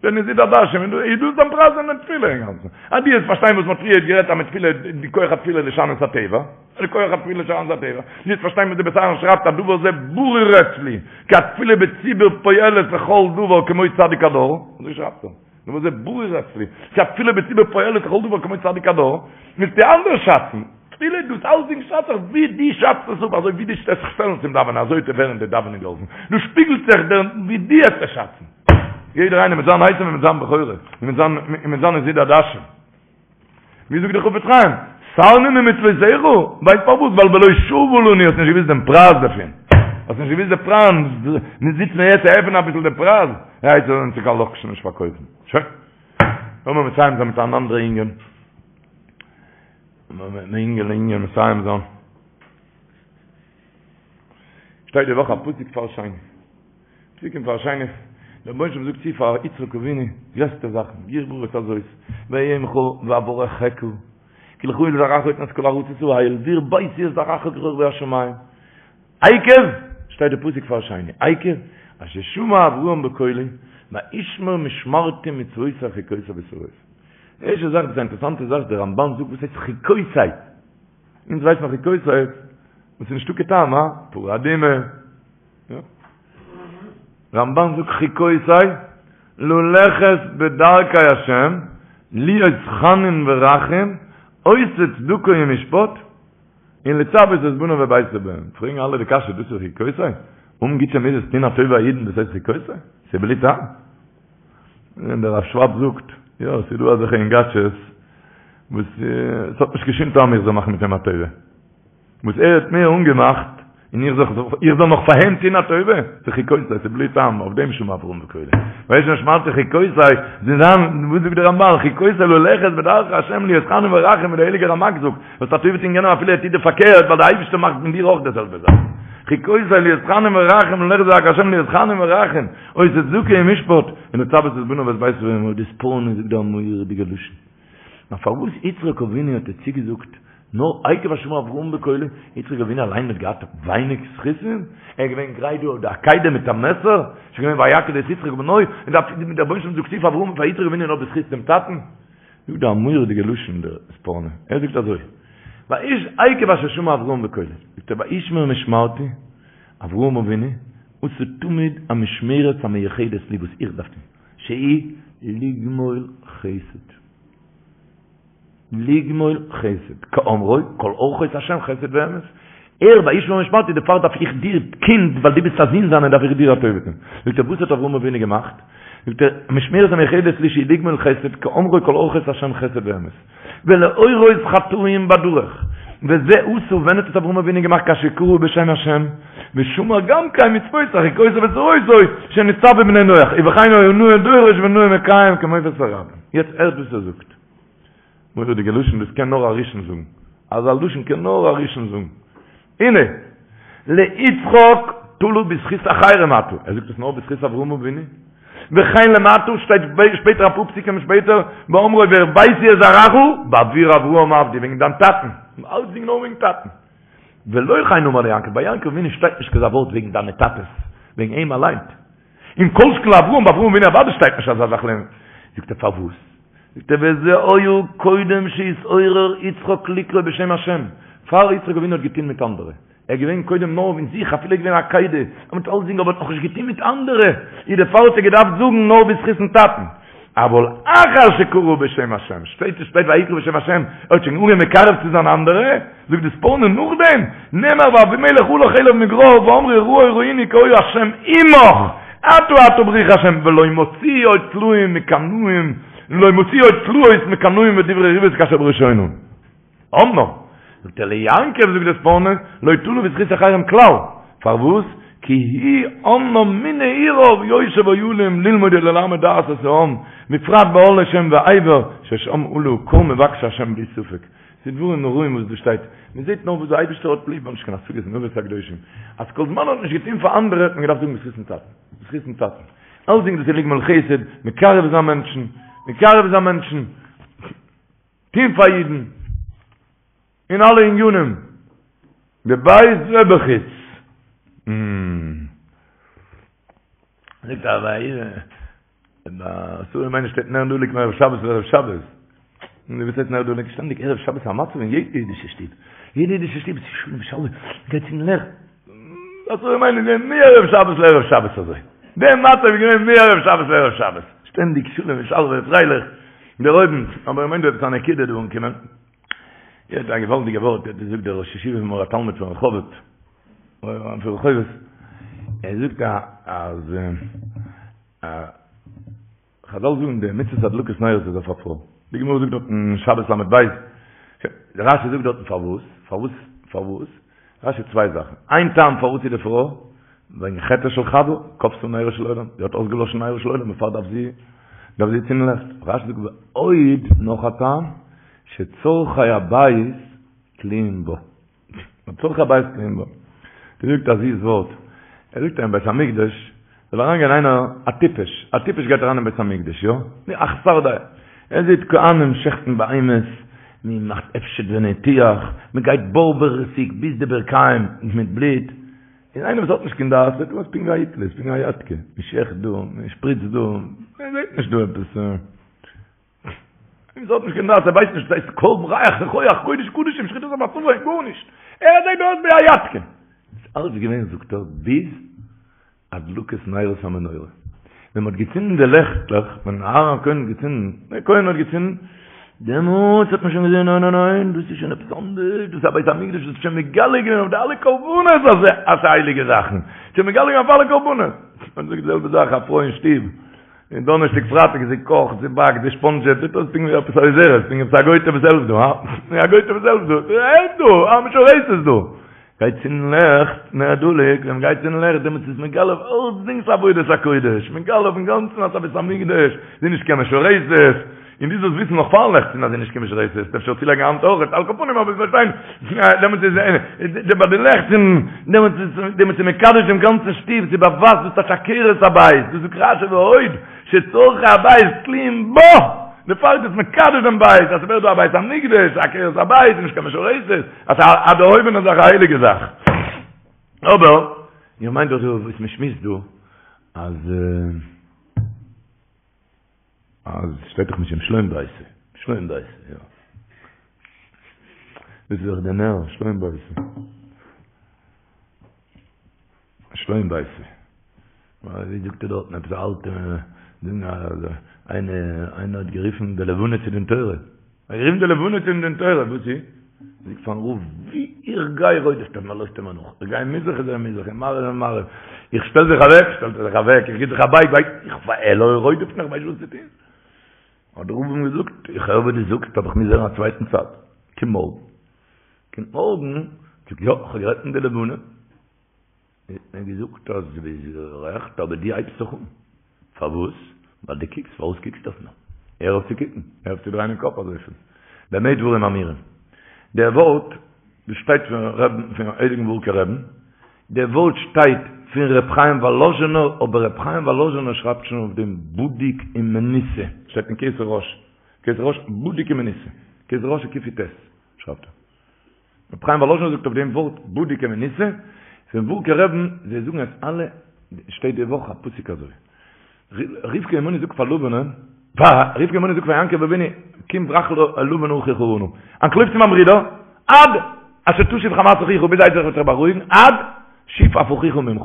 די נזיד עדשים, איז דאס דיין פרייז אין די תפילה אינגאנצן? אז דו וועסט פארשטיין וואס מ'האט פריערט גערעדט אז מיט תפילה, די כח התפילה לשנות הטבע, די כח התפילה לשנות הטבע, דו וועסט פארשטיין וואס די בית אהרן שרייבט אז דבר זה ברור אצלי, כי התפילה בציבור פועלת לכל דבר כמו צדיק הדור, אזוי שרייבט ער, דבר זה ברור אצלי, כי התפילה בציבור פועלת לכל דבר כמו צדיק הדור, מוזטו אנדערש שאצן. תפילה דאס אלסדינג שאצט זיך ווי דו שאצט עס אפ, אזוי ווי דו וועסט זיך שטעלן צום דאווענען אזוי וועט ווערן די דאווענען געהאלפן, דא שפיגלט זיך דער ווי דו וועסט עס שאצן. יעדער איינער מיט זיין עשו און מיט זיין בכורה, און מיט זיין און מיט זיין נזיד עדשים. ווי זאגט דער חפץ חיים, סרנו ממצוותיך, ווייסט פארוואס? ווייל בלא שוה לנו האסט נישט געוואוסט דעם פרייז דערפון. האסט נישט געוואוסט די פרייז, מיר זיצן יעצט צו עפענען אביסל די פרייז, ער הייסט זאל אונז קיין לאקשן נישט פארקויפן. שוין. לאמיר מסיים זיין מיט אן אנדערע ענין. לאמיר מיט אן ענין מסיים זיין. שטייט די וואך א פסוק פאר שני. פסוק אין פר' שני, דער רבונו של עולם זאגט צו פאר יצחק אבינו, גרעסטע זאכן, גרבה הארץ הזאת, ואהיה עמך ואברכך, כי לך ולזרעך אתן את כל הארצות האל, והרביתי את זרעך ככוכבי השמים. עקב, שטייט די פסוק פר' שני, עקב, אשר שמע אברהם בקולי, וישמר משמרתי מצוותי חוקותי ותורותי. די ערשטע זאך, דאס איז א אינטערעסאנטע זאך, דער רמבן זאגט וואס הייסט חוקותי? אונז ווייסט מען חוקותי, וואס איז נישטא קיין טעם, הא? פרה אדומה. רמבן זאגט חוקותי ללכת בדרכי השם להיות חנון ורחום עושה צדקה ומשפט און לצוות את בניו וביתו בהם פרעגן אלע די קשיא דאס איז חוקותי? האבן גוטע מידות טון א טובה א אידן דאס הייסט חוקותי? ס'איז בלי טעם? און דער רב שוואב זאגט יא ס'איז דא אזעלכע אינגאטשעס וואס ס'האט נישט קיין שום טעם איך זאל מאכן מיט אים א טובה וואס ער האט מיר אנגעמאכט, און איך זאל איך זאל נאך פאר אים טון א טובה? ס'איז חוקותי, ס'איז בלי טעם, אויף דעם שמע אברהם בקולי. וישמר משמרתי חוקותי, זיי זיין, וואס זאגט דער רמבן, חוקותי ללכת בדרכי השם להיות חנון ורחום, ווי דער הייליגער רמק זאגט, וועסט א טובה טון יענעם אפילו ער טוט דיר פארקערט, ווייל דער אייבערשטער מאכט מיט דיר אויך די זעלבע זאך. חוקותי להיות חנון ורחום, ללכת בדרכי השם להיות חנון ורחום, עושה צדקה ומשפט, און לצוות את בניו ואת ביתו בהם, די ספורנו זאגט דא א מורא'דיגע לשון. נאר פארוואס יצחק אבינו האט ער צוגעזאגט נאר עקב אשר שמע אברהם בקולי, יצחק אבינו אליין האט געהאט ווייניג זכותים? ער איז געווען גרייט דא אויף די עקידה מיט א מעסער, ס'איז געווען ויעקד את יצחק בנו, און דער רבונו של עולם זאגט צו פאר אברהם פאר יצחק אבינו נאר בזכות דעם טאטן? זאגט דא א מורא'דיגע לשון דער ספורנו, ער זאגט אזוי, ויש עקב אשר שמע אברהם בקולי, זאגט ער וישמר משמרתי, אברהם אבינו, עשה תמיד המשמרת המיוחדת לי וואס איך דארף טון, שהיא לגמול חסד. לגמול חסד, כאמרו, כל אורחות השם חסד ואמת. ער, וישמר משמרתי, דערפאר דארף איך דיר, קינד, ווייל דו ביסט א זון זיינער, דארף איך דיר א טובה טון. זאגט ער, וואס האט אברהם אבינו געמאכט? זאגט ער, משמרת המיוחדת לי שהיא לגמול חסד, כאמרו כל אורחות השם חסד ואמת. ולהורות חטאים בדרך. וזה עשה, ווען האט עס אברהם אבינו געמאכט כאשר קרא בשם השם, ושמר גם כן מצותי חוקותי ותורותי שנצטוו בני נח, ובכן היה נאה דורש ונאה מקיים כמופת הרבים. יעצט הערט וואס ער זאגט. מורא'דיגע לשון, דאס קען נאר א ראשון זאגן. אזא לשון קען נאר א ראשון זאגן. הנה, ליצחק תלה בזכות אחרים אתה. ער זאגט עס נאר בזכות אברהם אבינו. וכן למטה שטייט שפעטער אפאר פסוקים שפעטער, באמרו והרביתי את זרעך בעבור אברהם עבדי, וועגן דיין טאטן. אלצדינג נאר וועגן טאטן. ולא כן אמר ליעקב, ביי יעקב אבינו שטייט נישט כזה ווארט וועגן דיינע טאטעס, וועגן אים אליין. און כל שכן לאברהם, ביי אברהם אבינו אוודאי שטייט נישט אזא זאך לערנען. זאגט ער פארוואס? זאגט ער וזה היה קודם שהתעורר יצחק לקרוא בשם השם, פאר יצחק אבינו האט געטון מיט אנדערע, ער איז געווען קודם נאר אין זיך, אפילו ער איז געווען עקידה, ער מיט אלסדינג אבער האט נאכנישט געטון מיט אנדערע, איז דערפאר האט ער געדארפט זאגן נאר בזכות'ן טאטן. אבל אחר שקרא בשם השם, שטייט עס שטייט ויקרא בשם השם, ער האט שוין אנגעהויבן מקרב צו זיין אנדערע, זאגט די ספורנו נאכדעם, נאמר ואבימלך הלך אליו מגרר ואמרו ראה ראינו כי היה השם עמך, אתה אתה ברוך השם, ולא מוציאו עוד תלאים מקנאים, לא מוציאו עוד תלאות מקנאים ודברי ריבות כאשר בראשונה. אמנם, זאגט ער ליעקב זאגט די ספורנו, לא תלה בזכות אחרים כלל, פארוואס? כי הוא אמנם מנעוריו יושב אוהלים ללמוד וללמד דעת את העם, בפרט באהלי שם ועבר, ששם עלו כל מבקשי השם בלי ספק. ס'איז דברים נוראים וואס דא שטייט, מען זעט נאר וואס דער אייבערשטער האט ליב, נישט קיין השגות אין אבות הקדושים, אז כל זמן מען האט נישט געטון פאר אנדערע האט מען געדארפט זאגן בזכות'ן טאטן, בזכות'ן טאטן, אלסדינג דאס איז לגמול חסד, מקרב זיין מענטשן, מקרב זיין מענטשן. טוהן פאר אידן אין אלע עניינים, בבית ובחוץ. זאגט א ביי שרה אמנו שטייט נר דלוק מערב שבת לערב שבת. און וואס הייסט נר דלוק? שטענדיג ערב שבת א מצב אין יעדע אידישע שטוב. יעדע אידישע שטוב איז שלום ושלווה, מ'גייט צום לעכט. שרה אמנו איז געווען מערב שבת לערב שבת אזוי. דער מצב איז געווען מערב שבת לערב שבת. שטענדיג שלום ושלווה פרייליך. דערהויבן, אבער איך מיין דא עפעס א נקודה דא אנקומען. יעצט א געוואלדיגע ווארט האט געזאגט דער ראש ישיבה פון מאור התלמוד פון רחובות, פון רחובות, ער זאגט אז חזל זאגן די מצוות הדלקת נרות איז אויף א פרוי. די גמרא זאגט דארט אין שבת ל"ב, רשי זאגט דארטן פארוואס, פארוואס, פארוואס, רשי צוויי זאכן, איין טעם פארוואס איז די פרוי, וועגן חטאה של חוה, כבתה נרו של עולם, זי האט אויסגעלאשן נרו של עולם, דערפאר דארף זי, דארף זי צינדן לעכט. רשי זאגט ועוד, נאך א טעם, שצרכי הבית תלויים בה. צרכי הבית תלויים בה. ער זאגט א זיס ווארט, ער זאגט אין בית המקדש, זאל אריינגיין איינער א טיפש, א טיפש גייט אריין אין בית המקדש, יא? א חסר דעה. ער זעט כהנים שעכטן בהמות, מען מאכט הפשט וניתוח, מען גייט בארוועסיג ביז די ברכיים מיט בלוט, און איינער וואס האט נישט קיין דעת זעט אויס פונקט ווי א היטלער, פונקט ווי א יאטקע, מען שעכט דא, מען שפריצט דא, מען זעט נישט דא עפעס. איינער וואס האט נישט קיין דעת, ער ווייסט נישט וואס הייסט קרבן ריח ניחוח קודש קדשים שחיטת המצבה, גארנישט. ער זעט אויס ווי א יאטקע. איז אלץ געווען זאגט ער ביז הדלקת נרות המנורה. ווען מ'האט געצינדן די לעכטלעך, ווען אהרן הכהן האט געצינדן, דער כהן האט געצינדן, דעמאלטס האט מען שוין געזען, ניין ניין ניין, דאס איז שוין עפעס אנדערש, דאס איז א בית המקדש, דאס איז שוין מגלה געווען אויף די אלע קרבנות אז ס'איז הייליגע זאכן, שוין מגלה געווען אויף אלע קרבנות. מען זאגט די זעלבע זאך, א פרוי אין שטוב, און דאנערשטאג פרייטאג זי קאכט, זי באקט, זי שפאנדזשעט, זעט אויס פונקט ווי עפעס א עוזרת, פונקט עפעס א גויטע וואס העלפט דא, הא? א גויטע וואס העלפט דא, העלפט דא, א משרתת דא. גייט צינדן לעכט, נר דלוק, ווען מ'גייט צינדן לעכט דעמאלטס איז מגלה אויף אלצדינג ס'עבודת הקודש, מגלה אויפן גאנצן אז ס'א בית המקדש, זי איז נישט קיין משרתת, און דו זאלסט וויסן נאך פארן לעכט צינדן אז זי איז נישט קיין משרתת, אפשר צולייגן א האנט אויך, על כל פנים אבער פארשטיין, דעמאלטס איז ביי די לעכט צינדן, דעמאלטס איז דעמאלטס איז מקדש דעם גאנצן שטוב, ס'באווייזט דאס טייטש עקרת הבית, דאס זאגט רשי ועוד, שצרכי הבית תלויים בה, דערפאר איז דאס מקדש דעם בית, אז ס'ווערט דא א בית המקדש, עקרת הבית, נישט קיין משרתת. אז א דערהויבענע זאך א הייליגע זאך. אבער, איך מיין דאך דא וואס מען שמועסט דא, אז אז שטייט דאך משום שלום ביתו. שלום בית, יא. דאס איז דאך דער נער, שלום בית. שלום בית. ווי זאגט ער דארטן עפעס א אלטע דינג אז איינער איינער האט גערופן די לבנה צו דין תורה. ער האט גערופן די לבנה צו דין תורה, וואס איז? זאגט פארן רב, ווי איך גיי רודפ'ט ער מיר, לויפט ער מיר נאך. איך גיי מזרח איז ער מזרח, און מערב איז ער מערב. איך שטעל זיך אוועק, שטעלט ער זיך אוועק, איך גיב זיך א בייג, בייגט איך, ער רודפ'ט מיך, כ'ווייס נישט וואס צו טון. האט דער רב אים געזאגט, איך הער וואס דו זאגסט, אבער איך מוז הערן א צווייטן צד. קום מארגן. קומט מארגן, זאגט יא, איך האב גערעדט מיט די לבנה. האט מיר געזאגט אז דו ביסט גערעכט, אבער דו הייבסט זיך אן. פארוואס? ווייל דו קוקסט, פארוואס קוקסטו אויף מיר? הער אויף צו קוקן, הער אויף צו דרייען דעם קאפ אזויפיל. במה דברים אמורים? דער ווארט, דאס שטייט פון רבין, פון הייליגן ווארקער רבין, דער ווארט שטייט פון ר' חיים וואלאזשינער, אבער ר' חיים וואלאזשינער שרייבט שוין אויף דעם בדוק ומנוסה, שטייט אין כתר ראש, כתר ראש בדוק ומנוסה, כתר ראש קי"ט שרייבט ער. ר' חיים וואלאזשינער זאגט אויף דעם ווארט בדוק ומנוסה, פון ווארקער רבין, זיי זאגן עס אלע, שטייט די וואך א פסוק אזוי, רבקה אמנו זאגט פאר לבנ'ען, רבקה אמנו זאגט פאר יעקב אבינו, קום ברח אל לבן אחי חרנה, אנטלויף צו מיין ברודער, עד אשר תשוב חמת אחיך, ביז עשו וועט זיך בארואיגן, עד שוב אף אחיך ממך,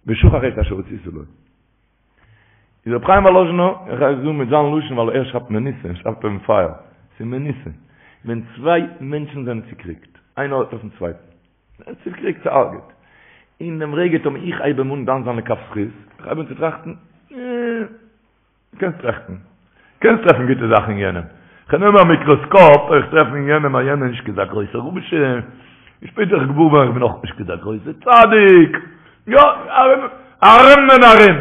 ושכח את אשר עשית לו. איז רבי חיים וואלאזשינער, איך גיי עס זאגן מיט זיין לשון ווייל ער שרייבט מנוסה, ער שרייבט אויפן פייער, ס'איז מנוסה, ווען צוויי מענטשן זענען צוקריגט, איינער האט אויפן צווייטן, צוקריגט, צוהרג'עט, אין דעם רגע טאמער איך הייב אים אן דן זיין לכף זכות, איך הייב אן צו טראכטן, אה, קענסט טראכטן, קענסט טרעפן גוטע זאכן אין יענעם, כ'נעם א מיקראסקאפ, איך טרעף אין יענעם אז יענער איז נישט כזה גרויסער רשע, און שפעטער איך געוואר ווערן איך בין אויך נישט כזה גרויסער צדיק, יא, ארום ארום און ארום.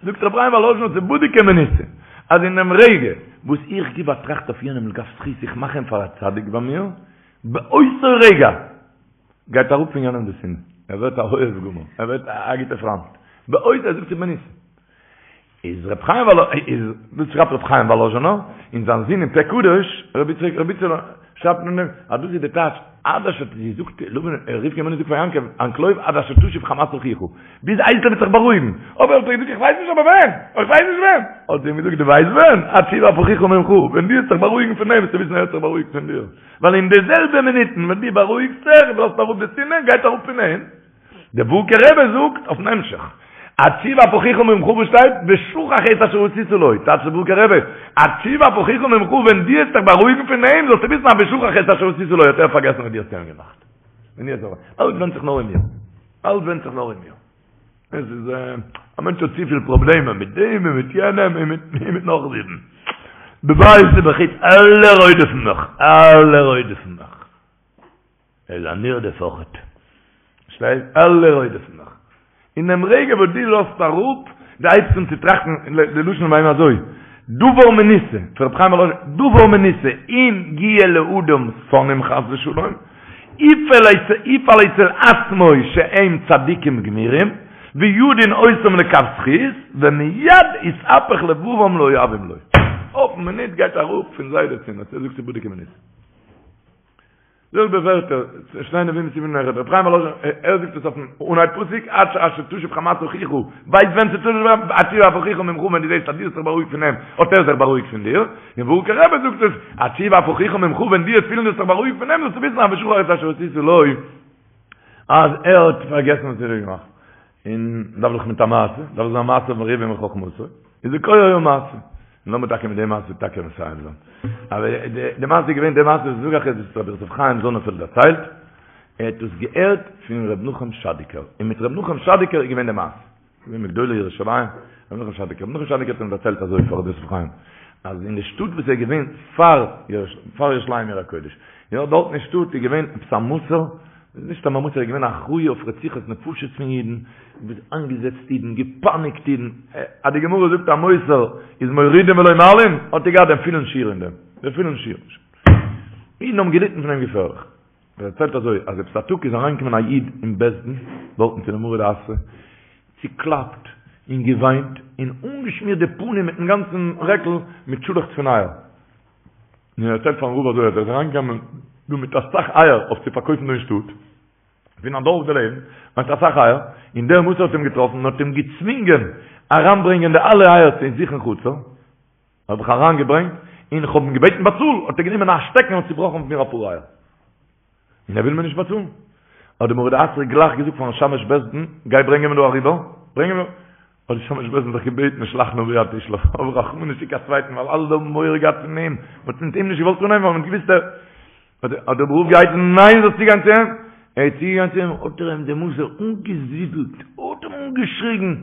זאגט רבי חיים וואלאזשינער ס'איז בדוק ומנוסה, אז אין דעם רגע וואס איך גיב א טראכט אויף יענעם לכף זכות, איך מאך אים פאר א צדיק ביי מיר, באותו רגע גייט אראפ פון יענעם די שנאה, ער ווערט א אוהב גמור, ער ווערט א גוטער פריינט, באותו, ער זאגט ס'איז מנוסה. איז רבי חיים וואלא איז דאס שרייבט רבי חיים וואלאזשינער און זיין זון אין פה קדוש רבי יצחק רבי איצעלע שרייבט אין דעם אז דאס איז די טייטש עד אשר זי זאגט לבן רבקה אמנו זאגט פאר יעקב אנטלויף עד אשר תשוב חמת אחיך ביז עשו וועט זיך בארואיגן אבער האט ער געזאגט איך ווייס נישט אבער ווען איך ווייס נישט ווען האט זי אים געזאגט דו ווייסט ווען עד שוב אף אחיך ממך ווען דו וועסט זיך בארואיגן פון אים וועסטו וויסן ער האט זיך בארואיגט פון דיר ווייל אין די זעלבע מינוטן ווען דו בארואיגסט זיך און לאזט אראפ די שנאה גייט אראפ פון אים דער ווארקער רבי זאגט אויפן המשך, עד שוב אף אחיך ממך וואס שטייט ושכח את אשר עשית לו, טייטשט דער ווארקער רבי, עד שוב אף אחיך ממך ווען דו וועסט זיך בארואיגן פון אים זאלסטו וויסן אז ושכח את אשר עשית לו האט ער פארגעסן וואס דו האסט אים געמאכט. ווען דו האסט אלץ ווענדט זיך נאר אין מיר. אלץ ווענדט זיך נאר אין מיר. עס איז א מענטש האט צופיל פראבלעמען מיט דעם און מיט יענעם און מיט נאך זיבן. בבית ובחוץ אלע רודפ'ן מיך, אלע רודפ'ן מיך. ער איז א נרדף אויכעט. שטייט אלע רודפ'ן מיך. אין דעם רגע וואס דו לאזט אראפ, דו הייבסט אן צו טראכטן, די לשון ביי אים אזוי, דבר מנוסה, פון רבי חיים וואלאזשין, דבר מנוסה, אם יהיה לאדם שונאים חס ושלום, יפעל אצל עצמו שהם צדיקים גמורים, וידון אותם לכף זכות, ומיד יתהפך לבבם לאוהבים לו. אויפן מינוט גייט אראפ פון זיי די שנאה, אזוי זאגט בדוק ומנוסה. זעלבע ווערטער, שני נביאים סימן נכד, רבי חיים וואלאזשין, ער זאגט עס אויפן אנהייב פסוק, עד אשר תשוב חמת אחיך, ווייסט ווען ס'תשוב עד שוב אף אחיך ממך, ווען דו זעסט אז דו האסט זיך בארואיגט פון אים, האט ער זיך בארואיגט פון דיר, און ווארקער רבי זאגט עס, עד שוב אף אחיך ממך, ווען דו וועסט פילן דו האסט זיך בארואיגט פון אים, זאלסטו וויסן אז ושכח את אשר עשית לו, אז ער האט פארגעסן וואס ער האט געמאכט. און דארף דאך מיט א מעשה, דארף זיין מעשה מרובים מחכמתו, איז די כח היה מעשה. און לאמיר טאקע מיט די מעשה טאקע מסיים זיין. אבער די מעשה איז געווען, די מעשה וואס זאג איך איז וואס רבי יוסף חיים זאנענפעלד דערציילט, ער האט דאס געהערט פון ר' נחום שאדיקער, און מיט ר' נחום שאדיקער איז געווען די מעשה. געווען מגדולי ירושלים, ר' נחום שאדיקער. ר' נחום שאדיקער האט אים דערציילט אזוי פאר רבי יוסף חיים, אז אין די שטאט וואס ער איז געווען פאר פאר ירושלים עיר הקודש, יא, דארט אין שטאט איז געווען עפעס א מסור, נישט סתם א מסור, ער איז געווען אחראי אויף רציחת נפשות פון אידן, איינגעזעצט אידן, געפייניגט אידן, אז די גמרא זאגט א מוסר איז מורידין ולא מעלין, האט ער געהאט דעם פולן שיעור אין דעם, דעם פולן שיעור. אידן האבן געליטן פון אים געפערליך. ער דערציילט אזוי, אז עפעס א טאג איז אריינגעקומען א איד אין בית דין, דארטן צו די מרא דאתרא, צוקלאפט און געוויינט, און אנגעשמירט די פנים מיטן גאנצן רעקל מיט שאלעכץ פון אייער. און ער דערציילט פארן רב אזוי אז ער איז אריינגעקומען דא מיט אסאך אייער אויף צו פארקויפן דא אין שטאט, פון א דארף דערלעבן, מיט אסאך אייער, און דער מסור האט אים געטראפן און האט אים געצווינגען אריינברענגען די אלע אייער צו זיך אין חצר, האב איך אריינגעברענגט, און איך האב אים געבעטן באצאל, האט ער גענומען א שטעקן און צובראכן אויף מיר אפאר אייער. און ער וויל מיר נישט באצאלן. האט דער מרא דאתרא גלייך געזאגט פארן שמש בית דין, גיי ברענג אים דא אריבער, ברענג אים דא. האט די שמש בית דין זיך געבעטן, שלח נא ביד תשלח, האב רחמנות שיק א צווייטן, ווייל אלע האבן מורא געהאט פון אים, מען האט מיט אים נישט געוואלט אנהייבן ווייל מען האט געוואוסט ער. האט דער רב געהייסן, ניין זאלסט צוגיין צו אים. ער איז צוגעגאנגען צו אים, האט ער אים דער מסור אנגעזידלט, האט אים אנגעשריגן,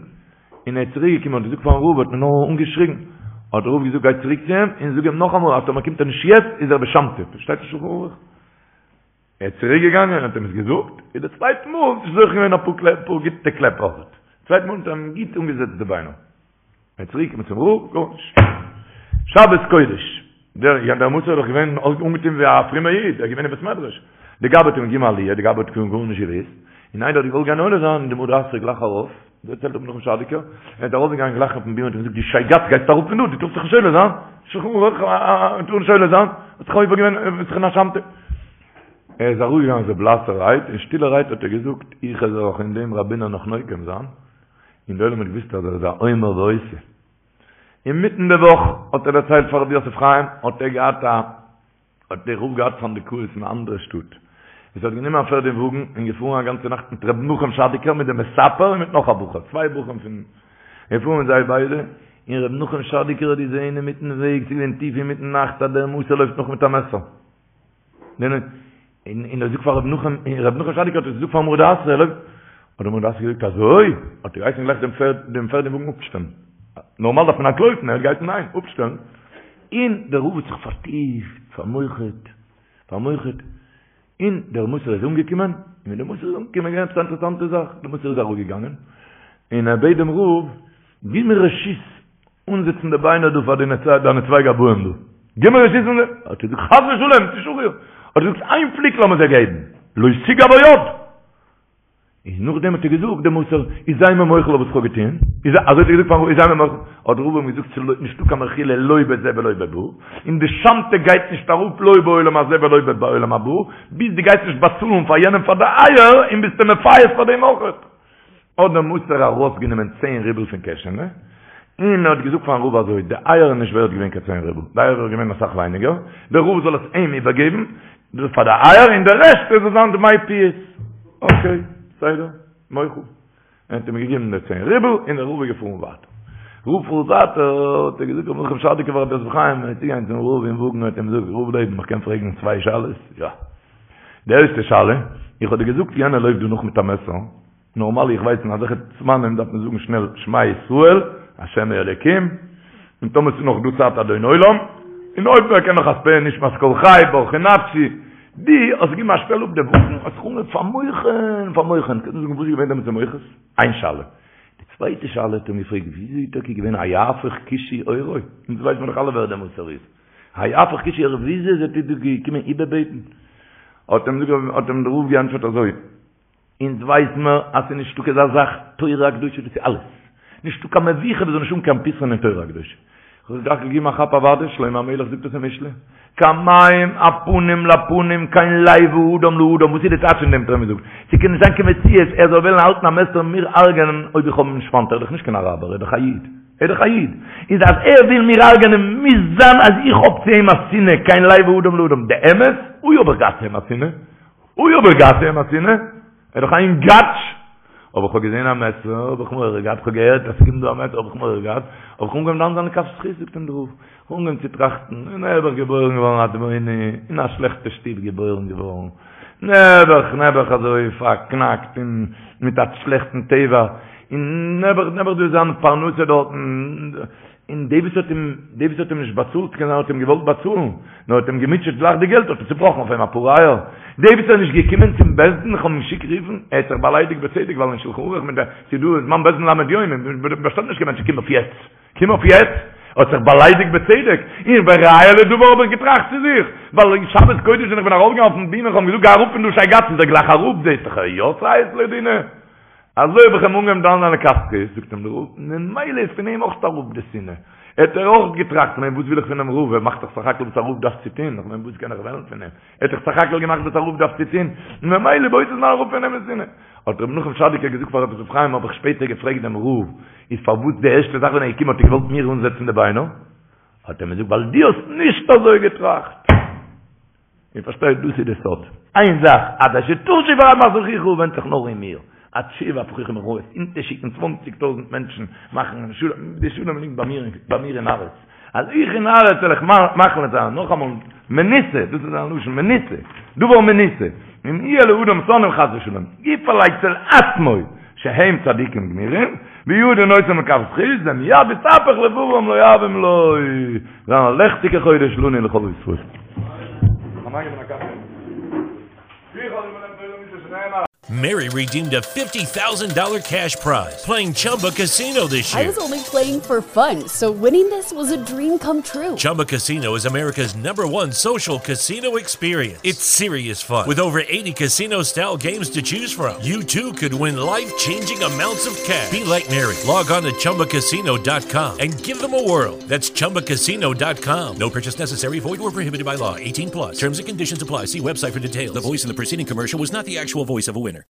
און ער איז צוריק געקומען האט געזאגט פארן רב האט מען נאר אנגעשריגן, האט דער רב געזאגט גיי צוריק צו אים און זאג אים נאכאמאל אז טאמער קומט ער נישט יעצט איז ער בשמתא, שטייט אין שלחן ערוך. ער איז צוריק געגאנגען און האט אים עס געזאגט, און די צווייטע מאל האט זיך זוכה געווען אפאר קלעפ, אפאר גוטע קלעפ אויך, צווייטע מאל האט ער אים גוט אנגעזעצט די ביינער. ער איז צוריק געקומען צום רב, גארנישט. שבת קודש, דער יא דער מסור איז דאך געווען אנגעטון ווי א פרומער איד, ער איז געווען אין בית מדרש. די גבאי האט אים געגעבן עליה, די גבאי האט גארנישט געוואוסט, און איינער האט געוואלט גיין עולה זיין, און די מרא דאתרא גלייך ארויף, דערציילט רבי נחום שאדיקער, ער איז ארויפגעגאנגען גלייך אויפן בימה און האט אים געזאגט, דו שייגעץ גייסט אראפ פון דא, דו טארסט זיך נישט עולה זיין, שולחן ערוך, טאר נישט עולה זיין, האט זיך עובר געווען, ביסט דאך אין א שמתא. ער איז אראפגעגאנגען אזוי בלאסערהייט, און שטילערהייט האט ער געזאגט, איך וועל זיך אין דעם ראבינער נאך נוקם זיין, און די עולם האט געוואוסט אז ער איז א אומר ועושה. אינמיטן די וואך האט ער דערציילט פאר רבי יוסף חיים, האט ער געהאט א, האט דער רב געהאט סנדקאות אין א אנדערע שטאט, עס האט גענומען א פערד און וואגן און געפארן א גאנצע נאכט מיט רבי נחום שאדיקער מיט דעם מספר און מיט נאך א בחור, צוויי בחורים פון, געפארן מיט זיי ביידע, און רבי נחום שאדיקער האט געזען אינמיטן וועג, ס'איז געווען טיף אינמיטן נאכט, אז דער מסור לויפט נאך מיט א מעסער. און ער זאגט פאר רבי נחום, און רבי נחום שאדיקער האט עס געזאגט פארן מרא דאתרא, ער לויפט, האט דער מרא דאתרא געזאגט אזוי? האט ער געהייסן גלייך דעם פערד, דעם פערד און וואגן אפשטעלן. נארמאל דארף מען אנטלויפן, ער האט געהייסן ניין, אפשטעלן. און דער רב האט זיך פארטיפט, פאר'מוח'ט, פאר'מוח'ט, און דער מסור איז אנגעקומען, און ווען דער מסור איז אנגעקומען איז געווען עפעס א אינטערעסאנטע זאך, דער מסור איז אראפגעגאנגען, און ער בעט דעם רב, גיב מיר רשות אנזעצן די ביינער דא פאר דיינע צוויי גבאים דא. גיב מיר רשות אנזעצן. האט ער געזאגט חס ושלום, ס'איז שחור. האט ער געזאגט איין פליק לאמיר זיי געבן, לא תגע בו יד. און נאכדעם האט ער געזאגט דעם מסור, איז זיי מיר מוחל אויף וואס כ'האב געטון. איז אזוי האט ער געזאגט פארן רב, איז זיי מיר מוחל. האט דער רב אים געזאגט ס'איז נישטא קיין מחילה לא בזה ולא בבא, און די שמתא גייט נישט אראפ לא בעולם הזה ולא בעולם הבא, ביז דו גייסט נישט באצאלן פאר יענעם פאר די אייער, און ביסט אים מפייס פאר דעם אויכעט. האט דער מסור ארויסגענומען צען רובל פון קעשענע, און ער האט געזאגט פארן רב אזוי, די אייער איז נישט ווערט געווען קיין צען רובל, די אייער איז געווען אסאך ווייניגער, דער רב זאל עס אים איבערגעבן פאר די אייער, און די רעשט זאל זיין דמי פיוס. אקעי, בסדר, מוחל. ער האט אים געגעבן די צען רובל, און דער רב איז געפארן ווייטער. רב פארט ווייטער, האט ער געזאגט רבי נחום שאדיקער פאר רבי יוסף חיים, ער איז צוגעגאנגען צום רב אין וואגן, האט אים געזאגט, רב לעבן, איך קען פרעגן צוויי שאלות? יא. די ערשטע שאלה, איך האב דיר געזאגט יענער לויפט דא נאך מיט א מעסער, נארמאל איך ווייס אין אזעלכע זמנים דארף מען זאגן שנעל שמע ישראל השם אלוקים, און טאמער ס'איז נאך דא צייט אדון עולם, און אויב מען קען נאך אז פאה נשמת כל חי ברכי נפשי, דו האסט געגעבן א שטעל אפ די וואגן, האסט זיך אנגעהויבן פאר'מוח'ן, פאר'מוח'ן, קענסט מיר זאגן וואס איז געווען דעמאלטס די מוחות? איין שאלה. די צווייטע שאלה האט אים געפרעגט וויאזוי איז טאקע געווען היהפך כושי עורו? אונז ווייסט מיר דאך אלע ווער דער מסור איז. היהפך כושי עורו וויאזוי איז ער דא געקומען איבערבעטן? האט אים האט אים דער רב געענטפערט אזוי, אונז ווייס מיר אז ס'איז נישטא קיין אזא זאך תורה הקדושה דאס איז אלעס, נישטא קיין מבוכה וואס זאל נישט האבן קיין פתרון אין תורה הקדושה. כ'האב זיך געגעבן א כאפ אוודאי, שלמה המלך זאגט עס אין משלי, כמים הפנים לפנים כן לב האדם לאדם, וואס איז די טייטש פון דעם האט ער אים געזאגט? ס'קען נישט זיין קיין מציאות ער זאל וועלן האלטן א מעסער און מיר הרג'ענען אויב איך האב אים נישט פיינט, ער איז דאך נישט קיין אראבער, ער איז דאך א איד. ער איז דאך א איד. איז אז ער וויל מיר הרג'ענען מוז זיין אז איך האב צו אים א שנאה, כן לב האדם לאדם. די אמת? אוי האב איך געהאט צו אים א שנאה. אוי האב איך געהאט צו אים א שנאה. ער איז דאך א אינגאטש. אבער כ'האב געזען א מעסער האב איך מורא געהאט, כ'האב געהערט אז ס'קומט דא א מעסער האב איך מורא געהאט, האב איך אנגעהויבן דן זיין לכף זכות זאגט אים דער רב, כ'האב אנגעהויבן צו טראכטן, נעבעך געבוירן געווארן א אדמוני, אין א שלעכטע שטוב געבוירן געווארן, נעבעך נעבעך אזוי פארקנאקט און מיט א שלעכטן טבע, און נעבעך נעבעך דא זיין פרנסה דארטן, און די וואס האט אים די וואס האט אים נישט באצאלט קען זיין האט אים געוואלט באצאלן, נאר האט אים געמוטשעט גלייך די געלט האט ער צובראכן אויף אים אפאר אייער, די וואס איז נישט געקומען צום בית דין איך האב אים געשיקט רופן, ער האט זיך באליידיגט בצדק ווייל אין שלחן ערוך מיט די ס'איז דא זמן בית דין ל' יום און באשטעלט נישט קיין מענטשן קום אויף יעצט קום אויף יעצט, האט זיך באליידיגט בצדק, און וראיה לדבר האב איך געטראכט צו זיך, ווייל אין שבת קודש ווען איך בין ארויפגעגאנגען אויפן בימה איך האב אים געזאגט גיי אראפ פון דא שייגאץ איז ער גלייך אראפ זעהסט דאך ער יא ציית לדינא. אזוי האב איך אים אנגעהויבן דן זיין לכף זכות, זאגט אים דער רב, ממילא איז פון אים אויך אראפ די שנאה, האט ער אויך געטראכט, כ'מיין וואס וויל איך פונעם רב, ער מאכט דאך סך הכל וואס א רב דארף צו טון, כ'מיין וואס קען איך וועלן פון אים, ער האט דאך סך הכל געמאכט וואס א רב דארף צו טון, ממילא באותו זמן אראפ פון אים די שנאה. האט רבי נחום שאדיקער געזאגט פאר רבי יוסף חיים, האב איך שפעטער געפרעגט דעם רב, איז פארוואס די ערשטע זאך ווען ער איז געקומען האט ער געוואלט מיר אנזעצן די ביינער? האט ער אים געזאגט ווייל דו האסט נישט אזוי געטראכט. איר פארשטייט דאס איז די סוד. איין זאך עד אשר תשוב רמת אחיך ווענדט זיך נאר אין מיר. עד שבע פרחים רעות אונטערשיקן צוואנציג טויזנט מענטשן מאכן שלום, די שלום ליגט ביי מיר ביי מיר אין הארץ. אז איך אין הארץ וועל איך מחליט זיין, נאכאמאל, מנוסה, דאס איז זיין לשון, מנוסה, דבר מנוסה, אם יהיה לאדם שונאים חס ושלום, יפעל אצל עצמו שהם צדיקים גמורים, וידון אותם לכף זכות, ומיד יתהפך לבבם לאוהבים לו. זיין א לעכטיגע חודש לנו ולכל ישראל. Mary redeemed a $50,000 cash prize playing Chumba Casino this I year. was only playing for fun, so winning this was a dream come true. Chumba Casino is America's number one social casino experience. It's serious fun. With over 80 casino style games to choose from, you too could win life changing amounts of cash. Be like Mary. Log on to chumbacasino.com and give them a whirl. That's chumbacasino.com. No purchase necessary, void or prohibited by law. 18 plus. Terms and conditions apply. See website for details. The voice in the preceding commercial was not the actual voice of a winner.